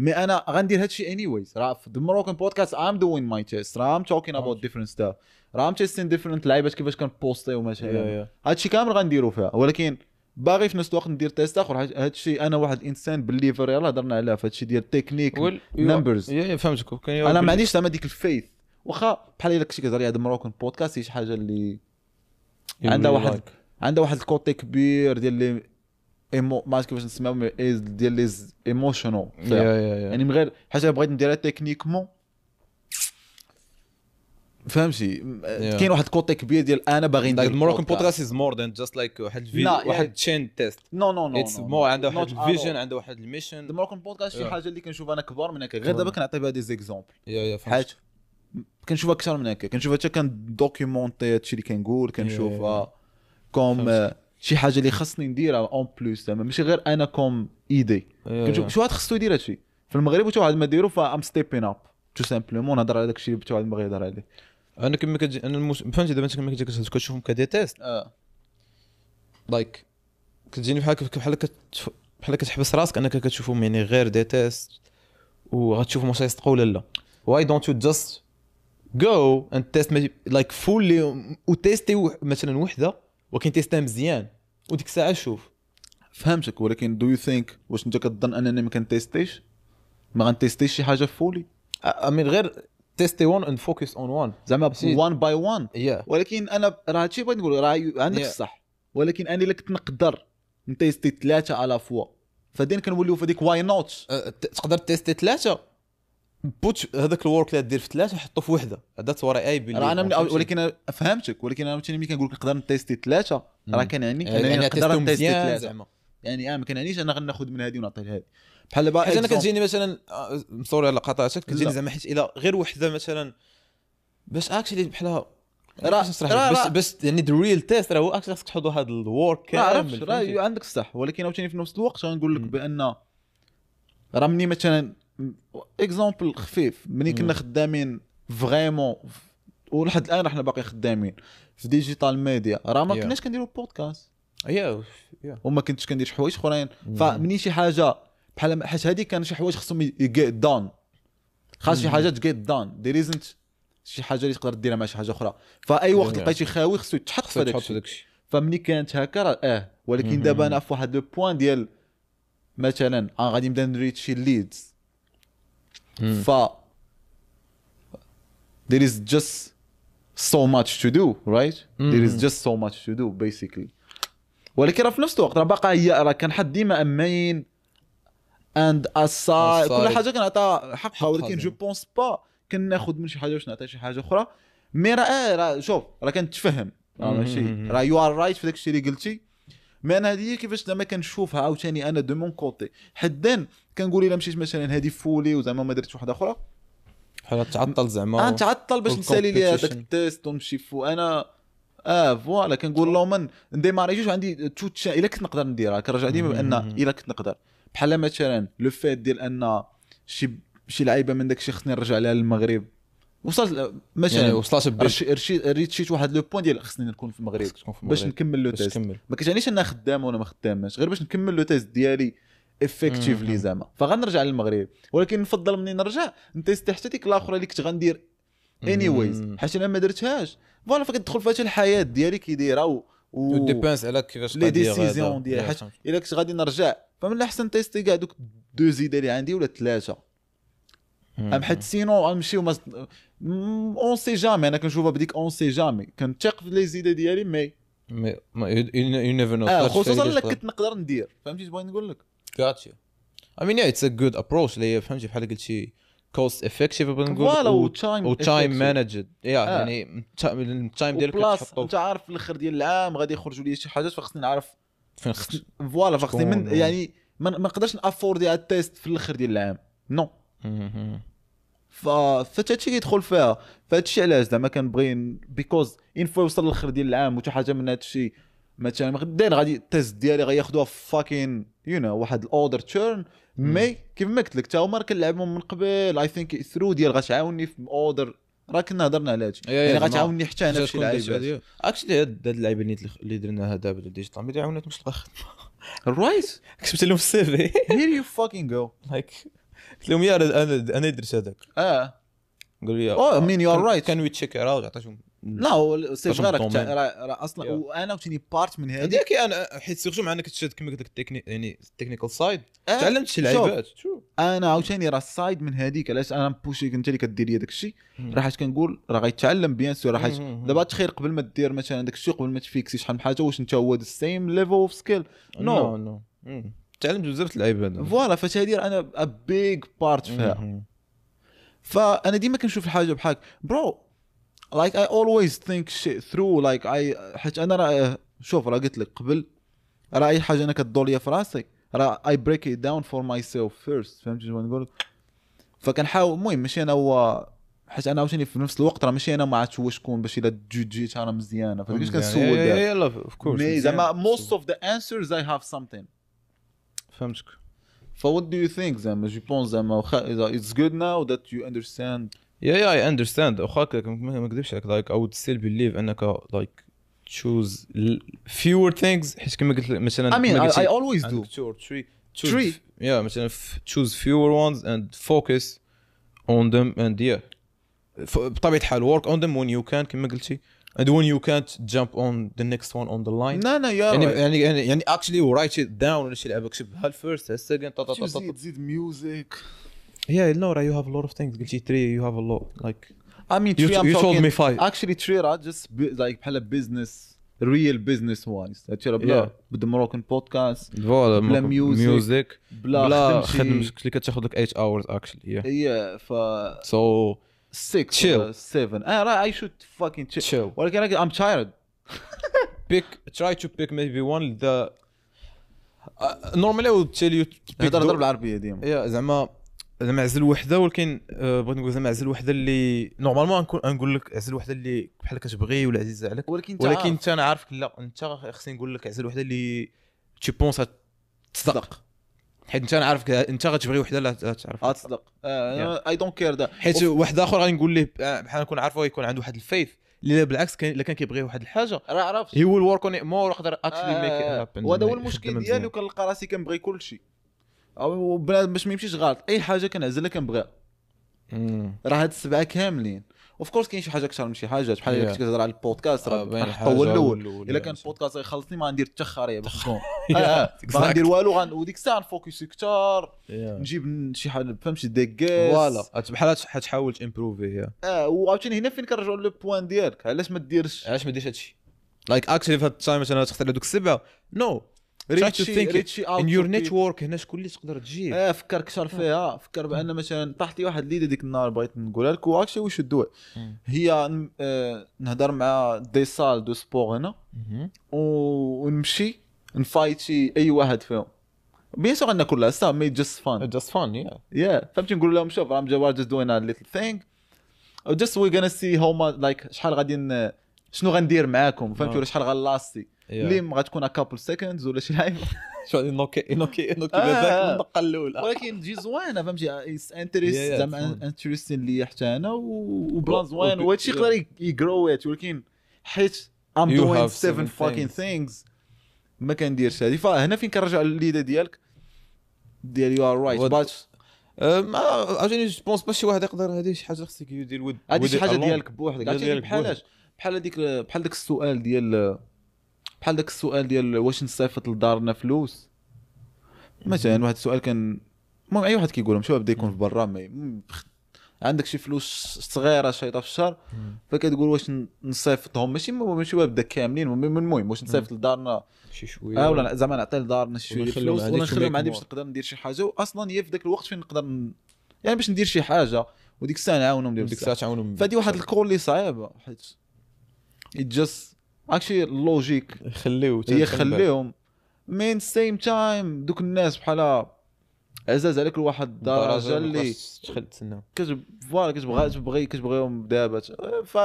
mais انا غندير هادشي anyways. راه في The Moroccan Podcast I'm doing my test، راه I'm talking about different stuff، راه I'm testing different لعيبات كيفاش كنبوستيو مثلا، هادشي كامل غنديرو فيها. ولكن باغي في نفس الوقت ندير test اخر. هادشي انا واحد الانسان believer، يلاه هضرنا عليها في هادشي ديال technique numbers. فهمتك. انا ما عنديش زعما ديك ال faith، واخا بحال الا كنتي كتهضر على Moroccan Podcast شي حاجة اللي عندها واحد عندها واحد ال côté كبير ديال les émo ما عرفت كيفاش نسميهم ديال les émotionnels. يعني من غير حاجة بغيت نديرها techniquement فهمتي. كاين واحد côté كبير ديال انا باغي ندير Moroccan Podcast is more than just like واحد الفيديو واحد chain test. no no no it's more عنده واحد ال vision، عنده واحد ال mission. The Moroccan Podcast شي حاجة اللي كنشوف انا كبار من هكا، غير دابا كنعطي بها des exemples. yeah حاجة كنشوفها اكثر من هكا، كنشوفها حتى كن documenter هادشي اللي كنقول، كنشوفها comme شي حاجة اللي خصني نديرها en plus، زعما ماشي غير انا comme idée. كنشوف شي واحد خصو يدير هادشي في المغرب وتا واحد ما ديرو، ف I'm stepping up tout simplement نهضر على داكشي اللي تا واحد ما يهضر عليه. انا كما كتجي انا فهمتي دابا انت كما كتجي كتشوفهم ك des tests like كتجيني بحال بحال كتحبس راسك انك كتشوفهم يعني غير des tests وغتشوفهم واش يصدقوا ولا لا. why don't you just go and test like fully وتيستي مثلا وحده ولكن تيستها مزيان وديك الساعة شوف. فهمتك، ولكن do you think واش انت كتظن انني ما كنتيستيش، ما غنتيستيش شي حاجة fully؟ I mean غير تيستي one and focus on one زعما 1 by 1. ولكن انا راه هادشي بغيت نقول راه عندك الصح، ولكن انا الا كنت نقدر نتيستي ثلاثة à la fois فدين كنوليو في ديك why not. تقدر تيستي ثلاثة put هذاك ال work اللي دير في ثلاثة حطو في وحده. that's what I believe. راه انا ولكن فهمتك، ولكن انا ملي كنقول لك نقدر نتيستي ثلاثة راه كنعني انني نقدر نتيستي ثلاثة، يعني ما كنعنيش انا غناخذ من هذه ونعطي لهذه. بحال دابا حيت انا كتجيني مثلا sorry على قطعتك، كتجيني زعما حيت الى غير وحده مثلا باش actually بحال راه باش يعني the real test راه هو actually خصك تحط هذا ال work كامل. راه عندك الصح، ولكن عاوتاني في نفس الوقت غنقول لك بان راه مني مثلا exemple خفيف، ملي كنا خدامين vraiment، ولحد الان حنا باقي خدامين في digital media، راه ما كناش كنديروا بودكاست وما كنتش كندير شي حوايج اخرين. فمني شي حاجة بحال حيت هذه كان شي حوايج خصهم get done، خاص شي حاجة get done، there isn't شي حاجة اللي تقدر ديرها مع شي حاجة اخرى. فاي وقت لقيتي خاوي خصو يتحط في هذاك الشيء. فمني كانت هكا راه ولكن دابا انا في واحد le point ديال مثلا غادي نبدا نريت شي leads، ف there is just so much to do right there is just so much to do basically. ولكن راه في نفس الوقت راه باقا هي راه كنحط ديما main and aside، كل حاجة كنعطيها حقها، ولكن je pense pas كناخذ من شي حاجة باش نعطي شي حاجة اخرى. mais راه شوف راه كنتفهم، راه ماشي راه you are right في داكشي اللي قلتي. mais انا هذه كيفاش زعما كنشوفها عاوتاني انا de mon côté، حدا كنقول الا مشيت مثلا هذه fully وزعما ما درتش وحده اخرى بحال تعطل زعما، نتعطل باش نسالي لي هذاك ال test ونمشي فو انا voilà. كنقول لهم من نديماري جوج عندي tout الا كنت نقدر نديرها، كنرجع ديما بان الا كنت نقدر. بحال مثلا le fait ديال ان شي لعيبة من داكشي خصني نرجع لها للمغرب، وصلت مثلا يعني وصلت ريتشيت واحد le point ديال خصني نكون في المغرب باش نكمل le test. ما كتعنيش انا خدام ولا ما خدامش، غير باش نكمل le test ديالي effectively زعما. فغنرجع للمغرب، ولكن نفضل مني نرجع نتيست حتى ديك الاخرى اللي كنت غندير anyways، حيت انا ما درتهاش. voilà، فكتدخل فيها الحياة ديالي كي دايرة و dépend على كيفاش les décisions ديالي. حيت الا كنت غادي نرجع فمن الاحسن تيستي كاع دوك deux idées اللي عندي ولا ثلاثة، ام حيت sinon غنمشيو on sait jamais. انا كنشوفها بديك on sait jamais، كنثق في les idées ديالي mais you never know، خصوصا الا كنت نقدر ندير. فهمتي بغيت نقول لك؟ gotcha. I mean yeah it's a good approach اللي هي فهمتي بحال قلتي cost effective بغيت نقول voilà و time managed، يعني ال time ديالك كتحطو. انت عارف في الاخر ديال العام غادي يخرجوا لي شي حاجات، فخصني نعرف فين خصني voilà، فخصني من يعني ما نقدرش نافوردي على ال test في الاخر ديال العام non. فهادشي كيدخل فيها. فهادشي علاش زعما كنبغي because une fois يوصل للاخر ديال العام وتا حاجة من هادشي مثلا غدا غادي ال test ديالي غياخذوها fucking you know واحد ال other turn. mais كيف ما قلت لك تا هما كنلعبهم من قبل، I think through ديال غتعاوني في other، راه كنا هضرنا على هادشي يعني غتعاوني حتى انا في شي لعيبات. actually هاد اللعيبة اللي درناها دابا ديال digital media عاونتني باش نلقى خدمة right. كتبت لهم في ال CV here you fucking go like قلت لهم يا انا درت هذاك قالوا لي I mean you are right can we check out. عطيتهم لا c'est vrai راه اصلا وانا عاوتاني part من هذيك انا حيت surtout مع انك تشد كما قلت لك التكنيك يعني ال technical side تعلمت شي لعيبات. انا عاوتاني راه ال side من هذيك علاش انا بوشيك انت اللي كدير لي داك الشيء، راه حيت كنقول راه غيتعلم bien sûr. راه حيت دابا تخير قبل ما دير مثلا داك الشيء قبل ما تفيكسي شحال من حاجة، واش انت هو the same level of skill؟ no no تعلمت بزاف اللعيبات voilà. فهادي انا a big part فيها. فانا ديما كنشوف الحاجة بحال bro like I always think shit through like I حيت انا راه شوف راه قلت لك قبل راه اي حاجة انا كدور ليا في راسي راه I break it down for myself first. فهمتي شنو نقول؟ فكنحاول المهم ماشي انا هو حيت انا عاوتاني في نفس الوقت راه ماشي انا ما عرفتش هو شكون باش الا جوجيت راه مزيانه، فداكشي كنسول يلا of course. mais زعما most of the answers I have something. فهمتك. ف what do you think زعما je pense زعما it's good now that you understand. Yeah I understand. واخا ما نكذبش عليك like I would still believe انك like choose fewer things حيت كما قلت مثلا I mean I always do 2 or 3 choose yeah مثلا choose fewer ones and focus on them and yeah بطبيعة الحال work on them when you can كما قلتي and when you can't jump on the next one on the line. No yeah يعني يعني يعني actually write it down ولا شي لعبه كتبها first ال second تزيد music. Yeah, no, you have a lot of things. قلتي 3 you have a lot. Like I mean 3 I'm you talking told me 5. Actually 3 راه just like بحال business real business wise. هادشي راه بلا بدا Moroccan podcast بلا music بلا خدمتك اللي كتاخذ لك 8 hours actually. Yeah. Yeah ف so 6 7 راه I should fucking chill. ولكن I'm tired. Pick try to pick maybe one the normally I would tell you to pick. هضر بالعربية ديما. Yeah زعما عزل وحده، ولكن بغيت نقول زعما عزل وحده اللي normalement نقول لك عزل وحده اللي بحال كتبغي ولا عزيزه عليك، ولكن انت انا عارفك لا انت خصني نقول لك عزل وحده اللي tu penses تصدق. حيت انت عارف انت غتبغي وحده لا تعرف غتصدق. I don't care دا حيت واحد اخر غادي نقول ليه بحال نكون عارفه يكون عنده واحد ال faith اللي بالعكس كان الا كان كيبغي واحد الحاجة راه عرفت he will work on it more يقدر actually make it happen. وهذا هو المشكل ديالي، وكنلقى راسي كنبغي كل شيء، او بنادم باش ما يمشيش غلط، اي حاجة كنعزلها كنبغيها. راه هاد السبعة كاملين of course كاين شي حاجة اكثر من شي حاجة، بحال الا كنت كتهضر على البودكاست راه نحطو هو الاول. الا كان البودكاست غيخلصني ما غندير حتى خريه باش نكون ما غندير والو، وديك الساعة نفوكسي كثار، نجيب شي حاجة فهمتي des guests voilà بحال حتحاول تامبروفي. وعاوتاني هنا فين كنرجعوا le point ديالك، علاش ما ديرش هادشي like actually في هاد ال time مثلا تختار دوك السبعة no reach out in your network، هنا شكون اللي تقدر تجيب. فكر كثر فيها، فكر بان مثلا طاحت لي واحد l'idée ديك النهار بغيت نقولها لك و actually we should do، هي نهضر مع des salles de sport هنا ونمشي نفايتي اي واحد فيهم، bien sûr غناكل لها سا mais just fun just fun yeah فهمتي. نقول لهم شوف راه I'm just doing a little thing just we gonna see how like شحال غادي شنو غندير معاكم فهمتي، ولا شحال غنلاستي اللي ما غتكون couple seconds ولا شي لعيبة شو غادي نوكي نوكي نوكي بذاك الدقة الاولى، ولكن تجي زوينة فهمتي، interest زعما interesting ليا حتى انا و plan زوين، وهادشي يقدر يgrow، ولكن حيت I'm doing 7 fucking things ما كنديرش هادي. فهنا فين كنرجع ل l'idée ديالك ديال you are right but ما عاوتاني je pense pas شي واحد يقدر هادي شي حاجة خصك يدير ود هادي شي حاجة ديالك بوحدك. عرفتي بحالاش بحال هذيك بحال داك السؤال ديال بحال داك السؤال ديال واش نصيفط لدارنا فلوس مثلا. واحد السؤال كان المهم اي واحد كيقولهم شوف بدا يكون في برا عندك شي فلوس صغيرة شيطه في الشهر، فكتقول واش نصيفطهم ماشي بدا كاملين، المهم واش نصيفط لدارنا شي شوية ولا زعما نعطي لدارنا شي شوية فلوس ولا نخليهم عندي باش نقدر ندير شي حاجة، واصلا هي في ذاك الوقت فين نقدر يعني باش ندير شي حاجة وديك الساعة نعاونهم ديك الساعة تعاونهم. فهادي واحد ال call اللي صعيبة حيت just actually logique خليو يخليهم mais same time دوك الناس بحال عزاز عليك لواحد الدرجة اللي تدخل تسنى voilà كتبغي كتبغيهم دابا. ف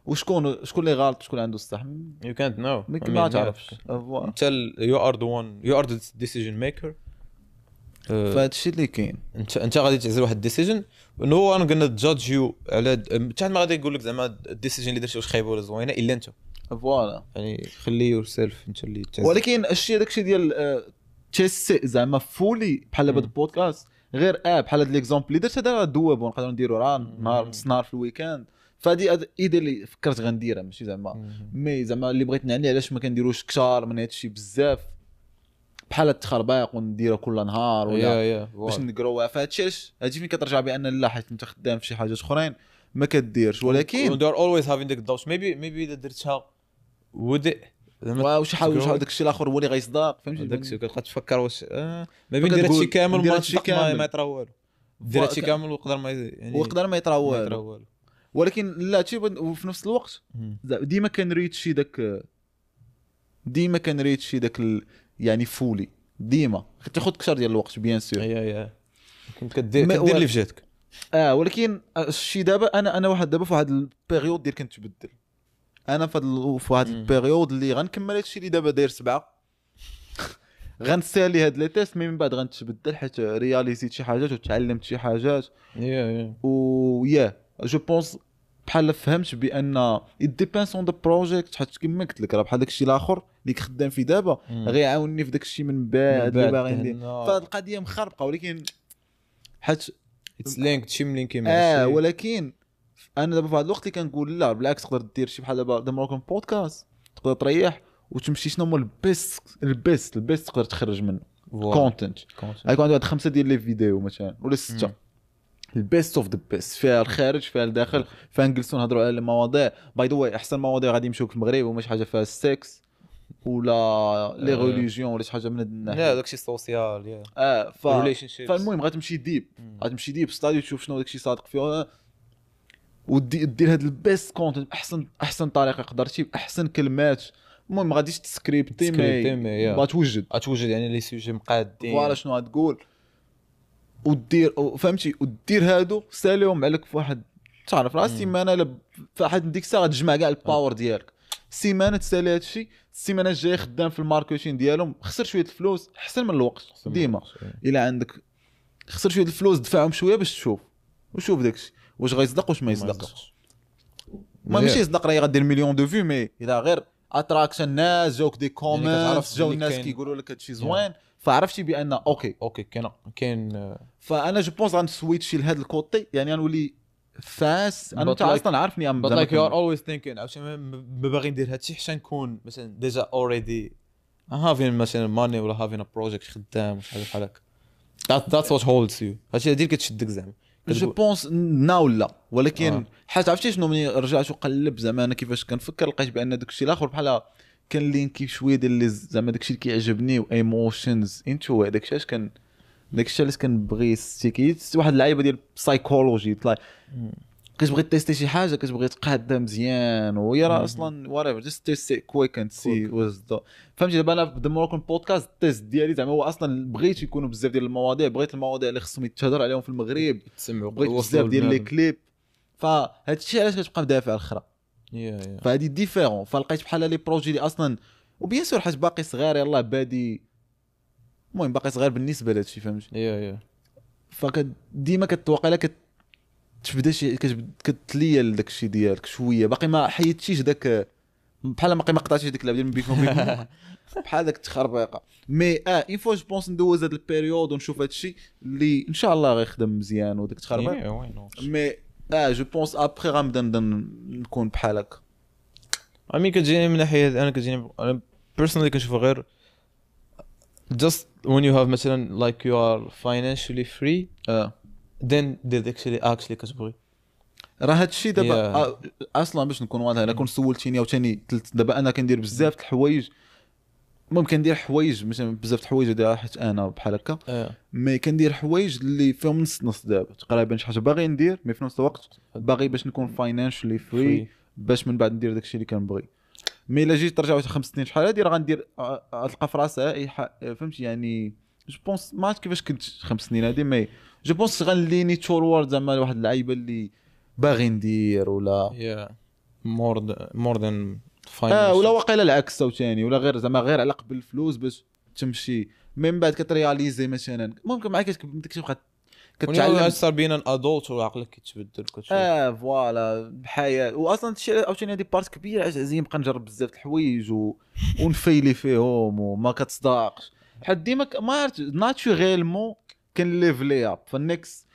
وشكون شكون اللي غلط شكون عنده الصح يو كانت نو ما تعرفش انت you are the one you are the decision maker. فهادشي اللي كاين انت غادي تعزل واحد ال decision no one gonna judge you على حتى ما غادي يقول لك زعما ال decision اللي درتي واش خايبة ولا زوينة الا انت voilà يعني خلي yourself انت اللي تعزل. ولكن الشيء داكشي ديال تيست زعما fully بحال دابا البودكاست غير بحال هاد l'exemple اللي درت هذا doable نقدروا نديرو راه نهار نص نهار في ال week-end. فهادي idée اللي فكرت غنديرها ماشي زعما mais زعما اللي بغيت نعني علاش ما كنديروش كثار من هادشي بزاف بحال التخربيق ونديرها كل نهار ولا باش نقروها. فهادشي علاش هادشي فين كترجع بان لا حيت انت خدام في شي حاجات اخرين ما كديرش، ولكن they're always having the doubts maybe اذا درتها ودي واش حاول شحال داك الشيء الاخر هو اللي غيصدق فهمتي داك الشيء كتبقى تفكر واش ما بين دير هادشي كامل ما يطرا والو، دير هادشي كامل ويقدر ما يعني ويقدر ما يطرا والو. ولكن لا هادشي وفي نفس الوقت ديما كنريتشي داك ديما كنريتشي داك يعني fully ديما تاخذ كثر ديال الوقت bien sûr yeah كنت كدير اللي في جهتك ولكن الشيء دابا انا واحد دابا في واحد ال période ديال كنتبدل انا في واحد ال période اللي غنكمل هادشي اللي دابا داير 7 غنسالي هاد les tests من بعد غنتبدل حيت رياليزيت شي حاجات وتعلمت شي حاجات yeah و yeah je pense بحال فهمت بان it depends on the project حيت كما قلت لك راه بحال داكشي الاخر اللي خدام فيه دابا غيعاونني في داكشي من بعد اللي باغي ندير. فهاد القضية مخربقه ولكن حيت it's linked شي ملينكي مع ولكن انا دابا في هذا الوقت اللي كنقول لا بالعكس تقدر دير شي بحال دابا The Moroccan Podcast تقدر تريح وتمشي شنو هو ال best ال best ال best تقدر تخرج منه content. غيكون عندك واحد 5 ديال les vidéos مثلا ولا 6 ال best of the best فيها الخارج فيها الداخل فيها نجلسوا نهضروا على المواضيع. by the way احسن مواضيع غادي يمشيو في المغرب وما شي حاجة فيها السكس ولا les religions ولا شي حاجة من هاد الناحية لا داكشي social yeah فالمهم غتمشي deep غتمشي deep study تشوف شنو داكشي صادق فيه ودير هاد ال best content احسن طريقه قدرتي باحسن كلمات. المهم ما غاديش تسكريبتي mais غتوجد يعني les sujets مقادين voilà شنو غتقول ودير فهمتي ودير هادو ساليهم عليك في واحد تعرف راه السيمانة فواحد ديك الساعة غتجمع كاع ال power ديالك. سيمانه تسالي هادشي، السيمانة الجاية خدام في ال marketing ديالهم، خسر شوية الفلوس احسن من الوقت ديما. الا عندك خسر شوية الفلوس دفعهم شوية باش تشوف وشوف داكشي واش غيصدق واش ما يصدقش. ما ماشي يصدق راه غدير million de vues، mais اذا غير attraction الناس جاوك des comments، جاو الناس كيقولوا لك هادشي زوين، فعرفتي بان okay كاين. فانا je pense غنسويتشي لهذا ال côté، يعني غنولي fast. انا انت اصلا عارفني but like you are always thinking عرفتي ما باغي ندير هادشي حتى نكون مثلا déjà already having مثلا money ولا having a project خدام وشي حاجة بحال هكا. that's what holds you. هادشي هادي كتشدك زعما. je pense now لا، ولكن حيت عرفتي شنو، ملي رجعت وقلب زعما انا كيفاش كنفكر لقيت بان داكشي الاخر بحال كان linké شوية ديال زعما داكشي اللي كيعجبني و emotions into داكشي علاش كان داكشي علاش كنبغي ستيكيت واحد اللعيبة ديال psychology طلع كتبغي تيستي شي حاجة كتبغي تقادها مزيان، وهي راه اصلا whatever just test quick and see. فهمتي؟ دابا انا في The Moroccan Podcast ال test ديالي زعما هو اصلا بغيت يكونوا بزاف ديال المواضيع، بغيت المواضيع اللي خصهم يتهضر عليهم في المغرب، بغيت بزاف ديال les clips، فهاد الشيء علاش كتبقى مدافع الاخرى. فهادي différent. فلقيت بحال les projets اللي اصلا و bien sûr حيت باقي صغير يلاه بادي، المهم باقي صغير بالنسبة لهادشي فهمتي. فديما كتوقع لك تبدا شي كتليا لداك الشيء ديالك شوية، باقي ما حيدتيش داك بحال ما قطعتيش ديك اللعبة ديال بيكون بحال داك التخربيقه. mais une fois je pense ندوز هاد ال période ونشوف هادشي اللي ان شاء الله غيخدم مزيان وداك التخربيق. mais je pense après غنبدا نكون بحال هكا. I mean كتجيني من ناحية انا كتجيني انا personally كنشوف غير just when you have مثلا like you are financially free then دير داكشي اللي actually كتبغي. راه هادشي دابا اصلا باش نكون واضح، الا كون سولتيني عاوتاني دابا انا كندير بزاف د الحوايج، المهم كندير حوايج مثلا بزاف د الحوايج ديال حيت انا بحال هكا، mais كندير حوايج اللي فيهم نص نص دابا تقريبا شي حاجة باغي ندير، mais في نفس الوقت باغي باش نكون financially free باش من بعد ندير داكشي اللي كنبغي. mais الا جيت ترجع 5 سنين شحال هادي راه غندير غتلقى في راسها فهمتي؟ يعني je pense ما عرفت كيفاش كنت 5 سنين هادي، mais je pense غنليني toward زعما واحد اللعيبة اللي باغي ندير ولا more than ولا واقيلا العكس عاوتاني، ولا غير زعما غير على قبل الفلوس باش تمشي، من بعد كترياليزي مثلا ممكن معاك كتبقى كتعلم صار بين an adult وعقلك كيتبدل كتشوف voilà بحياة. واصلا هادشي عاوتاني هادي part كبيرة عزيز نبقى نجرب بزاف الحوايج ونفيلي فيهم وما كتصدقش، حيت ديما ما عرفت naturellement كان level up فال next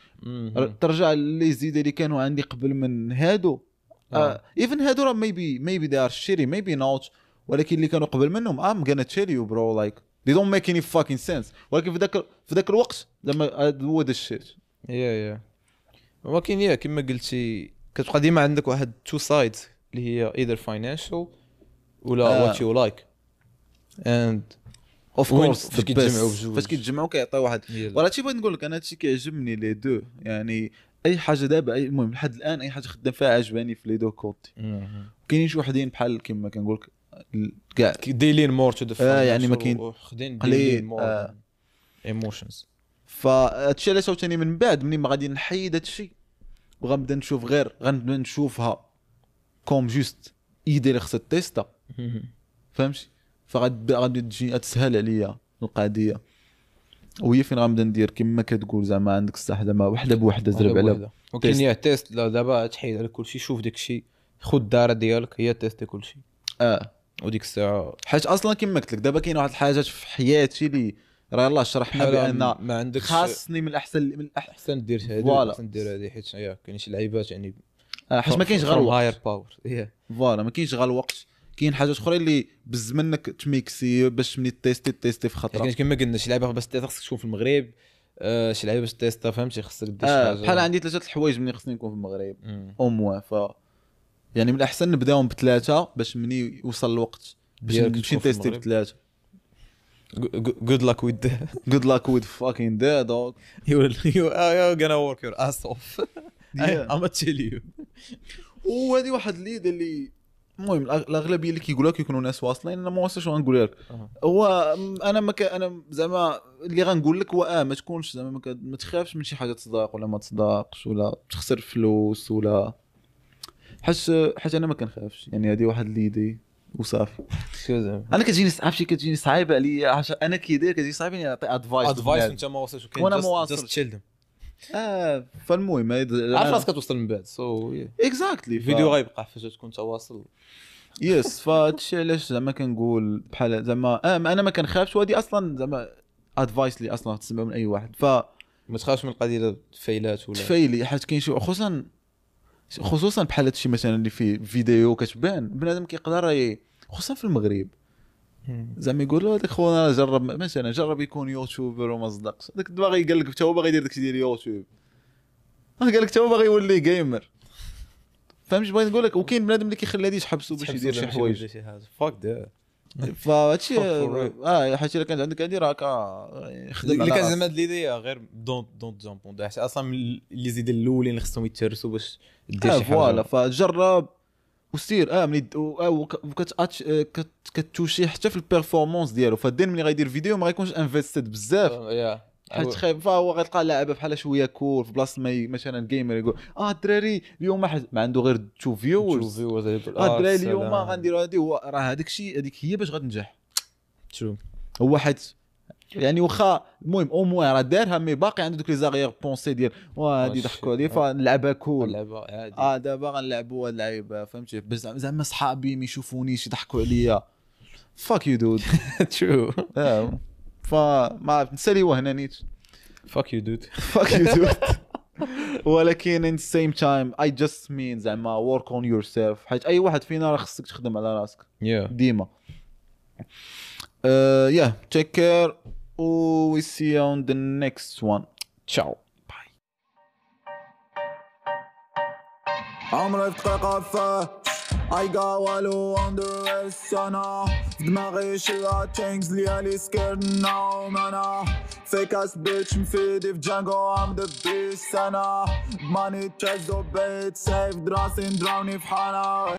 ترجع les idées اللي كانوا عندي قبل من هادو. even هادو راه maybe they are shitty maybe not، ولكن اللي كانوا قبل منهم I'm gonna tell you bro like they don't make any fucking sense، ولكن في ذاك الوقت زعما هو the shit. yeah ولكن yeah كما قلتي كتبقى ديما عندك واحد two sides اللي هي either financial ولا what you like and of course فاش كيتجمعوا بجوج فاش كيتجمعوا كيعطي واحد. ولا هادشي بغيت نقول لك انا هادشي كيعجبني les deux، يعني اي حاجة دابا المهم لحد الان اي حاجة خدام فيها عجباني في les deux côtés. كاينين شي وحدين بحال كما كنقول لك كاع they lean more to the يعني ما كاين قليل more emotions. فهادشي علاش عاوتاني من بعد ملي ما غادي نحيد هادشي وغنبدا نشوف غير غنبدا نشوفها comme juste idée اللي خصها تيستا فهمتي؟ فغادي تجي تسهل عليا القضية، وهي فين غنبدا ندير كما كتقول زعما عندك الصح زعما وحده بوحده زرب على ولكن هي test. لا دابا تحيد على كلشي، شوف داكشي، خذ الدار ديالك هي تيستي كلشي وديك الساعة حيت اصلا كما قلت لك دابا كاين واحد الحاجات في حياتي اللي راه يلاه شرحنا بان ما عندكش خاصني من الاحسن من الاحسن دير هذه احسن دير هذه، حيت كاين شي لعيبات يعني حيت ما كاينش غير الوقت higher power voilà ما كاينش غير الوقت، كاين حاجات اخرى اللي بز منك تميكسي باش مني تيستي في خطره. كاين كما قلنا شي لعيبة باش تيست خصك تكون في المغرب، شي لعيبة باش تيستا فهمتي خصك دير شي حاجة. بحال عندي 3 الحوايج ملي خصني نكون في المغرب au moins، ف يعني من الاحسن نبداهم بثلاثة باش مني يوصل الوقت باش نمشي نتيستي بثلاثة. Good luck with that. Good luck with fucking that dog. You're gonna work your ass off. I'm gonna tell you. وهذه واحد l'idée اللي المهم الاغلبية اللي كيقولوها كيكونوا ناس واصلين، انا ما واصلش غنقول لك. هو انا ما انا زعما اللي غنقول لك هو ما تكونش زعما ما تخافش من شي حاجة تصدق ولا ما تصدقش ولا تخسر فلوس ولا حيت انا ما كنخافش، يعني هذه واحد l'idée وصافي. انا كتجيني عرفتي كتجيني صعيبة عليا، عشان انا كي داير كتجيني صعيبة اني نعطي advice advice وانت ما واصلش، وأنا ما واصلش. just chill. فالمهم عارف راسك كتوصل من بعد، so exactly الفيديو غيبقى فاش تكون انت واصل. yes، فهادشي علاش زعما كنقول بحال زعما انا ما كنخافش، وهادي اصلا زعما advice اللي اصلا تسمع من اي واحد. ف ما تخافش من القضية فايلات ولا تفايلي، حيت كاين شي خصوصا بحال هادشي مثلا اللي فيه فيديو كتبان بنادم كيقدر خصوصا في المغرب زعما يقول له هذاك خونا جرب مثلا جرب يكون YouTuber وما صدقش، هذاك باغي قال لك حتى هو باغي يدير داكشي ديال يوتيوب، قال لك حتى هو باغي يولي gamer، فهمت بغيت نقول لك؟ وكاين بنادم اللي كيخلي هادي يحبسو باش يدير شي حوايج. fuck that. فهادشي حيت الا كانت عندك هادي راك خدم اللي كان زعما هاد l'idée غير don't jump on، حيت اصلا les idées الاولين اللي خصهم يتهرسوا باش دير شي حاجة. voilà، فجرب وسير ملي كتوشي حتى في ال performance ديالو. فالدين ملي غيدير فيديو ما غيكونش invested بزاف، حيت خايف، فهو غيلقى لعبه بحال شوية cool في بلاصة ما مثلا gamer يقول الدراري اليوم ما عنده غير 2 viewers، الدراري اليوم غنديروا هذه، هو راه هذاك الشيء هذيك هي باش غتنجح. true، هو حيت يعني واخا المهم au moins راه دارها، mais باقي عنده دوك les arrière-pensées ديال وهادي ضحكوا عليه فنلعبها cool، نلعبها عادي، دابا غنلعبوا هاد اللعيبة، فهمتي؟ بس زعما صحابي ما يشوفونيش يضحكوا عليا، fuck you dude. true. فما عرفت نسالي وهنا نيت fuck you dude، fuck you dude. ولكن in the same time I just mean زعما work on yourself، حيت اي واحد فينا راه خصك تخدم على راسك ديما. yeah, take care. We see you on the next one. Ciao. Bye. عمري في دقيقة فات I got والو on the rest. أنا في دماغي شي things ليالي scared now. أنا fake ass bitch مفيدي في Django I'm the beast. أنا money chase وبيت safe دراسي ندراوني في حالة.